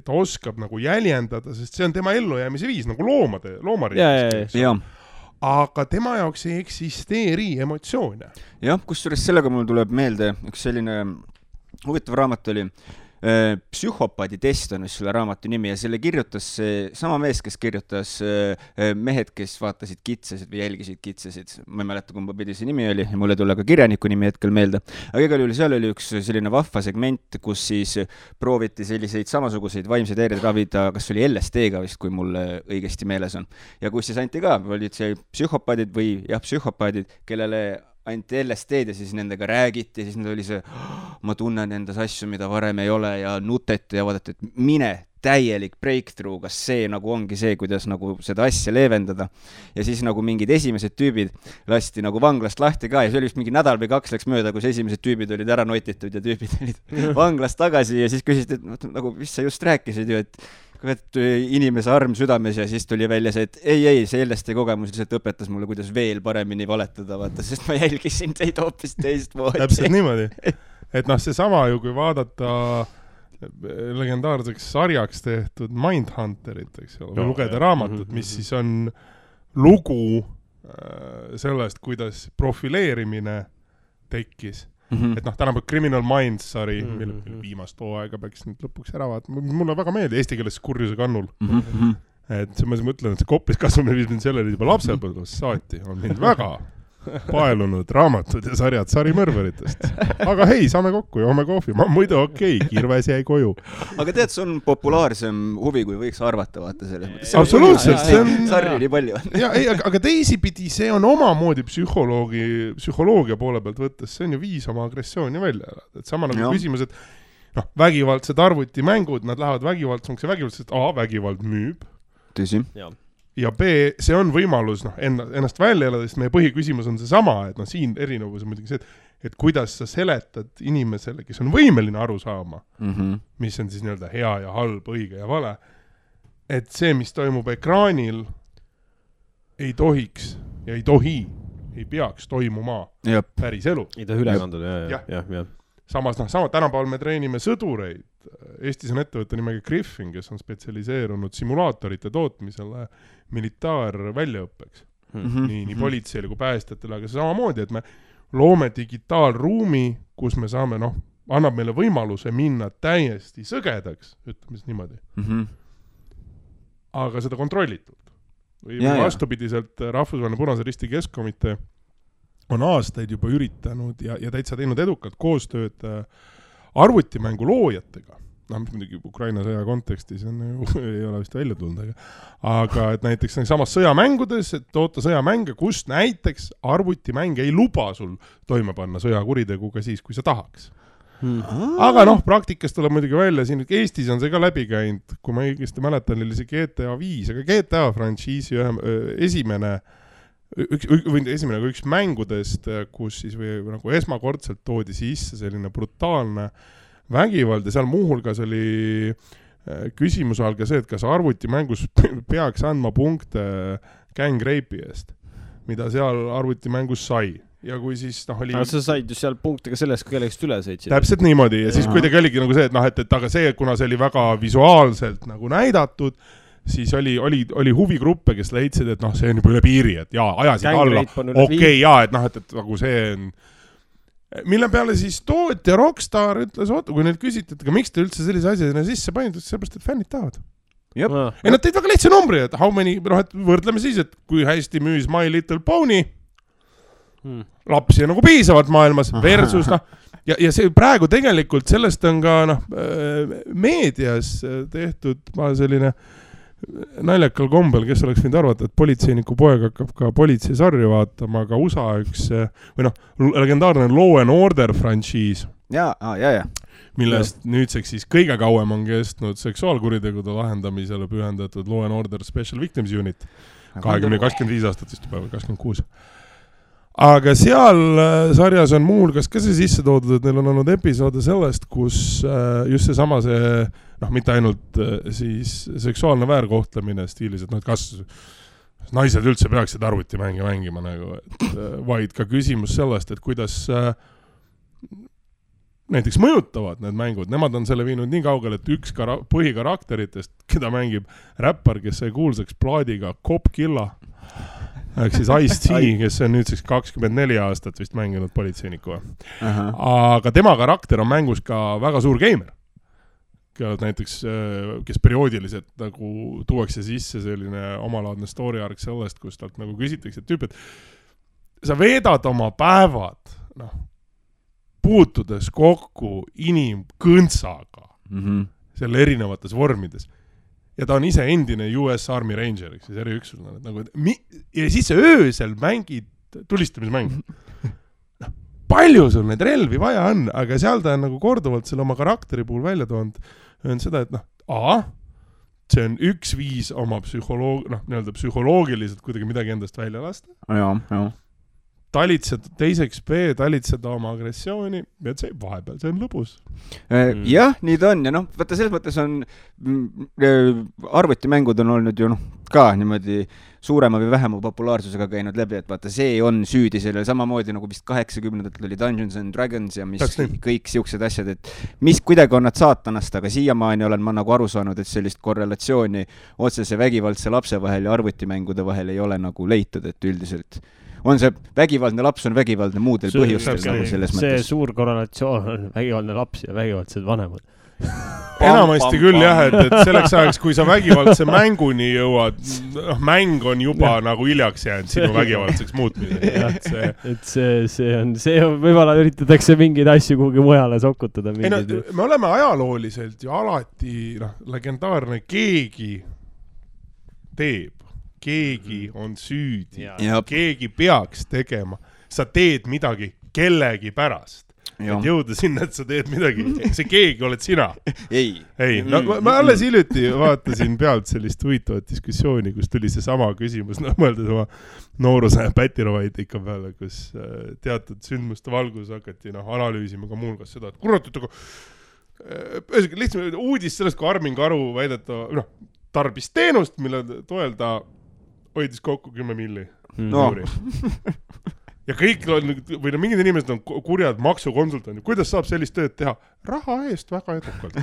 ta oskab nagu jäljendada, sest see on tema ellujäämise viis, nagu loomariigis. Aga tema jaoks ei eksisteeri emotsioone. Jah, kusjuures sellega mul tuleb meelde, üks selline huvitav raamat oli Psühhopaadi test on selle raamatu nimi ja selle kirjutas sama mees, kes kirjutas Mehed, kes vaatasid kitsasid või jälgisid kitsasid. Ma ei mäleta, kumba pidi see nimi oli ja mulle tule ka kirjaniku nimi hetkel meelde. Aga igal juhul seal oli üks selline vahva segment, kus siis prooviti selliseid samasuguseid vaimseid häireid ravida, kas oli LSD-ga vist, kui mul õigesti meeles on. Ja kus siis anti ka, olid see psühhopaadid või psühhopaadid, kellele anti LSD-d ja siis nendega räägiti ja siis need oli see, ma tunnen endas asju, mida varem ei ole ja nuteti ja vaadati, et mine täielik breakthrough, kas see nagu ongi see, kuidas nagu seda asja leevendada. Ja siis nagu mingid esimesed tüübid lasti nagu vanglast lahti ka ja see oli vist mingi nädal või 2 läks mööda, kus esimesed tüübid olid ära notitud ja tüübid olid vanglast tagasi ja siis küsisid, et nagu, mis sa just rääkisid ju, et inimese arm südames ja siis tuli välja see, et ei, see LSD kogemus lihtsalt õpetas mulle, kuidas veel paremini valetada, vaata, sest ma jälgisin teid hoopis teist moodi. Täpselt niimoodi. Et see sama ju, kui vaadata legendaarseks sarjaks tehtud Mindhunterit, eks ole, või lugeda raamatut, mis siis on lugu sellest, kuidas profileerimine tekkis. Et tänapäev Criminal Minds sari, mille viimast hooaega peaks nüüd lõpuks ära vaatama. Mulle väga meeldi eesti keeles kurjuse kannul. Et ma mõtlen, et see koppis kasvamine viis mind sellele juba lapsepõlvest saati. On mind väga paelunud raamatud ja sarjad sarimõrveritest. Aga hei, saame kokku ja homme kohvi. Ma muidu okei, Kirves jäi koju. Aga tead, see on populaarsem huvi, kui võiks arvata, vaata selles mõttes. Absoluutselt. Sarri nii palju on. Aga teisipidi see on omamoodi psühholoogia poole pealt võttes. See on ju viis oma agressiooni välja. Et sama nagu küsimus, et vägivaldsed arvutimängud, nad lähevad vägivaldsemaks ja vägivaldsed, vägivald müüb. Tõsi. Ja B, see on võimalus ennast välja elada, sest meie põhiküsimus on see sama, et siin erinevus on muidugi see, et kuidas sa seletad inimesele, kes on võimeline aru saama, mis on siis nii-öelda hea ja halb, õige ja vale, et see, mis toimub ekraanil, ei tohiks ja ei peaks toimuma päris elu. Ei tohi üle kanduda, jah. Samas, tänapäeval me treenime sõdureid. Eestis on ettevõtte nimega Griffin, kes on spetsialiseerunud simulaatorite tootmisele militaarväljaõppeks. Nii politseile kui päästjatele, aga see samamoodi, et me loome digitaalruumi, kus me saame, annab meile võimaluse minna täiesti sõgedaks, ütleme siis niimoodi. Aga seda kontrollitult. Või vastupidiselt Rahvusvaheline Punase Risti Keskkomitee on aastaid juba üritanud ja täitsa teinud edukalt koostööd arvutimängu loojatega. Mis muidugi Ukraina sõja kontekstis ei ole vist välja tulnud, aga et näiteks samas sõjamängudes, et toota sõjamänge, kus näiteks arvutimäng ei luba sul toime panna sõjakuritegu ka siis, kui sa tahaks. Aga praktikas tuleb muidugi välja, siin Eestis on see ka läbi käinud, kui ma õigesti mäletan, oli see GTA 5, aga GTA frantsiisi esimene üks mängudest, kus siis või nagu esmakordselt toodi sisse selline brutaalne vägivald ja seal muuhulgas oli küsimus all ka see, et kas arvutimängus peaks andma punkte gang rape'i eest, mida seal arvutimängus sai. Ja kui siis oli... Aga sa said ju seal punkte ka sellest, kui kellegist üle sõitsid. Täpselt niimoodi ja siis kuidagi oligi nagu see, et et aga see, kuna see oli väga visuaalselt nagu näidatud, siis oli huvigruppe, kes leidsid, et see on juba üle piiri, et ajasid alla. Okei, et nagu see on... Mille peale siis tootja Rockstar ütles, kui neilt küsiti, et miks te üldse sellise asjana sisse panid, sellepärast, et fännid tahavad. Ja nad teid väga lihtsa numbri, et how many, et võrdleme siis, et kui hästi müüs My Little Pony, lapsi on nagu piisavalt maailmas, versus ja see praegu tegelikult sellest on ka meedias tehtud selline naljakal kombel, kes oleks võinud arvata, et politseiniku poeg hakkab ka politseisarju vaatama, aga USA üks või legendaarne Law and Order frantsiis, millest nüüdseks siis kõige kauem on kestnud seksuaalkuritegude lahendamisele pühendatud Law and Order Special Victims Unit 25 aastat vist juba, 26. Aga seal sarjas on muuhulgas ka see sisse toodud, et neil on olnud episoode sellest, kus just seesama mitte ainult siis seksuaalne väärkohtlemine stiilis, et kas naised üldse peaksid arvutimänge mängima nagu, vaid ka küsimus sellest, et kuidas näiteks mõjutavad need mängud. Nemad on selle viinud nii kaugel, et üks põhikarakteritest, keda mängib räppar, kes sai kuulsaks plaadiga Cop Killa, ehk siis Ice-T, kes on nüüdseks 24 aastat vist mänginud politseiniku. Aga tema karakter on mängus ka väga suur geimer. Näiteks, kes perioodiliselt nagu tuuakse sisse selline omalaadne story arc sellest, kus talt nagu küsitakse, et tüüp, et sa veedad oma päevad puutudes kokku inimkõntsaga selle erinevates vormides. Ja ta on ise endine US Army Ranger, siis eriüksusena. Ja siis sa öösel mängid tulistamismäng. Palju sul neid relvi vaja on, aga seal ta on nagu korduvalt selle oma karakteri puhul välja toonud, on seda, et see on üks viis oma psühholoogiliselt kuidagi midagi endast välja lasta. Talitseda, teiseks talitseda oma agressiooni, et see vahepeal, see on lõbus. Jah, nii ta on. Ja vaata, selles mõttes on arvutimängud on olnud ju ka niimoodi suurema või vähema populaarsusega käinud läbi, et vaata, see on süüdi sellel samamoodi nagu vist 80-ndatel oli Dungeons and Dragons ja mis kõik siuksed asjad, et mis kuidagi on nad saatanast, aga siiamaani olen ma nagu aru saanud, et sellist korrelatsiooni otsese vägivaldse lapse vahel ja arvutimängude vahel ei ole nagu leitud, et üldiselt on see vägivaldne laps on vägivaldne muudel põhjustel nagu selles mõttes. See suur korrelatsioon on vägivaldne laps ja vägivaldsed vanemad. Enamasti küll jah, et selleks ajaks, kui sa vägivaldse mänguni jõuad, mäng on juba nagu hiljaks jäänud sinu vägivaldseks muutmisega. Et see on, võib-olla üritatakse mingeid asju kuhugi mujale sokutada. Me oleme ajalooliselt ju alati legendaarne keegi teeb. Keegi on süüdi. Keegi peaks tegema. Sa teed midagi kellegi pärast. Et jõuda sinna, et sa teed midagi. See keegi oled sina. Ei. Ma alles hiljuti vaatasin pealt sellist huvitavat diskussiooni, kus tuli see sama küsimus, mõeldes oma nooruse pätirovaidika peale, kus teatud sündmuste valgus hakati analüüsima ka muulgas seda, et kurat, lihtsalt uudis sellest, kui Armin Karu väideta tarbis teenust, mille toel ta hoidis kokku 10 milli. Ja kõik või mingid inimesed on kurjad maksukonsultandid. Kuidas saab sellist tööd teha? Raha eest väga edukalt.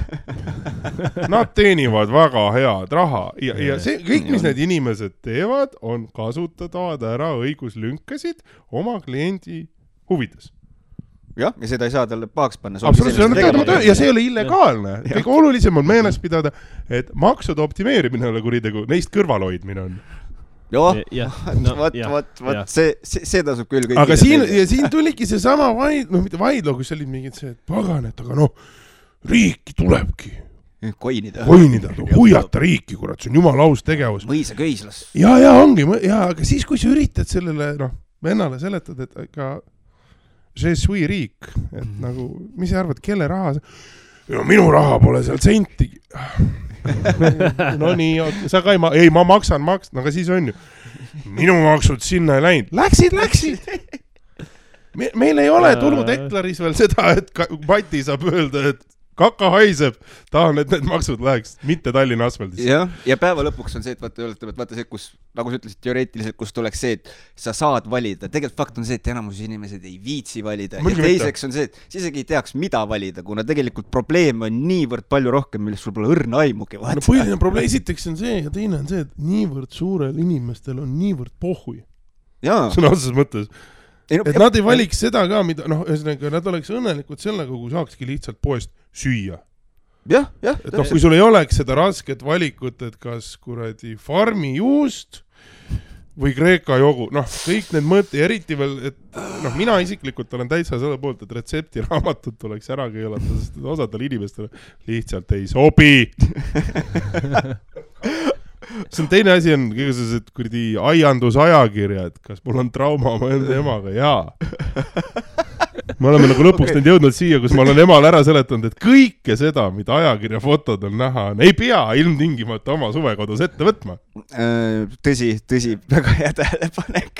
Nad teenivad väga head raha. Ja see, kõik, mis need inimesed teevad, on kasutavad ära õiguslünkasid oma kliendi huvides. Ja seda ei saa talle pahaks panna. Ja see ei ole illegaalne. Kõige olulisem on meeles pidada, et maksude optimeerimine ole kuritegu, neist kõrvalhoidmine on. See tasub küll kõik. Aga siin tuligi see sama vaidlo, kus olid mingid see, et paganet, aga riiki tulebki koinida, huiata riiki, kurat, see on jumala aus tegevus. Mõisa köislas. Ja ongi, aga siis, kui sa üritad sellele vennale seletad, et ka see sui riik, et nagu, mis sa arvad, kelle raha minu raha pole seal sentigi. No nii, sa ka ma maksan, aga siis on ju. minu maksud sinna ei läinud. Läksid. Meil ei ole tulnud Eklaris veel seda, et Mati saab öelda, et kaka haiseb, tahan, et need maksud läheks, mitte Tallinna asfaldis. Ja päeva lõpuks on see, et vaata see, kus, nagu sa ütlesid teoreetiliselt, kus tuleks see, et sa saad valida. Tegelikult fakt on see, et enamus inimesed ei viitsi valida. Ja teiseks on see, et sa isegi ei teaks, mida valida, kuna tegelikult probleem on niivõrd palju rohkem, millest sul pole õrna aimugi. No põhiline probleem esiteks on see ja teine on see, et niivõrd suurel inimestel on niivõrd pohhui. Sõna otseses mõttes. Et nad ei valiks seda ka, mida, ühesõnaga, nad oleks õnnelikud sellega, kui saakski lihtsalt poest süüa. Jah. Et kui sul ei oleks seda rasket valikut, et kas kuradi farmi juust või Kreeka jogu, kõik need mõõti, eriti veel, et mina isiklikult olen täitsa selle poolt, et retseptiraamatut tuleks ära keelata, sest osadel inimestel lihtsalt ei sobi. See on teine asi on kõigesed kuradi aiandusajakirjad, kas mul on trauma oma enda emaga, me oleme nagu lõpuks nüüd jõudnud siia, kus ma olen emal ära seletanud, et kõike seda, mida ajakirja fotod on näha, ei pea ilmtingimata oma suvekodus ette võtma. Tõsi, väga hea tähelepanek.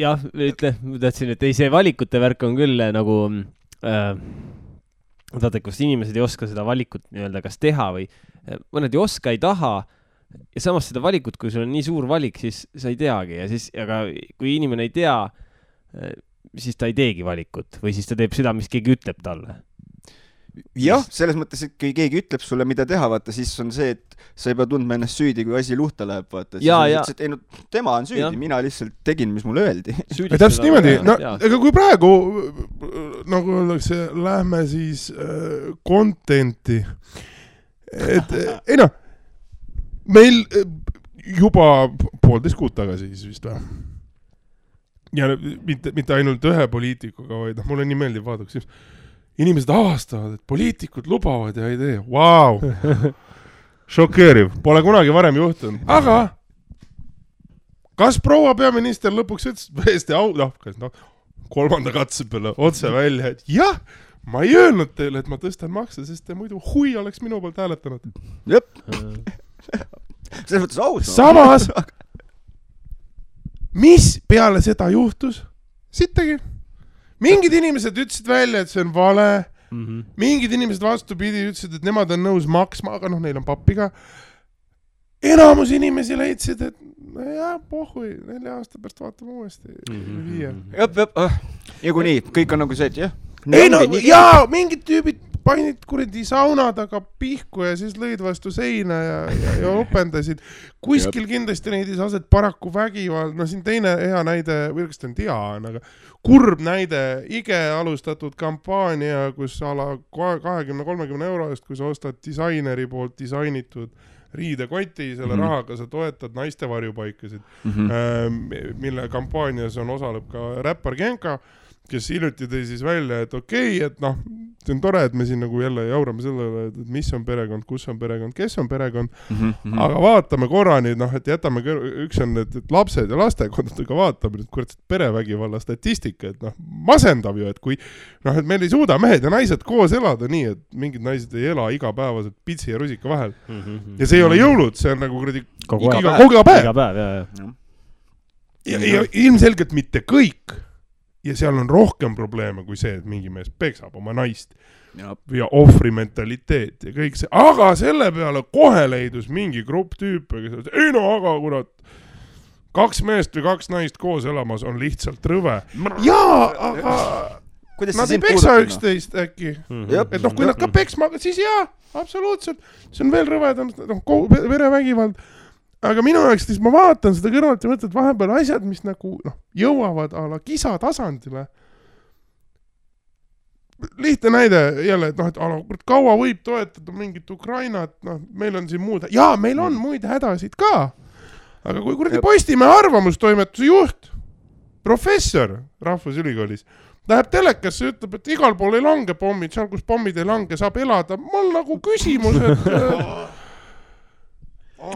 Jah, ma tahtsin, et see valikute värk on küll nagu kus inimesed ei oska seda valikut nii-öelda kas teha või mõned ei oska, ei taha ja samas seda valikut, kui sul on nii suur valik, siis sa ei teagi ja siis, aga kui inimene ei tea, siis ta ei teegi valikut või siis ta teeb seda, mis keegi ütleb talle. Jah, selles mõttes, et kui keegi ütleb sulle, mida teha, vaata, siis on see, et sa ei pea tundma ennast süüdi, kui asi luhta läheb, vaata. Tema on süüdi, mina lihtsalt tegin, mis mulle öeldi. Täpselt niimoodi, ega kui praegu, nagu öeldakse, lähme siis contenti, et meil juba 1,5 kuud tagasi siis vist või. Ja mitte ainult ühe poliitikuga, vaid mulle nii meeldib vaadaks inimesed avastavad, et poliitikud lubavad ja ei tee. Vau! Šokeeriv. Pole kunagi varem juhtunud. Aga kas proua peaminister lõpuks ütles kolmanda katse peale otse välja, et jah, ma ei öelnud teile, et ma tõstan makse, sest te muidu hui oleks minu poolt hääletanud. Jep. Selles mõttes aus. Samas, mis peale seda juhtus? Sittegi. Mingid inimesed ütlesid välja, et see on vale. Mingid inimesed vastupidi ütlesid, et nemad on nõus maksma, aga neil on pappiga. Enamus inimesi leidsid, et pohhui, 4 aasta pärast vaatame uuesti. Ja kui nii, kõik on nagu see, et jah. Mingid tüübid painid kuradi sauna taga pihku ja siis lõid vastu seina ja opendasid. Kuskil kindlasti neidis aset paraku vägivald. Siin teine hea näide, või kas ta on tea, aga kurb näide, IGE alustatud kampaania, kus ala 20-30 euro eest, kui sa ostad disaineri poolt disainitud riidekoti, selle rahaga sa toetad naiste varjupaikasid, mille kampaanias on osaleb ka räppar Genka, kes hiljuti tõi siis välja, et okei, et see on tore, et me siin nagu jälle jaurame sellele, et mis on perekond, kus on perekond, kes on perekond, aga vaatame korra nüüd, et jätame, üks on et lapsed ja lastekondadega vaatame nüüd kurat perevägivalla statistika, et masendav ju, et kui et meil ei suuda mehed ja naised koos elada nii, et mingid naised ei ela igapäevaselt pitsi ja rusika vahel. Ja see ei ole jõulud, see on nagu kuradi kogu päev. Ja ilmselgelt mitte kõik. Ja seal on rohkem probleeme kui see, et mingi mees peksab oma naist ja ohvri mentaliteet ja kõik see. Aga selle peale kohe leidus mingi grupp tüüpe, kes ütles, aga kurat, 2 meest või 2 naist koos elamas on lihtsalt rõve. Aga nad ei peksa üksteist äkki. Et kui nad ka peksma, siis absoluutselt. See on veel rõvedam, verevägivald. Aga minu jaoks, siis ma vaatan seda kõrvalt ja mõtlen, et vahepeal asjad, mis nagu jõuavad ala kisa tasandile. Lihtne näide jälle, et kaua võib toetada mingit Ukrainat, meil on siin muud, meil on muid hädasid ka. Aga kui kuradi Postimehe arvamustoimetuse juht, professor Rahvusülikoolis, läheb telekasse ja ütleb, et igal pool ei lange pommid, seal kus pommid ei lange, saab elada. Mul nagu küsimus, et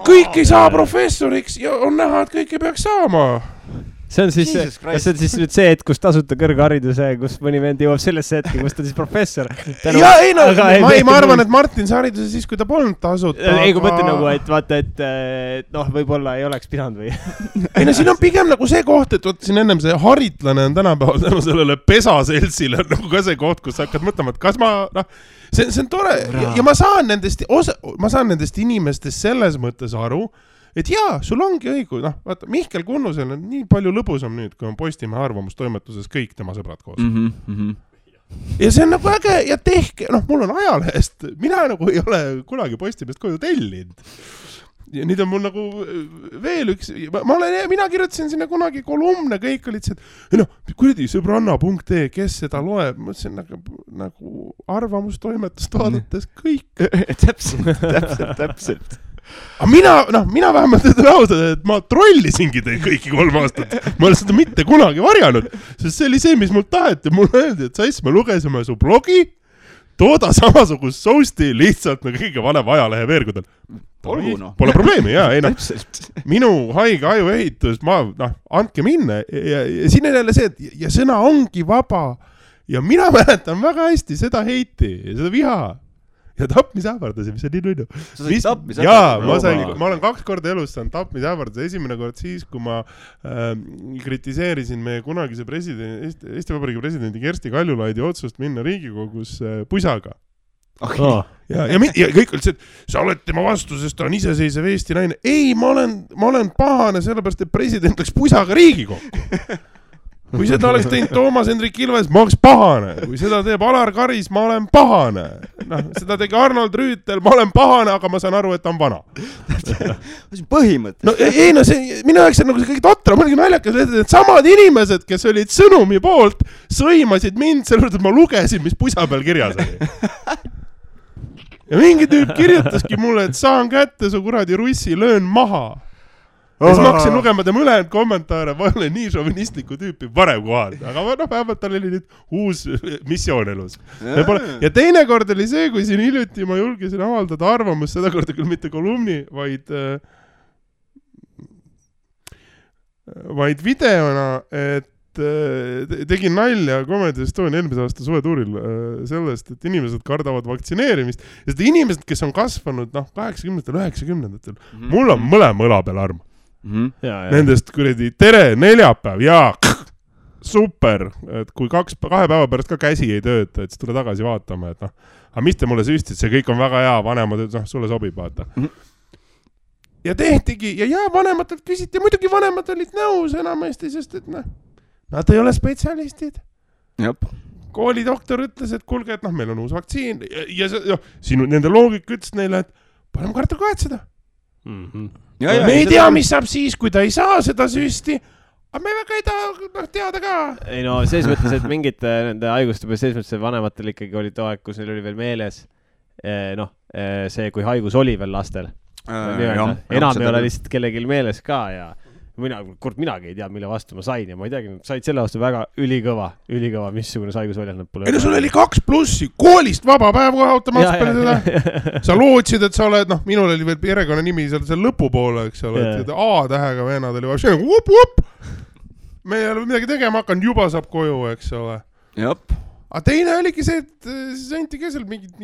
kõik ei saa professoriks ja on näha, et kõik ei peaks saama. see on siis, kas see on siis nüüd see, et kus tasuta kõrghariduse, kus mõni vend jõuab sellesse hetke, kus ta siis professor. Ja ei no, ma arvan, et Martin sai hariduse siis, kui ta polnud tasuta. Ei, kui mõtlen nagu, et vaata, et noh, võib-olla ei oleks pidanud või. Ei no, siin on pigem nagu see koht, et võtta siin ennem see haritlane on tänapäeval tänu sellele pesaseltsile nagu ka see koht, kus sa hakkad mõtlema, et kas ma, noh, see on tore ja ma saan nendest inimestest selles mõttes aru, et jaa, sul ongi õigus, noh, vaata, Mihkel Kunnusel on nii palju lõbusam nüüd, kui on Postimehe arvamustoimetuses kõik tema sõbrad koos. Ja see on nagu äge ja tehke, noh, mul on ajalehest, mina nagu ei ole kunagi Postimehest koju tellinud. Ja nüüd on mul nagu veel üks, mina kirjutasin sinna kunagi kolumne, kõik olid see, et noh, kuradi sõbranna.ee, kes seda loeb, mõtlesin nagu arvamustoimetust vaadates kõik. Täpselt. Aga mina vähemalt ütlen ausalt, et ma trollisingi teid kõiki 3 aastat. Ma olen seda mitte kunagi varjanud, sest see oli see, mis mul taheti. Mul öeldi, et sass, me lugesime su blogi, tooda samasugust sousti lihtsalt nagu kõige vanem ajalehe veergudel. Pole probleemi, jaa. Ei, minu haige ajuehitus, andke minna. Ja siin on jälle see, et ja sõna ongi vaba. Ja mina mäletan väga hästi seda heiti ja seda viha. Ja tapmisähvardasi, mis on nii nunnu. Sa said tapmisähvardasi? Jaa, ma olen 2 korda elus saanud tapmisähvardasi. Esimene kord siis, kui ma kritiseerisin meie kunagise Eesti Vabariigi presidendi Kersti Kaljulaidi otsust minna Riigikogus pusaga. Ja kõik olid see, et sa oled tema vastu, sest ta on iseseisev Eesti naine. Ei, ma olen pahane sellepärast, et president läks pusaga Riigikokku. Kui seda oleks teinud Toomas Hendrik Ilves, ma oleks pahane. Kui seda teeb Alar Karis, ma olen pahane. Seda tegi Arnold Rüütel, ma olen pahane, aga ma saan aru, et ta on vana. See on põhimõte. No ei, minu jaoks on nagu see kõik totra. Ma olin naljakas, et samad inimesed, kes olid sõnumi poolt, sõimasid mind selle, et ma lugesin, mis pusa peal kirjas oli. Ja mingi tüüp kirjutaski mulle, et saan kätte su kuradi russi, löön maha. Ja siis ma hakkasin lugema tema ülejäänud kommentaare, ma olen nii šovinistliku tüüpi varem kohal, aga vähemalt tal oli nüüd uus missioon elus. Ja teine kord oli see, kui siin hiljuti ma julgesin avaldada arvamust, seda korda küll mitte kolumni, vaid videona, et tegin nalja Comedy Estonia eelmise aasta suvetuuril sellest, et inimesed kardavad vaktsineerimist ja seda inimesed, kes on kasvanud 80-ndatel, 90-ndatel, mul on mõlema õla peal arm. Nendest kuradi tere, neljapäev ja super, et kui 2 päeva pärast ka käsi ei tööta, et siis tule tagasi vaatama, et aga mis te mulle süstid, see kõik on väga hea, vanemad, sulle sobib, vaata. Ja tehtigi, ja vanematelt küsiti, muidugi vanemad olid nõus enamasti, sest et nad ei ole spetsialistid. Koolidoktor ütles, et kuulge, et meil on uus vaktsiin ja sinu nende loogik ütles neile, et parem karta kahetseda. Me ei tea, mis saab siis, kui ta ei saa seda süsti, aga me väga ei taha teada ka. Ei no, selles mõttes, et mingite nende haiguste peal, selles mõttes, et vanematel ikkagi oli too aeg, kus neil oli veel meeles see, kui haigus oli veel lastel. Enam ei ole lihtsalt kellelgi meeles ka ja minagi ei tea, mille vastu ma sain ja ma ei teagi, said selle vastu väga ülikõva, missugune haigus oli. Ei no, sul oli 2+, koolist vaba päev kohe automaatselt peale seda. Sa lootsid, et sa oled, minul oli veel perekonna nimi seal lõpupoole, eks ole, et A-tähega vennad oli vaja, up, me ei ole midagi tegema hakanud, juba saab koju, eks ole. Aga teine oligi see, et siis anti kesel mingit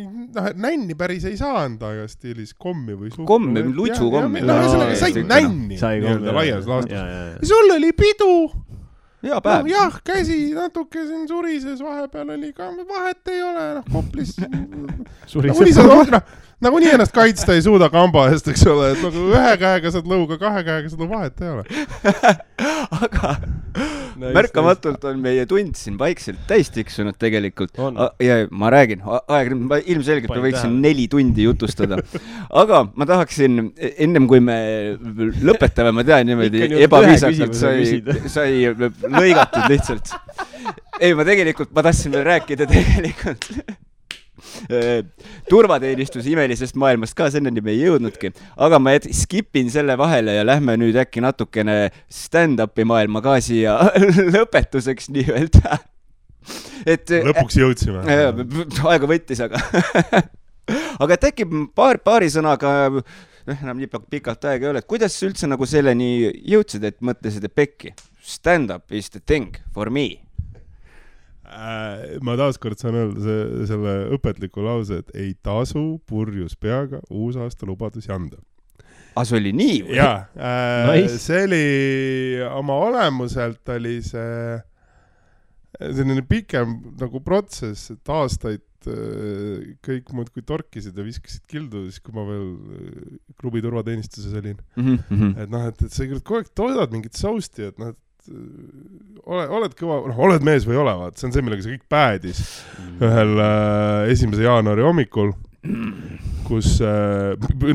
nänni päris ei saa anda aega stiilis kommi või suhkru. Kommi, lutsukommi. Said nänni laias laastus. Ja sul oli pidu. Jah, käsi natuke siin surises, vahepeal oli ka, vahet ei ole, Koplis. Nagu nii ennast kaitsta ei suuda kamba eest, eks ole, et nagu 1 käega saad lõuga, 2 käega saad vahet ei ole. Aga märkamatult on meie tund siin vaikselt täis tiksunud tegelikult. Ja ma räägin, ilmselgelt ma võiksin 4 tundi jutustada. Aga ma tahaksin, ennem kui me lõpetame, ma tean niimoodi ebaviisakalt sai lõigatud lihtsalt. Ei, ma tahtsin veel rääkida tegelikult turvateenistuse imelisest maailmast ka, senneni me ei jõudnudki, aga ma skipin selle vahele ja lähme nüüd äkki natukene stand-upi maailma ka siia lõpetuseks nii-öelda. Lõpuks jõudsime. Aega võttis, aga et äkki paari sõnaga enam nii pikalt aega ei ole, et kuidas üldse nagu selleni jõudsid, et mõtlesid, et pekki, stand-up is the thing for me? Ma taaskord saan öelda selle õpetliku lause, et ei tasu purjus peaga uusaasta lubadusi anda. See oli nii või? Jaa, see oli oma olemuselt oli see selline pikem nagu protsess, et aastaid kõik muud kui torkisid ja viskasid kildu, siis kui ma veel klubi turvateenistuses olin. Et noh, et sa kogu aeg toodad mingit sousti, et noh, oled kõva, oled mees või ole, vaat, see on see, millega see kõik päädis ühel 1. jaanuari hommikul, kus,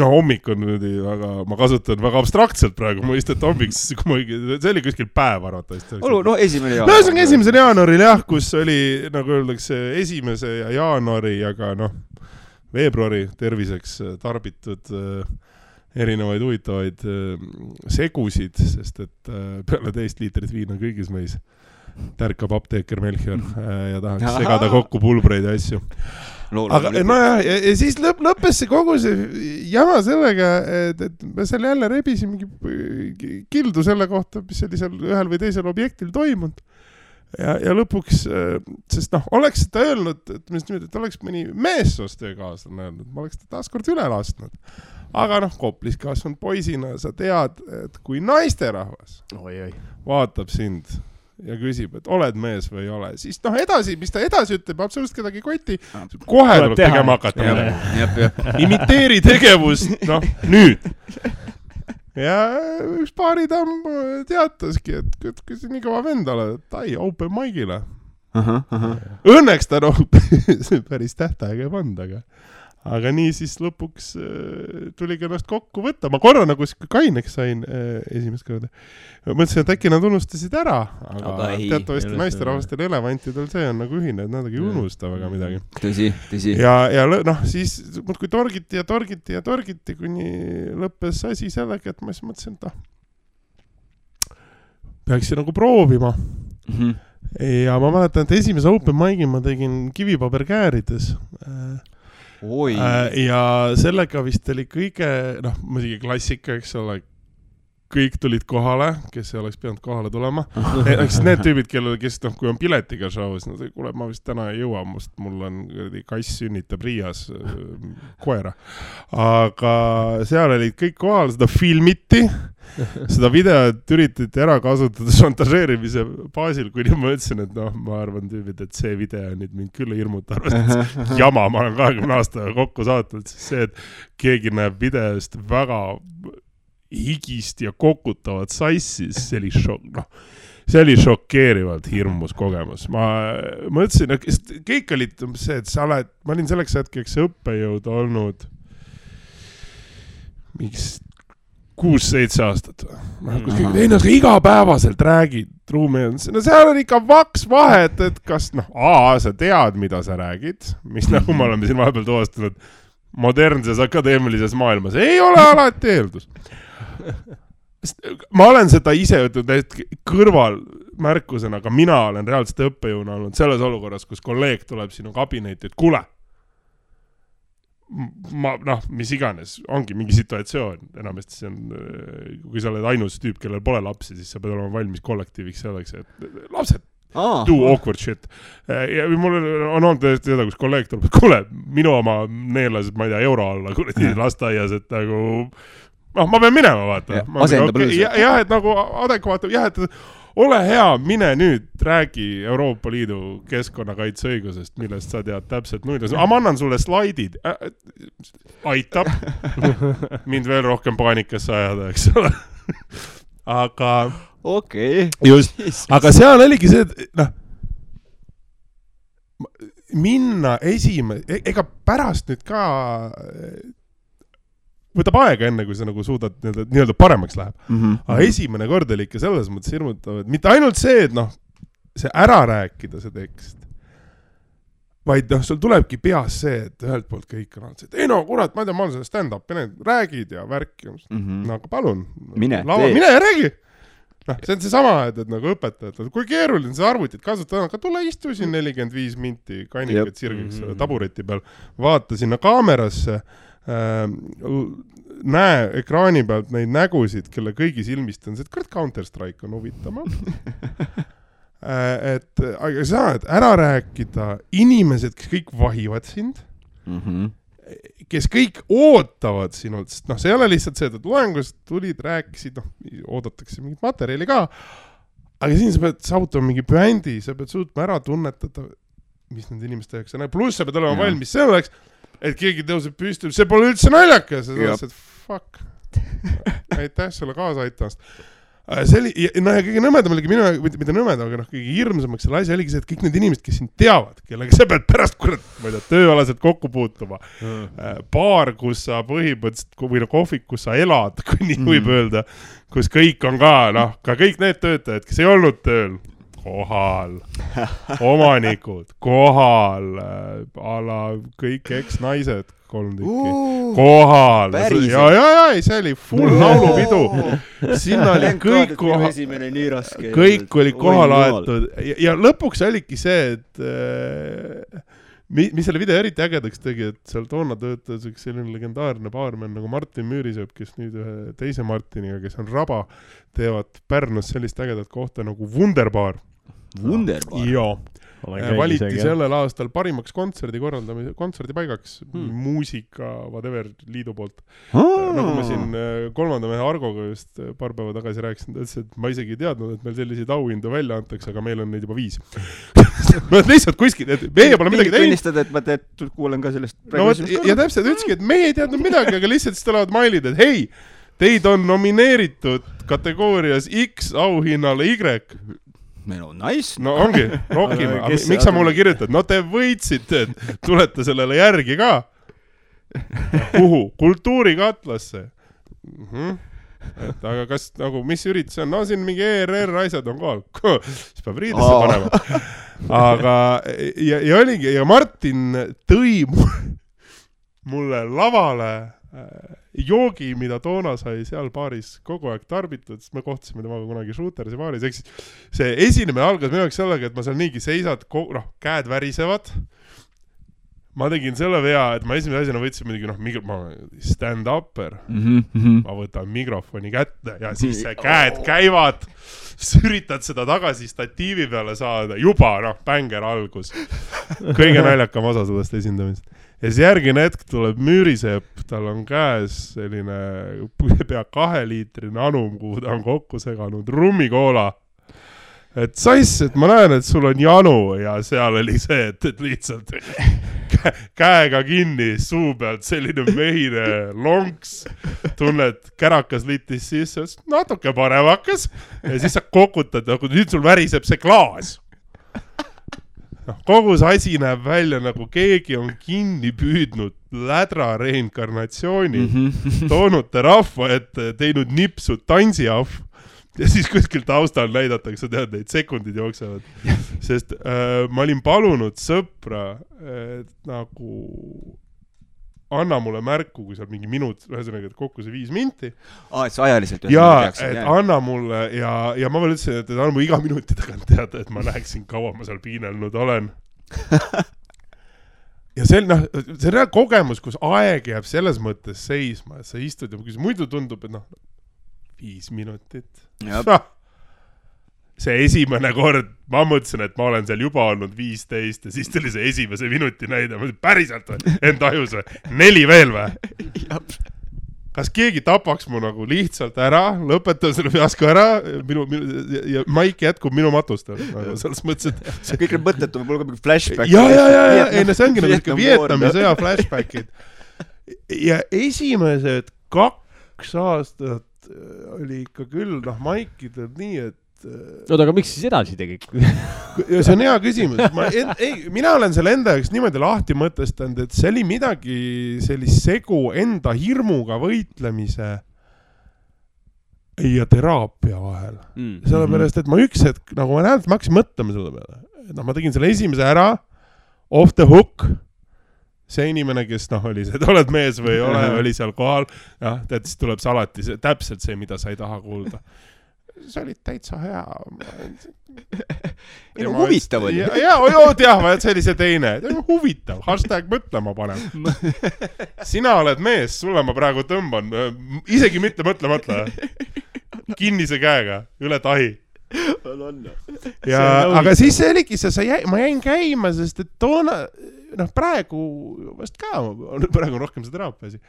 hommik on nüüd, aga ma kasutan väga abstraktselt praegu, mõistet hommiks, see oli kuskil päev arvatavasti. 1. jaanuaril. 1. jaanuaril jah, kus oli, nagu öeldakse, 1. jaanuari, aga veebruari terviseks tarbitud erinevaid huvitavaid segusid, sest et peale 10 liitrit viina kõigis meis tärkab apteeker Melchior ja tahaks segada kokku pulbreid ja asju. Aga ja siis lõppes see kogu see jama sellega, et me seal jälle rebisime mingi kildu selle kohta, mis oli seal ühel või teisel objektil toimunud. Ja lõpuks, sest oleks seda öelnud, et oleks mõni meessoost kaaslane öelnud, ma oleks ta taaskord üle lasknud. Aga Koplis kasvanud poisina sa tead, et kui naisterahvas vaatab sind ja küsib, et oled mees või ei ole, siis edasi, mis ta edasi ütleb, absoluutselt kedagi koti, kohe tuleb tegema hakata. Imiteeri tegevust, nüüd. Ja üks baaritamm teataski, et kui see nii kõva vend oled, et ai, open mic'ile. Õnneks ta päris tähtaega ei panda, aga nii siis lõpuks tuligi ennast kokku võtta. Ma korra nagu kaineks sain esimest korda. Mõtlesin, et äkki nad unustasid ära, aga teatavasti naisterahvastel elevantidel see on nagu ühine, et nad ei unusta väga midagi. Tõsi. Ja siis kui torgiti, kuni lõppes asi sellega, et ma siis mõtlesin, et peaksin nagu proovima. Ja ma mäletan, et esimese open mic'i ma tegin kivipaberkäärides. Ja sellega vist oli kõige, muidugi klassika, eks ole, kõik tulid kohale, kes ei oleks pidanud kohale tulema. Need tüübid, kes kui on piletiga show's, kuule, ma vist täna ei jõua, mul on kass sünnitab Riias koera. Aga seal olid kõik kohal, seda filmiti, seda videot üritati ära kasutada šantažeerimise baasil, kuni ma ütlesin, et ma arvan tüübid, et see video nüüd mind küll hirmuta, arvestades jama, ma olen 20 aastaga kokku saatnud, siis see, et keegi näeb videost väga higist ja kokutavat sassis, see oli šokeerivalt hirmus kogemus. Ma mõtlesin, kõik olid see, et ma olin selleks hetkeks õppejõud olnud miks 6-7 aastat. Igapäevaselt räägid ruumi. Seal on ikka vaks vahet, et kas sa tead, mida sa räägid, mis nagu me oleme siin vahepeal tuvastanud modernses akadeemilises maailmas. Ei ole alati eeldus. Ma olen seda ise ütelnud kõrval märkusena, aga mina olen reaalselt õppejõuna olnud selles olukorras, kus kolleeg tuleb sinu kabinetti, et kuule, mis iganes, ongi mingi situatsioon, enamasti see on, kui sa oled ainus tüüp, kellel pole lapsi, siis sa pead olema valmis kollektiiviks selleks, et lapsed, do awkward shit. Ja mul on olnud tõesti seda, kus kolleeg tuleb, et kuule, minu oma neelas, ma ei tea, euro alla, kuradi lasteaias, et nagu ma pean minema, vaata. Jah, et nagu adekvaatne, jah, et ole hea, mine nüüd, räägi Euroopa Liidu keskkonnakaitseõigusest, millest sa tead täpselt nuid. Ma annan sulle slaidid. Aitab mind veel rohkem paanikasse ajada, eks ole. Aga just, aga seal oligi see, et minna ega pärast nüüd ka võtab aega enne, kui sa nagu suudad nii-öelda paremaks läheb. Aga esimene kord oli ikka selles mõttes hirmutav, et mitte ainult see, et see ära rääkida see tekst, vaid sul tulebki peas see, et ühelt poolt kõik on see, et ei kurat, ma ei tea, ma olen selle stand-up, räägid ja värki. Aga palun, mine ja räägi. See on see sama, et nagu õpetajad, kui keeruline see arvutit kasutada, aga tule istu siin 45 minti kannikat sirgiks tabureti peal, vaata sinna kaamerasse, näe ekraani pealt neid nägusid, kelle kõigi silmist on see, et Counter-Strike on huvitama. Aga saad ära rääkida inimesed, kes kõik vahivad sind, kes kõik ootavad sinult, sest see ei ole lihtsalt see, et loengust tulid, rääkisid, oodatakse mingit materjali ka, aga siin sa pead saavutama mingi brändi, sa pead suutma ära tunnetada, mis nende inimeste jaoks on, pluss sa pead olema valmis selleks, et keegi tõuseb püsti, see pole üldse naljakas, ja sa et fuck, aitäh sulle kaasa aitamast. Ja kõige nõmedam oligi minu, mida nõmedam, aga kõige hirmsamaks selle asja oligi see, et kõik need inimesed, kes sind teavad, kellega sa pead pärast ma ei tea, tööalaselt kokku puutuma, baar, kus sa põhimõtteliselt, või kohvik, kus sa elad, kui nii võib öelda, kus kõik on ka kõik need töötajad, kes ei olnud tööl, kohal, omanikud, kohal, kõik eks-naised, 3 tükki, kohal. See oli full laulupidu. Sinna oli kõik oli kohal aetud. Ja lõpuks oligi see, et mis selle video eriti ägedaks tegi, et seal toona töötas üks selline legendaarne baarmen nagu Martin Müürisepp, kes nüüd ühe teise Martiniga, kes on Raba, teevad Pärnus sellist ägedat kohta nagu Wunderbar. Joo. Valiti sellel aastal parimaks kontserdipaigaks muusika, whatever, liidu poolt. Nagu ma siin 3. mehe Argoga just paar päeva tagasi rääkisin, ta ütles, et ma isegi ei teadnud, et meil selliseid auhindu välja antakse, aga meil on neid juba 5. Ma lihtsalt kuskil, et meie pole midagi teinud. Tunnistada, et ma kuulen ka sellest. Ja täpselt ütleski, et meie ei teadnud midagi, aga lihtsalt siis tulevad mailid, et hei, teid on nomineeritud kategoorias X auhinnale Y. Nice. No ongi, rohkime. Miks sa mulle kirjutad? No te võitsite, et tulete sellele järgi ka. Kuhu? Kultuurikatlasse. Aga kas, mis üritus on? No siin mingi ERR asjad on kohal. Siis peab riidesse panema. Aga, ja oligi, ja Martin tõi mulle lavale joogi, mida toona sai seal baaris kogu aeg tarbitud, sest me kohtusime temaga kunagi Shootersi baaris, eks see esinemine algas minu jaoks sellega, et ma seal niigi seisad, käed värisevad. Ma tegin selle vea, et ma esimese asjana võtsin midagi, stand-upper. Ma võtan mikrofoni kätte ja siis see käed käivad, üritad seda tagasi statiivi peale saada, juba bänger algus. Kõige naljakam osa sellest esindamist. Ja siis järgine hetk tuleb Müürisepp, tal on käes selline pea 2-liitrine anum, kuhu ta on kokku seganud rummikoola. Et saisse, et ma näen, et sul on janu ja seal oli see, et lihtsalt käega kinni suu pealt selline mehine lonks, tunned kärakas litis sisse, natuke paremakas ja siis sa kokutad, nüüd sul väriseb see klaas. Kogu see asi näeb välja nagu keegi on kinni püüdnud lädra reinkarnatsiooni, toonud ta rahva ette, teinud nipsu tantsiahv ja siis kuskil taustal näidatakse, tead, neid sekundid jooksevad. Sest ma olin palunud sõpra, et nagu anna mulle märku, kui seal mingi minut, ühesõnaga, et kokku see 5 minti. Et see ajaliselt. Ja, et anna mulle ja ma veel ütlesin, et anna mulle iga minuti tagant teada, et ma näeksin, kaua ma seal piinelnud olen. Ja see on kogemus, kus aeg jääb selles mõttes seisma, et sa istud ja muidu tundub, et 5 minutit. See esimene kord, ma mõtlesin, et ma olen seal juba olnud 15 ja siis tuli see esimese minuti näide. Ma mõtlesin, päriselt või? Enda ajus või? 4 veel või? Kas keegi tapaks mu nagu lihtsalt ära, lõpetab selle fiasko ära ja maik jätkub minu matustel. Selles mõttes, et kõik need mõttetu, mul ka mingi flashback. Ja, see ongi nagu Vietnami sõja flashbackid. Ja esimesed 2 aastat oli ikka küll, maikidel nii, et aga miks siis edasi tegid? Ja see on hea küsimus. Mina olen selle enda jaoks niimoodi lahti mõtestanud, et see oli midagi sellist segu enda hirmuga võitlemise ja teraapia vahel. Sellepärast, et ma üks hetk, nagu ma näen, et ma hakkasin mõtlema selle peale. Ma tegin selle esimese ära, off the hook. See inimene, kes oli see, et oled mees või ei ole, oli seal kohal. Ja siis tuleb see alati täpselt see, mida sa ei taha kuulda. see oli täitsa hea. Ei no huvitav oli. See oli see teine. Huvitav, #mõtlema panem. Sina oled mees, sulle ma praegu tõmban. Isegi mitte mõtle. Kinnise käega, üle tahi. Ja, aga siis see oligi ma jäin käima, sest et toona, praegu vast ka, praegu on rohkem see teraapia asi.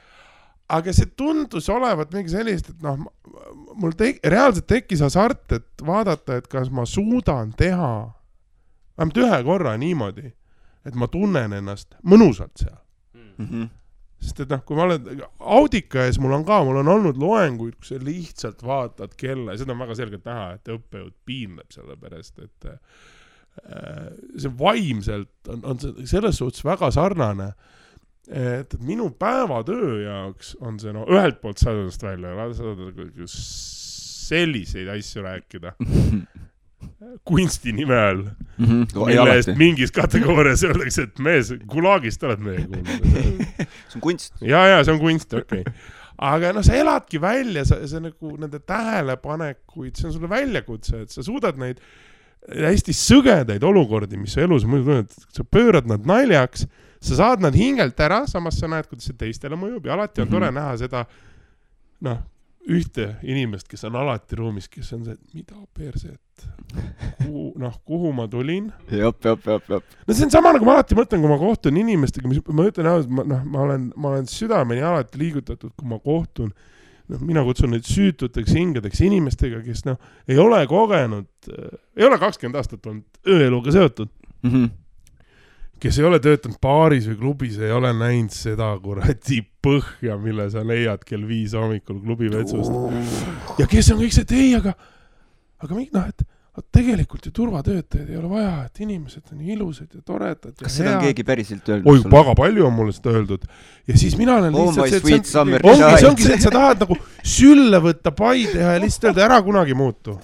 Aga see tundus olevat mingi sellist, et mul reaalselt tekkis hasart, et vaadata, et kas ma suudan teha vähemalt ühe korra niimoodi, et ma tunnen ennast mõnusalt seal. Sest et kui ma olen Audika ees, mul on olnud loenguid, kus sa lihtsalt vaatad kella ja seda on väga selgelt näha, et õppejõud piinleb selle pärast, et see vaimselt on selles suhtes väga sarnane. Et minu päevatöö jaoks on see, ühelt poolt saadast välja, selliseid asju rääkida kunsti nime all, mille eest mingis kategoorias öeldakse, et mees, Gulagist oled meie kuulnud. See on kunst. Ja, see on kunst, okei. Aga sa eladki välja, see nagu nende tähelepanekuid, see on sulle väljakutse, et sa suudad neid hästi sõgedaid olukordi, mis sa elus muidu tunned, sa pöörad nad naljaks, sa saad nad hingelt ära, samas sa näed, kuidas see teistele mõjub ja alati on tore näha seda ühte inimest, kes on alati ruumis, kes on see, et mida perset, kuhu ma tulin. Jop. See on sama, nagu ma alati mõtlen, kui ma kohtun inimestega, ma ütlen, ma olen südameni alati liigutatud, kui ma kohtun, mina kutsun neid süütuteks hingedeks inimestega, kes ei ole kogenud, ei ole 20 aastat olnud ööeluga seotud. Kes ei ole töötanud baaris või klubis, ei ole näinud seda kuradi põhja, mille sa leiad kell 5 hommikul klubi vetsust. Ja kes on kõik see, aga et tegelikult ju turvatöötajad ei ole vaja, et inimesed on ilusad ja toredad. Kas seda on keegi päriselt öeldud? Oi, väga palju on mulle seda öeldud. Ja siis mina olen lihtsalt see ongi see, et sa tahad nagu sülle võtta pai teha ja lihtsalt öelda, ära kunagi muutu.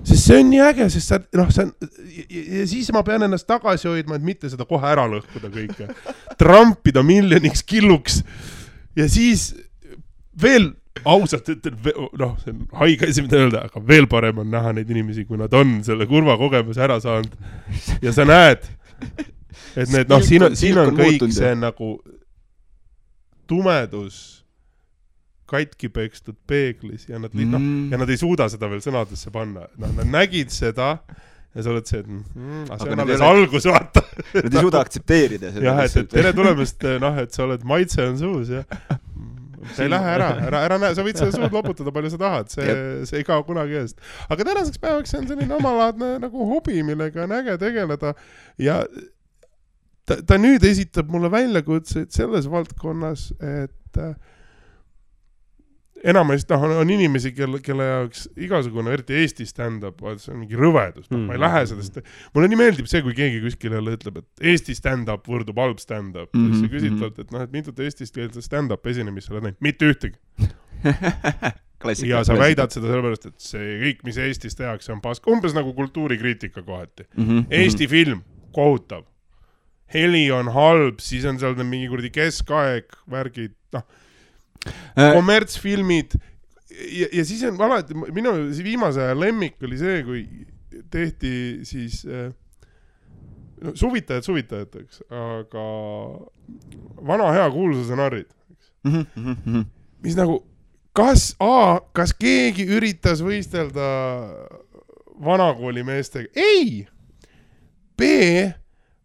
Sest see on nii äge, sest ja siis ma pean ennast tagasi hoidma, et mitte seda kohe ära lõhkuda kõike. Trampida miljoniks killuks ja siis veel ausalt ütlen, see on haige asi, mida öelda, aga veel parem on näha neid inimesi, kui nad on selle kurva kogemuse ära saanud. Ja sa näed, et need, siin on kõik see nagu tumedus katki pekstud peeglis ja nad, ja nad ei suuda seda veel sõnadesse panna. Nad nägid seda ja sa oled see, et see on alles algus, vaata. Nad ei suuda aktsepteerida seda. Jah, et tere tulemast, et sa oled maitse on suus ja sa ei lähe ära näe, sa võid seda suud loputada, palju sa tahad, see ei kao kunagi eest. Aga tänaseks päevaks see on selline omalaadne nagu hobi, millega on äge tegeleda ja ta nüüd esitab mulle väljakutseid selles valdkonnas, et enamasti on inimesi, kelle jaoks igasugune, eriti Eesti stand-up, see on mingi rõvedus. Ma ei lähe sellest. Mulle nii meeldib see, kui keegi kuskil jälle ütleb, et Eesti stand-up võrdub halb stand-up. Siis sa küsitled, et mitut Eestist keelset stand-up esinemist sa oled näinud. Mitte ühtegi. Ja sa väidad seda sellepärast, et see kõik, mis Eestis tehakse, on pask. Umbes nagu kultuurikriitika kohati. Eesti film, kohutav. Heli on halb, siis on seal mingi kuradi keskaeg, värgid, kommertsfilmid ja siis on alati, minu viimase aja lemmik oli see, kui tehti siis suvitajateks, aga vana hea kuulsuse narrid. Mis nagu, kas keegi üritas võistelda vanakooli meestega? Ei! B,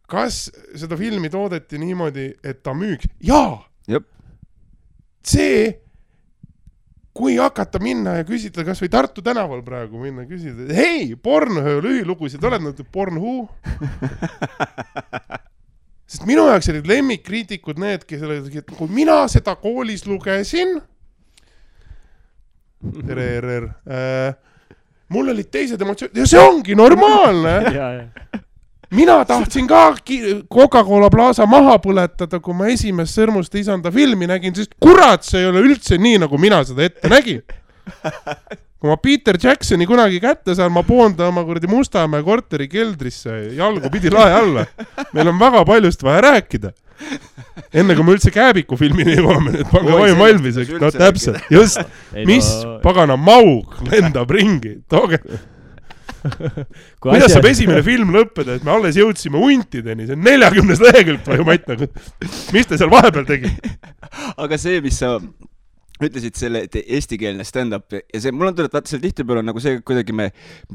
kas seda filmi toodeti niimoodi, et ta müüks? Jaa! Jep. See, kui hakata minna ja küsida, kas või Tartu tänaval praegu minna ja küsida, hei, Pornhöö lühilugusid, oled nad Pornhoo? Sest minu jaoks olid lemmikkriitikud need, kes olid, et kui mina seda koolis lugesin, mul olid teised emotsioonid, ja see ongi normaalne. Mina tahtsin ka Coca-Cola Plaza maha põletada, kui ma esimest Sõrmuste isanda filmi nägin, sest kurat, see ei ole üldse nii, nagu mina seda ette nägin. Kui ma Peter Jacksoni kunagi kätte saan, ma poonda oma kuradi Mustamäe korteri keldrisse, jalgu pidi lae alla. Meil on väga paljust vaja rääkida. enne kui me üldse Kääbiku filmini jõuame, et pange vaim valmiseks, no täpselt, just, mis pagana maug lendab ringi, tooge. Kuidas saab esimene film lõppeda, et me alles jõudsime untideni, see on 40 lehekülgt või Matt, nagu, mis te seal vahepeal tegi? Aga see, mis sa ütlesid selle eestikeelne stand-up ja see, mul on tulnud, vaata seal tihtipeale on nagu see, kuidagi me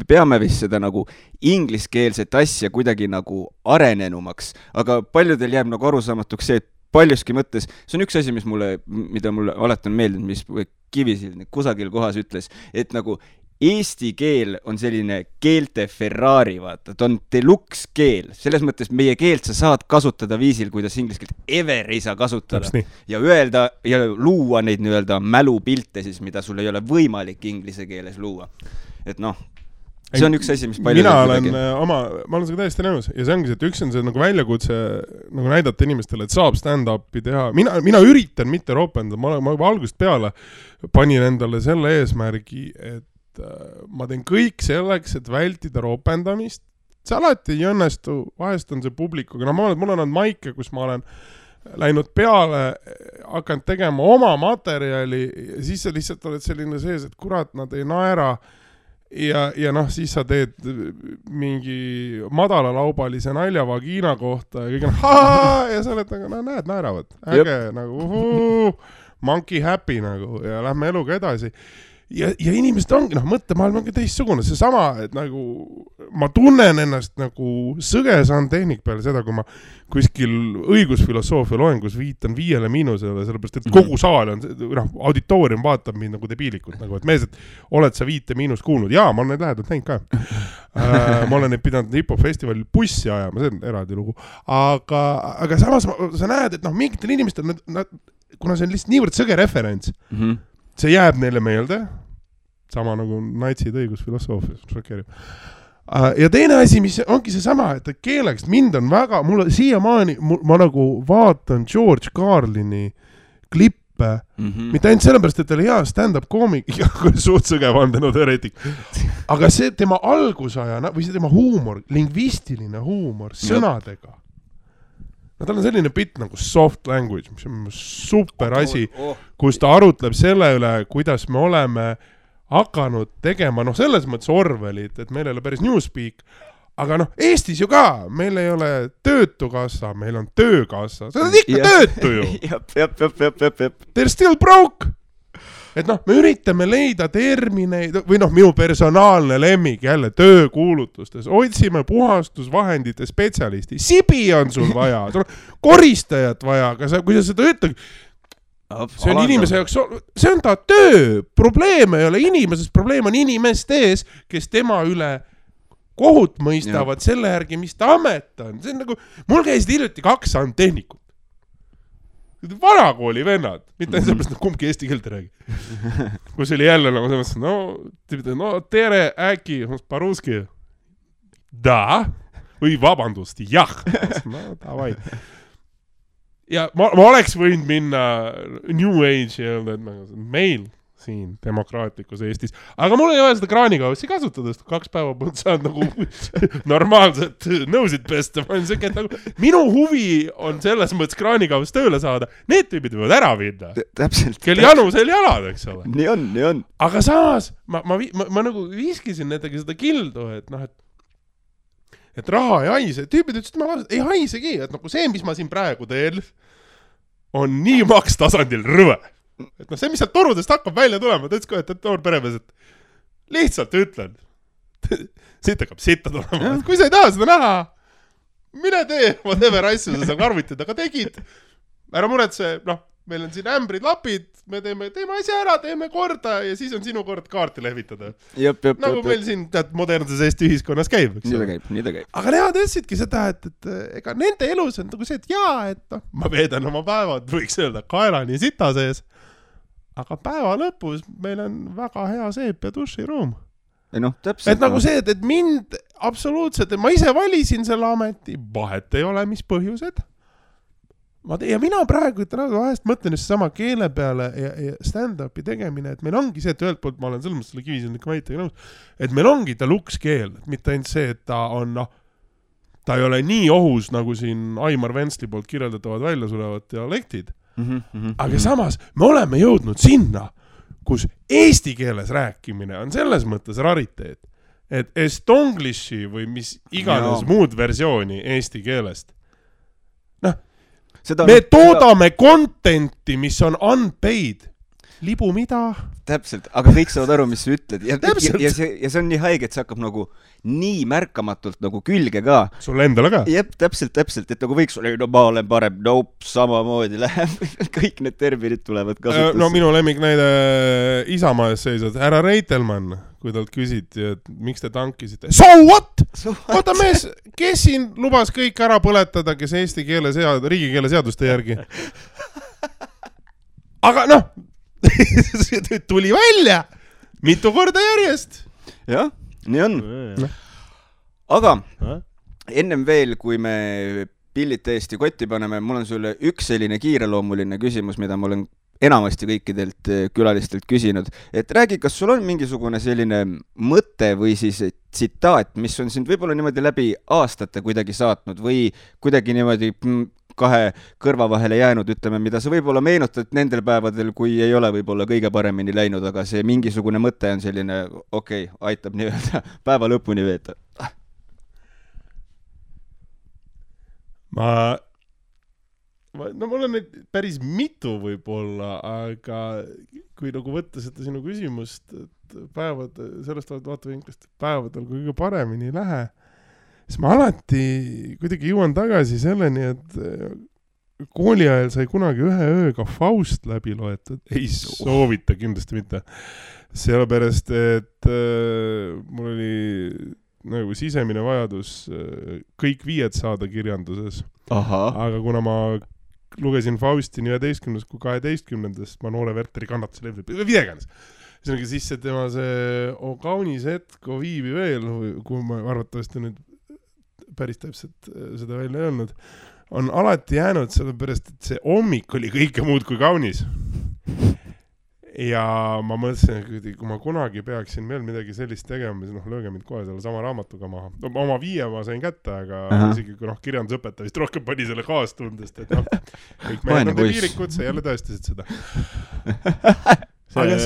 peame vist seda nagu ingliskeelset asja kuidagi nagu arenenumaks, aga paljudel jääb nagu arusaamatuks see, et paljuski mõttes, see on üks asi, mida mulle alati on meeldinud, mis Kivisild kusagil kohas ütles, et nagu eesti keel on selline keelte Ferrari, vaata, ta on deluxe keel, selles mõttes meie keelt sa saad kasutada viisil, kuidas inglise keelt ever ei saa kasutada ja öelda ja luua neid nii-öelda mälupilte siis, mida sul ei ole võimalik inglise keeles luua. Et noh, see on üks asi, mis palju ma olen seda täiesti nõus ja see ongi see, et üks on see nagu väljakutse nagu näidata inimestele, et saab stand-upi teha. Mina üritan mitte ropenda, ma algusest peale panin endale selle eesmärgi, et ma teen kõik selleks, et vältida ropendamist. See alati ei õnnestu, vahest on see publikuga. No mul on maike, kus ma olen läinud peale, hakanud tegema oma materjali ja siis sa lihtsalt oled selline sees, et kurat, nad ei naera ja noh, siis sa teed mingi madalalaubalise nalja vagiina kohta ja kõik on ja sa oled nagu, no näed, naeravad. Äge, nagu monkey happy nagu ja lähme eluga edasi. Ja inimesed ongi, mõttemaailm ongi teistsugune, see sama, et nagu ma tunnen ennast nagu sõgesaan tehnik peale seda, kui ma kuskil õigusfilosoofia loengus viitan 5 miinusele, sellepärast, et kogu saal on, auditoorium vaatab mind nagu debiilikult, nagu, et mees, et oled sa 5 miinust kuulnud? Jaa, ma olen neid lähedalt näinud ka. Ma olen neid pidanud hip-hop festivalil bussi ajama, see on eraldi lugu. Aga samas sa näed, et mingitel inimestel, kuna see on lihtsalt niivõrd sõge referents, see jääb neile meelde, sama nagu natsid õigusfilosoofias, šokeerib. Ja teine asi, mis ongi see sama, et keeleks mind on väga, mulle siiamaani, ma nagu vaatan George Carlini klippe, mitte ainult sellepärast, et ta oli hea stand-up koomik, suht sõge vandenõuteoreetik, aga see tema algusaja, või see tema huumor, lingvistiline huumor, sõnadega. No tal on selline bitt nagu soft language, mis on super asi, kus ta arutleb selle üle, kuidas me oleme hakanud tegema, selles mõttes Orwellit, et meil ei ole päris Newspeak, aga Eestis ju ka, meil ei ole töötukassa, meil on töökassa, see on ikka töötu ju. Jep. They're still broke. Et me üritame leida termineid, või minu personaalne lemmik jälle töökuulutustes, otsime puhastusvahendite spetsialisti, sibi on sul vaja, sul on koristajat vaja, aga kui sa seda ütled, see on inimese jaoks, see on ta töö, probleem ei ole inimesest, probleem on inimestes, kes tema üle kohut mõistavad selle järgi, mis ta amet on. See on nagu, mul käisid hiljuti 2 tehnikut. Vanakooli vennad, mitte sellepärast, et kumbki eesti keelt räägi. Kus oli jälle nagu selles, tere, äkki, paruski. Da, või vabandust, jah. Davai. Ja ma oleks võinud minna New Age ja öelda, et meil siin demokraatlikus Eestis. Aga mul ei ole seda kraanikaussi kasutada, sest 2 päeva põld saad nagu normaalselt nõusid pesta. Minu huvi on selles mõttes kraanikaus tööle saada. Need tüübid võivad ära vinda. Täpselt. Kel janu, sel jalad, eks ole. Nii on. Aga samas, ma nagu viskisin nendega seda kildu, et raha ei haise. Tüübid ütlesid, et ei haisegi. Et see, mis ma siin praegu teen, on nii makstasandil rõve. Et see, mis sealt torudest hakkab välja tulema, ta ütles ka, et noor peremees, et lihtsalt ütlen, siit hakkab sitta tulema. Kui sa ei taha seda näha, mine tee, whatever asju sa seal arvutid, aga tegid. Ära muretse, meil on siin ämbrid, lapid, me teeme asja ära, teeme korda ja siis on sinu kord kaarti lehvitada. Nagu meil siin modernses Eesti ühiskonnas käib. Nii ta käib. Aga nemad ütlesidki seda, et ega nende elus on nagu see, et ma veedan oma päevad, võiks öelda, kaelani sita sees. Aga päeva lõpus meil on väga hea seep ja duširuum. Täpselt. Et nagu see, et mind absoluutselt, ma ise valisin selle ameti, vahet ei ole, mis põhjused. Ja mina praegu vahest mõtlen just sama keele peale ja stand-upi tegemine, et meil ongi see, et ühelt poolt ma olen selles mõttes selle Kivisildniku väitega nõus, et meil ongi ta luks keel, et mitte ainult see, et ta on ta ei ole nii ohus, nagu siin Aimar Ventsli poolt kirjeldatavad välja sulevad dialektid. Aga samas me oleme jõudnud sinna, kus eesti keeles rääkimine on selles mõttes rariteet, et estonglishi või mis iganes muud versiooni eesti keelest. Me toodame contenti, mis on unpaid. Libu mida? Täpselt, aga kõik saavad aru, mis sa ütled. Ja see on nii haige, et see hakkab nagu nii märkamatult nagu külge ka. Sulle endale ka? Jep, täpselt, et nagu võiks olla, no ma olen parem, samamoodi läheb. Kõik need terminid tulevad kasutusse. No minu lemmiknäide Isamaa ees seisad. Härra Reitelmann, kui talt küsiti, et miks te tankisite? So what? Oota mees, kes siin lubas kõik ära põletada, kes eesti keele riigikeele seaduste järgi? Aga noh, tuli välja mitu korda järjest. Jah, nii on. Aga ennem veel, kui me pillid täiesti kotti paneme, mul on sulle üks selline kiireloomuline küsimus, mida ma olen enamasti kõikidelt külalistelt küsinud. Et räägi, kas sul on mingisugune selline mõte või siis tsitaat, mis on sind võib-olla niimoodi läbi aastate kuidagi saatnud või kuidagi niimoodi kahe kõrva vahele jäänud, ütleme, mida sa võib-olla meenutad nendel päevadel, kui ei ole võib-olla kõige paremini läinud, aga see mingisugune mõte on selline, aitab nii-öelda päeva lõpuni veeta. Mul on neid päris mitu võib-olla, aga kui nagu võtta seda sinu küsimust, et sellest vaatevinklist päevadel kui kõige paremini ei lähe, siis ma alati kuidagi jõuan tagasi selleni, et kooli ajal sai kunagi ühe ööga Faust läbi loetud. Ei soovita kindlasti mitte. Sellepärast, et mul oli nagu sisemine vajadus kõik 5 saada kirjanduses. Aga kuna ma lugesin Fausti nii 11. kui 12. ma Noore Werteri kannatuse levib, videeganes. Siis see tema see O kaunis hetk, O viibi veel, kui ma arvatavasti nüüd päris täpselt seda välja ei olnud, on alati jäänud sellepärast, et see hommik oli kõike muud kui kaunis. Ja ma mõtlesin, et kui ma kunagi peaksin veel midagi sellist tegema, siis lööge mind kohe selle sama raamatuga maha. Oma 5 ma sain kätte, aga isegi kui kirjandusõpetaja vist rohkem pani selle kaastundest, et kõik mehed on viirikud, sa jälle tõestasid seda. Aga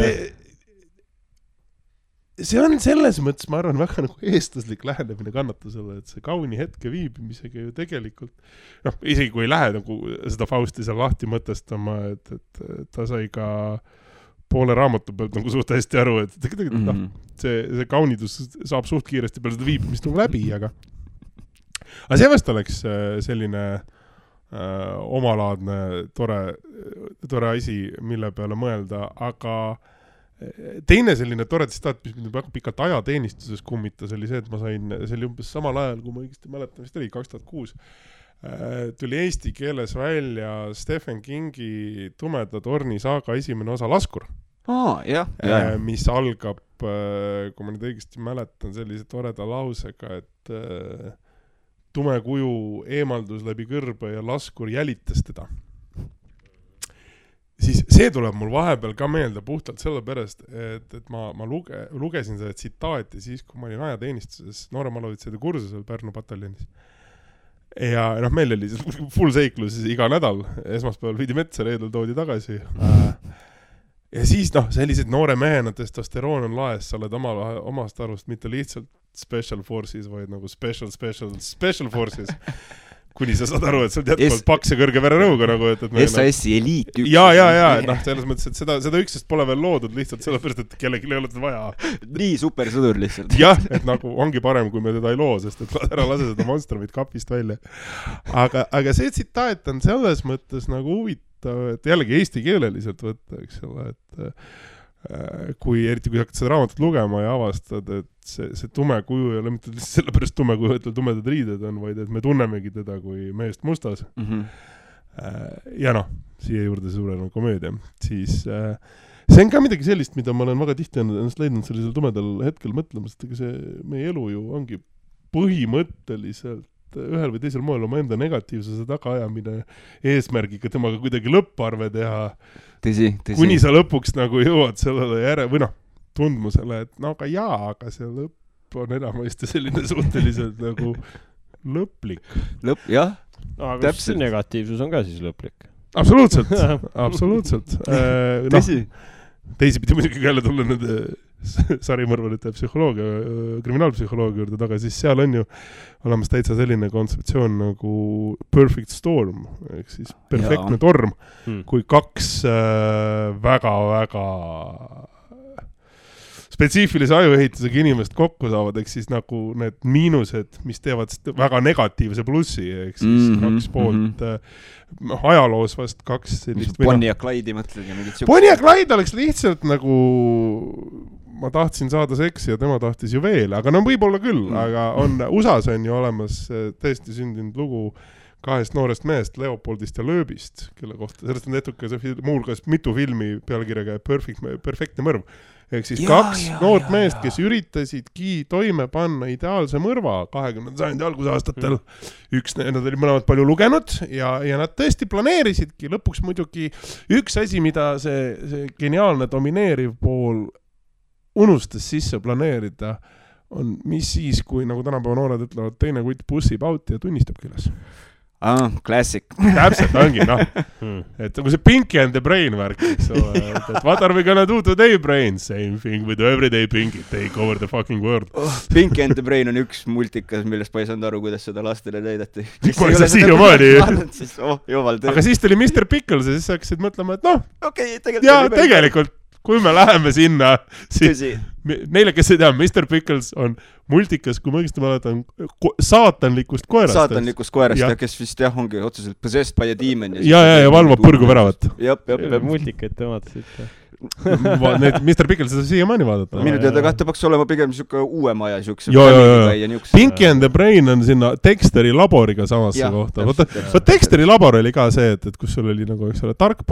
see on selles mõttes, ma arvan, väga nagu eestlaslik lähenemine kannatusele, et see kauni hetke viibimisega ju tegelikult, isegi kui ei lähe nagu seda Fausti seal lahti mõtestama, et ta sai ka poole raamatu pealt nagu suht hästi aru, et tegelikult see kaunidus saab suht kiiresti peale seda viibimist nagu läbi, aga see vast oleks selline omalaadne tore asi, mille peale mõelda, aga teine selline tore tsitaat, mis mind väga pikalt ajateenistuses kummitas, oli see, et ma sain, see oli umbes samal ajal, kui ma õigesti mäletan, vist oli 2006, tuli eesti keeles välja Stephen Kingi Tumeda torni saaga esimene osa Laskur, mis algab, kui ma nüüd õigesti mäletan, sellise toreda lausega, et tume kuju eemaldus läbi kõrbe ja Laskur jälitas teda. Siis see tuleb mul vahepeal ka meelde puhtalt sellepärast, et ma lugesin seda tsitaati siis, kui ma olin ajateenistuses nooremalovitsejate kursusel Pärnu pataljonis. Ja meil oli full seiklus iga nädal, esmaspäeval viidi metsa, reedel toodi tagasi. Ja siis sellised noore mehena testosteroon on laes, sa oled omast arust mitte lihtsalt special forces, vaid nagu special forces. Kuni sa saad aru, et sa oled jätkuvalt paks ja kõrge vererõuga nagu, et SAS-i eliit üks. Ja, selles mõttes, et seda üksest pole veel loodud lihtsalt sellepärast, et kellelgi ei ole seda vaja. Nii supersõdur lihtsalt. Jah, et nagu ongi parem, kui me teda ei loo, sest et ära lase seda monstermit kapist välja. Aga see tsitaat on selles mõttes nagu huvitav, et jällegi eesti keeleliselt võtta, eks ole, et eriti kui hakkad seda raamatut lugema ja avastad, et see tume kuju ei ole mitte sellepärast tume kuju, et tumedad riided on, vaid et me tunnemegi teda kui meest mustas. Ja siia juurde suurena komöödia. Siis see on ka midagi sellist, mida ma olen väga tihti ennast leidnud sellisel tumedal hetkel mõtlemas, et see meie elu ju ongi põhimõtteliselt ühel või teisel moel oma enda negatiivsuse tagaajamine eesmärgiga temaga kuidagi lõpparve teha. Tõsi. Kuni sa lõpuks nagu jõuad sellele või tundmusele, et aga see lõpp on enamasti selline suhteliselt nagu lõplik. Jah, aga täpselt. Negatiivsus on ka siis lõplik. Absoluutselt. Tõsi. Teisipidi muidugi jälle tulla nende sarimõrvalite psühholoogia, kriminaalpsühholoogia juurde taga, siis seal on ju olemas täitsa selline kontseptsioon nagu perfect storm, ehk siis perfektne torm, kui kaks väga-väga spetsiifilise ajuehitusega inimest kokku saavad, ehk siis nagu need miinused, mis teevad väga negatiivse plussi, ehk siis kaks poolt ajaloos vast kaks sellist... Bonnie ja Clyde'i mõtled ja mingid Bonnie ja Clyde oleks lihtsalt nagu... Ma tahtsin saada seksi ja tema tahtis ju veel, aga no võib-olla küll, aga USAs on ju olemas tõesti sündinud lugu kahest noorest mehest, Leopoldist ja Lööbist, kelle kohta, sellest on tehtud ka muulgas mitu filmi pealkirjaga Perfektne mõrv. Ehk siis kaks noort meest, kes üritasidki toime panna ideaalse mõrva 20. sajandi algusaastatel. Nad olid mõlemad palju lugenud ja nad tõesti planeerisidki lõpuks muidugi üks asi, mida see geniaalne domineeriv pool unustas sisse planeerida, on mis siis, kui nagu tänapäeva noored ütlevad, teine kutt pussib out ja tunnistabki üles. Classic. Täpselt ongi, noh. Et nagu see Pinky and the Brain värk, eks ole. Et what are we gonna do today, Brain? Same thing with everyday Pinky. Take over the fucking world. Pinky and the Brain on üks multikas, millest ma ei saanud aru, kuidas seda lastele näidati. Ma ei saa siiamaani. Aga siis tuli Mr. Pickles ja siis hakkasid mõtlema, et noh. Okay, tegelikult. Kui me läheme sinna, siis neile, kes ei tea, Mr. Pickles on multikas, kui ma õigesti mäletan, saatanlikust koerast. Saatanlikust koerast, kes vist ongi otseselt possessed by a demon. Ja valvab põrgu väravat. Multikaid te vaatasid. Mr. Pickles seda siiamaani vaadata. Minu teada kahte peaks olema pigem niisugune uue maja. Pinky and the Brain on sinna Dexteri laboriga samasse kohta. Dexteri labor oli ka see, et kus sul oli nagu, eks ole, tark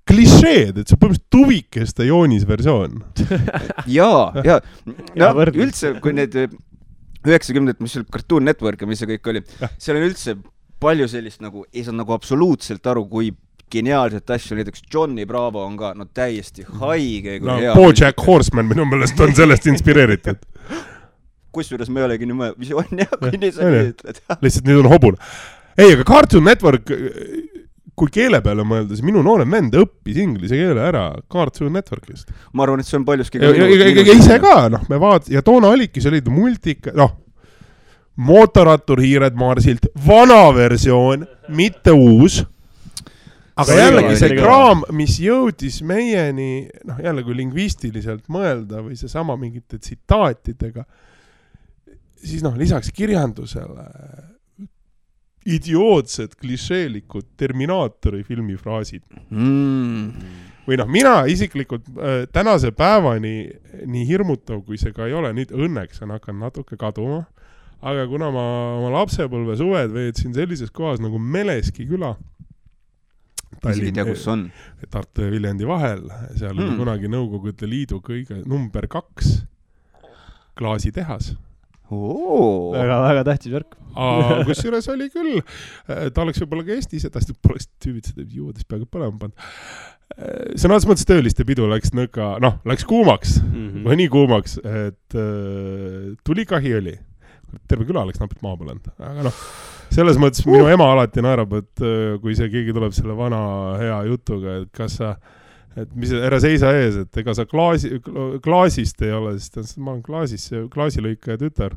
klišeed, et see põhimõtteliselt tuvikeste joonisversioon. Jaa. Üldse, kui need 90, mis oli Cartoon Network ja mis see kõik oli, seal on üldse palju sellist nagu, ei saa nagu absoluutselt aru, kui geniaalset asju, näiteks Johnny Bravo on ka täiesti haige. BoJack Horseman minu meelest on sellest inspireeritud. Kusjuures me ei olegi nii visioon, kui nii sa nii ütled. Lihtsalt nüüd on hobune. Ei, aga Cartoon Network... Kui keele peale mõelda, siis minu noorem vend õppis inglise keele ära Cartoon Networkist. Ma arvan, et see on paljuski... Ise ka, me ja toona oligi, see oli multika, mootorattur Hiired Marsilt, vana versioon, mitte uus. Aga jällegi see kraam, mis jõudis meieni, jälle kui lingvistiliselt mõelda või see sama mingite tsitaatidega, siis lisaks kirjandusele... idiootsed, klišeelikud Terminaatori filmifraasid. Või mina isiklikult tänase päevani nii hirmutav, kui see ka ei ole, nüüd õnneks on hakanud natuke kaduma, aga kuna ma oma lapsepõlve suved veetsin sellises kohas nagu Meleski küla, Tartu ja Viljandi vahel, seal oli kunagi Nõukogude Liidu kõige number 2 klaasitehas. Väga tähtis värk. Kus juures oli küll, ta oleks võib-olla ka Eestis, et ta poleks tüübid seda juudest peaaegu põlema pannud. Sõnades mõttes tööliste pidu läks nõka, läks kuumaks, või nii kuumaks, et tuli kahi oli. Terve küla läks napid maa põlend. Aga selles mõttes minu ema alati naerab, et kui see keegi tuleb selle vana hea jutuga, et kas sa et mis ära seisa ees, et ega sa klaasist ei ole, sest ma olen klaasilõikaja tütar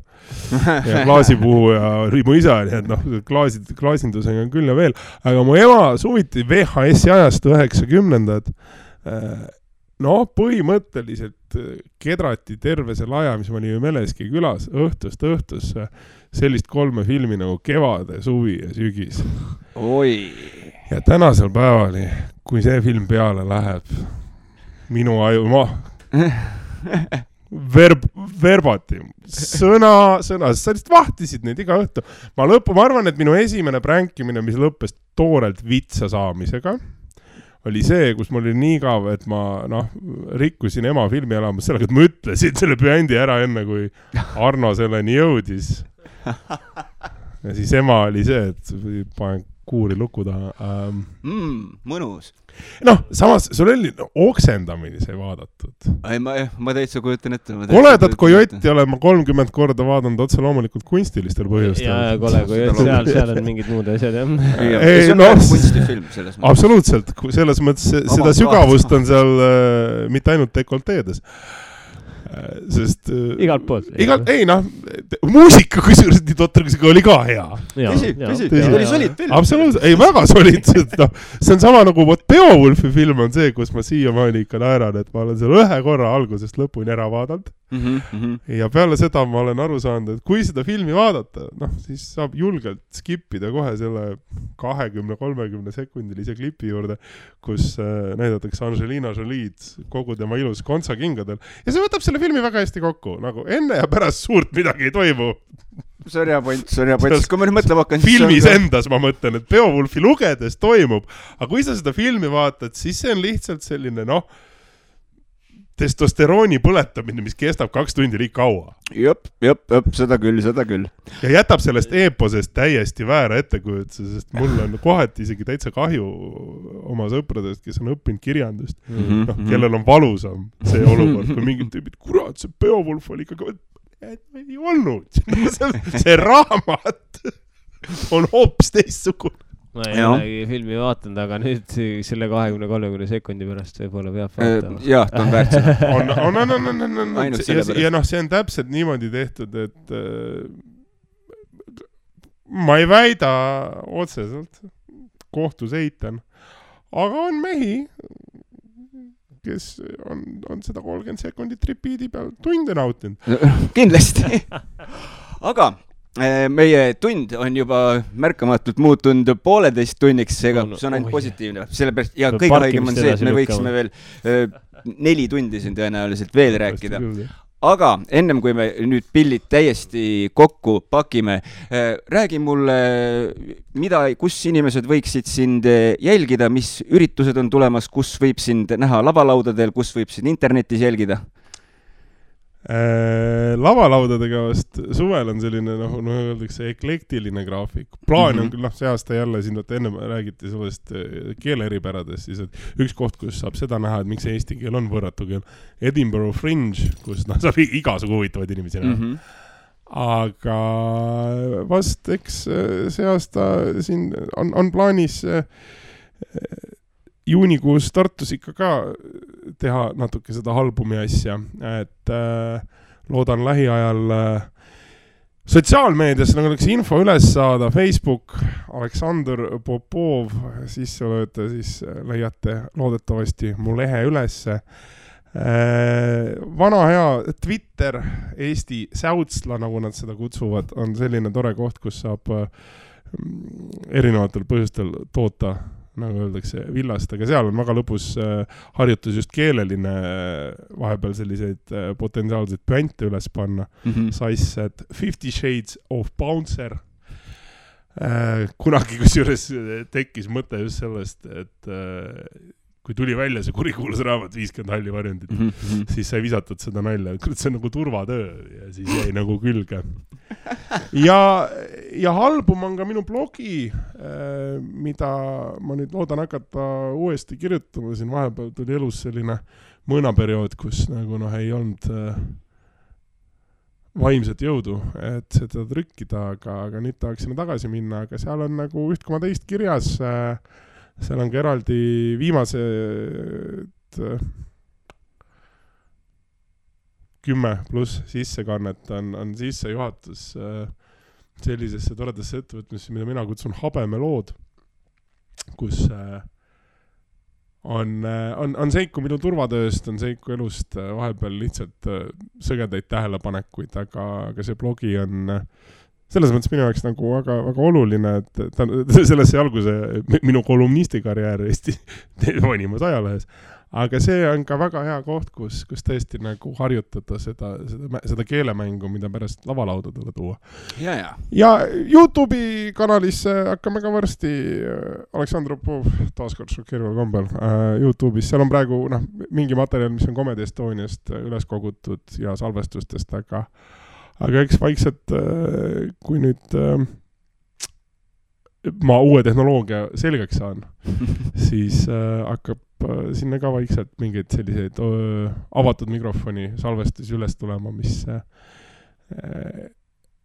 ja klaasipuhu ja mu isa, nii et klaasindusega on küll ja veel, aga mu ema suviti VHS-i ajastu 90-ndad, põhimõtteliselt kedrati terve selle aja, mis ma olin Meleski külas, õhtust sellist 3 filmi nagu Kevade, suvi ja sügis. Oi! Ja tänasel päevani, kui see film peale läheb, minu aju, verbati, sõna, sa lihtsalt vahtisid neid iga õhtu. Ma arvan, et minu esimene pränkimine, mis lõppes toorelt vitsa saamisega, oli see, kus mul oli nii kav, et ma rikkusin ema filmi elamas sellega, et ma ütlesin selle bändi ära enne, kui Arno selleni jõudis. Ja siis ema oli see, et panen kuuri luku taha. Mõnus. Noh, samas sul oli oksendamini sai vaadatud. Ei, ma täitsa kujutan ette. Koledat kojotti olen ma 30 korda vaadanud otse loomulikult kunstilistel põhjustel. Ja kole kojott, seal on mingid muud asjad, jah. See on väga kunstifilm selles mõttes. Absoluutselt, selles mõttes seda sügavust on seal mitte ainult dekolteedes. Sest igalt poolt. Ei, muusika kusjuures nii totrusega oli ka hea. Tõsi, oli solid film. Absoluutselt, ei väga solid. See on sama nagu Beowulfi film on see, kus ma siiamaani ikka naeran, et ma olen seal ühe korra algusest lõpuni ära vaadanud. Ja peale seda ma olen aru saanud, et kui seda filmi vaadata, siis saab julgelt skipida kohe selle 20-30 sekundilise klipi juurde, kus näidatakse Angelina Jolid kogu tema ilus kontsakingadel. Ja see võtab selle filmi väga hästi kokku, nagu enne ja pärast suurt midagi ei toimu. See on hea point. Kui ma nüüd mõtlema hakkan, filmis endas ma mõtlen, et Beowulfi lugedes toimub, aga kui sa seda filmi vaatad, siis see on lihtsalt selline, testosterooni põletamine, mis kestab 2 tundi liik kaua. Jop, seda küll. Ja jätab sellest eeposest täiesti väära ettekujutuse, sest mul on kohati isegi täitsa kahju oma sõpradest, kes on õppinud kirjandust. Kellel on valusam see olukord, kui mingid tüübid, kurat, see Beowulf oli ikka ei olnud. See raamat on hoopis teistsugune. Ma ei olegi filmi vaatanud, aga nüüd selle 20-30 sekundi pärast võib-olla peab vaatama. Jah, ta on väärt seda. Ja see on täpselt niimoodi tehtud, et ma ei väida otseselt, kohtus eitan, aga on mehi, kes on seda 30 sekundit repeat'i peal tunde nautinud. Kindlasti. Aga meie tund on juba märkamatult muutunud 1,5 tunniks, seega see on ainult positiivne. Sellepärast, ja kõige haigem on see, et me võiksime veel 4 tundi siin tõenäoliselt veel rääkida. Aga ennem kui me nüüd pillid täiesti kokku pakime, räägi mulle, kus inimesed võiksid sind jälgida, mis üritused on tulemas, kus võib sind näha lavalaudadel, kus võib sind internetis jälgida? Lavalaudadega vast suvel on selline, öeldakse, eklektiline graafik. Plaan on küll, see aasta jälle siin, enne räägiti sellest keeleeripäradest, siis et üks koht, kus saab seda näha, et miks eesti keel on võrratu keel. Edinburgh Fringe, kus saab igasugu huvitavaid inimesi näha. Aga vast, eks see aasta siin on plaanis juunikuus Tartus ikka ka teha natuke seda albumi asja, et loodan lähiajal sotsiaalmeedias oleks info üles saada, Facebook, Aleksandr Popov, sisse lööte, siis leiate loodetavasti mu lehe ülesse. Vana hea Twitter, Eesti Säutsla, nagu nad seda kutsuvad, on selline tore koht, kus saab erinevatel põhjustel toota, nagu öeldakse, villast, aga seal on väga lõpus harjutus just keeleline vahepeal selliseid potentsiaalseid püante üles panna. Sais, et 50 Shades of Bouncer. Kunagi kusjuures tekkis mõte just sellest, et kui tuli välja see kurikuulus raamat 50 halli varjundit, siis sai visatud seda nalja. See on nagu turvatöö ja siis jäi nagu külge. Ja album on ka minu blogi, mida ma nüüd loodan hakata uuesti kirjutama. Siin vahepeal tuli elus selline mõõnaperiood, kus nagu ei olnud vaimset jõudu, et seda trükkida, aga nüüd tahaks sinna tagasi minna, aga seal on nagu 1,2 kirjas. Seal on ka eraldi viimased 10+ sissekannet on sissejuhatus sellisesse toredasse ettevõtmisse, mida mina kutsun Habemelood, kus on seiku minu turvatööst, on seiku elust vahepeal lihtsalt sõgedaid tähelepanekuid, aga see blogi on selles mõttes minu jaoks nagu väga, väga oluline, et sellesse alguse minu kolumnistikarjäär Eesti vanimas ajalehes. Aga see on ka väga hea koht, kus tõesti nagu harjutada seda keelemängu, mida pärast lavalaudadele tuua. Ja YouTube'i kanalisse hakkame ka varsti Aleksandr Popov taaskord šokeerival kombel YouTube'is. Seal on praegu mingi materjal, mis on Comedy Estoniast üles kogutud ja salvestustest, aga eks vaikselt, kui nüüd ma uue tehnoloogia selgeks saan, siis hakkab sinna ka vaikselt mingeid selliseid avatud mikrofoni salvestusi üles tulema, mis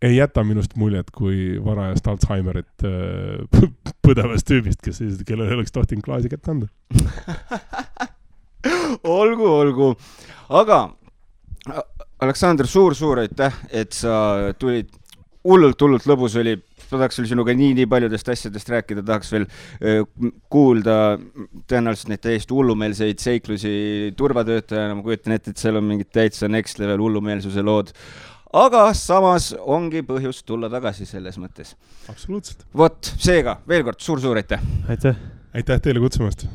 ei jäta minust muljet kui varajast Alzheimerit põdevast tüübist, kellel oleks tohtinud klaasi kätte anda. olgu. Aga Aleksandr, suur aitäh, et sa tulid. Hullult lõbus oli. Tahaks veel sinuga nii paljudest asjadest rääkida, tahaks veel kuulda tõenäoliselt neid täiesti hullumeelseid seiklusi turvatöötajana. Ma kujutan ette, et seal on mingid täitsa next level hullumeelsuse lood. Aga samas ongi põhjus tulla tagasi selles mõttes. Absoluutselt. Vot, seega veel kord suur aitäh. Aitäh. Aitäh teile kutsumast.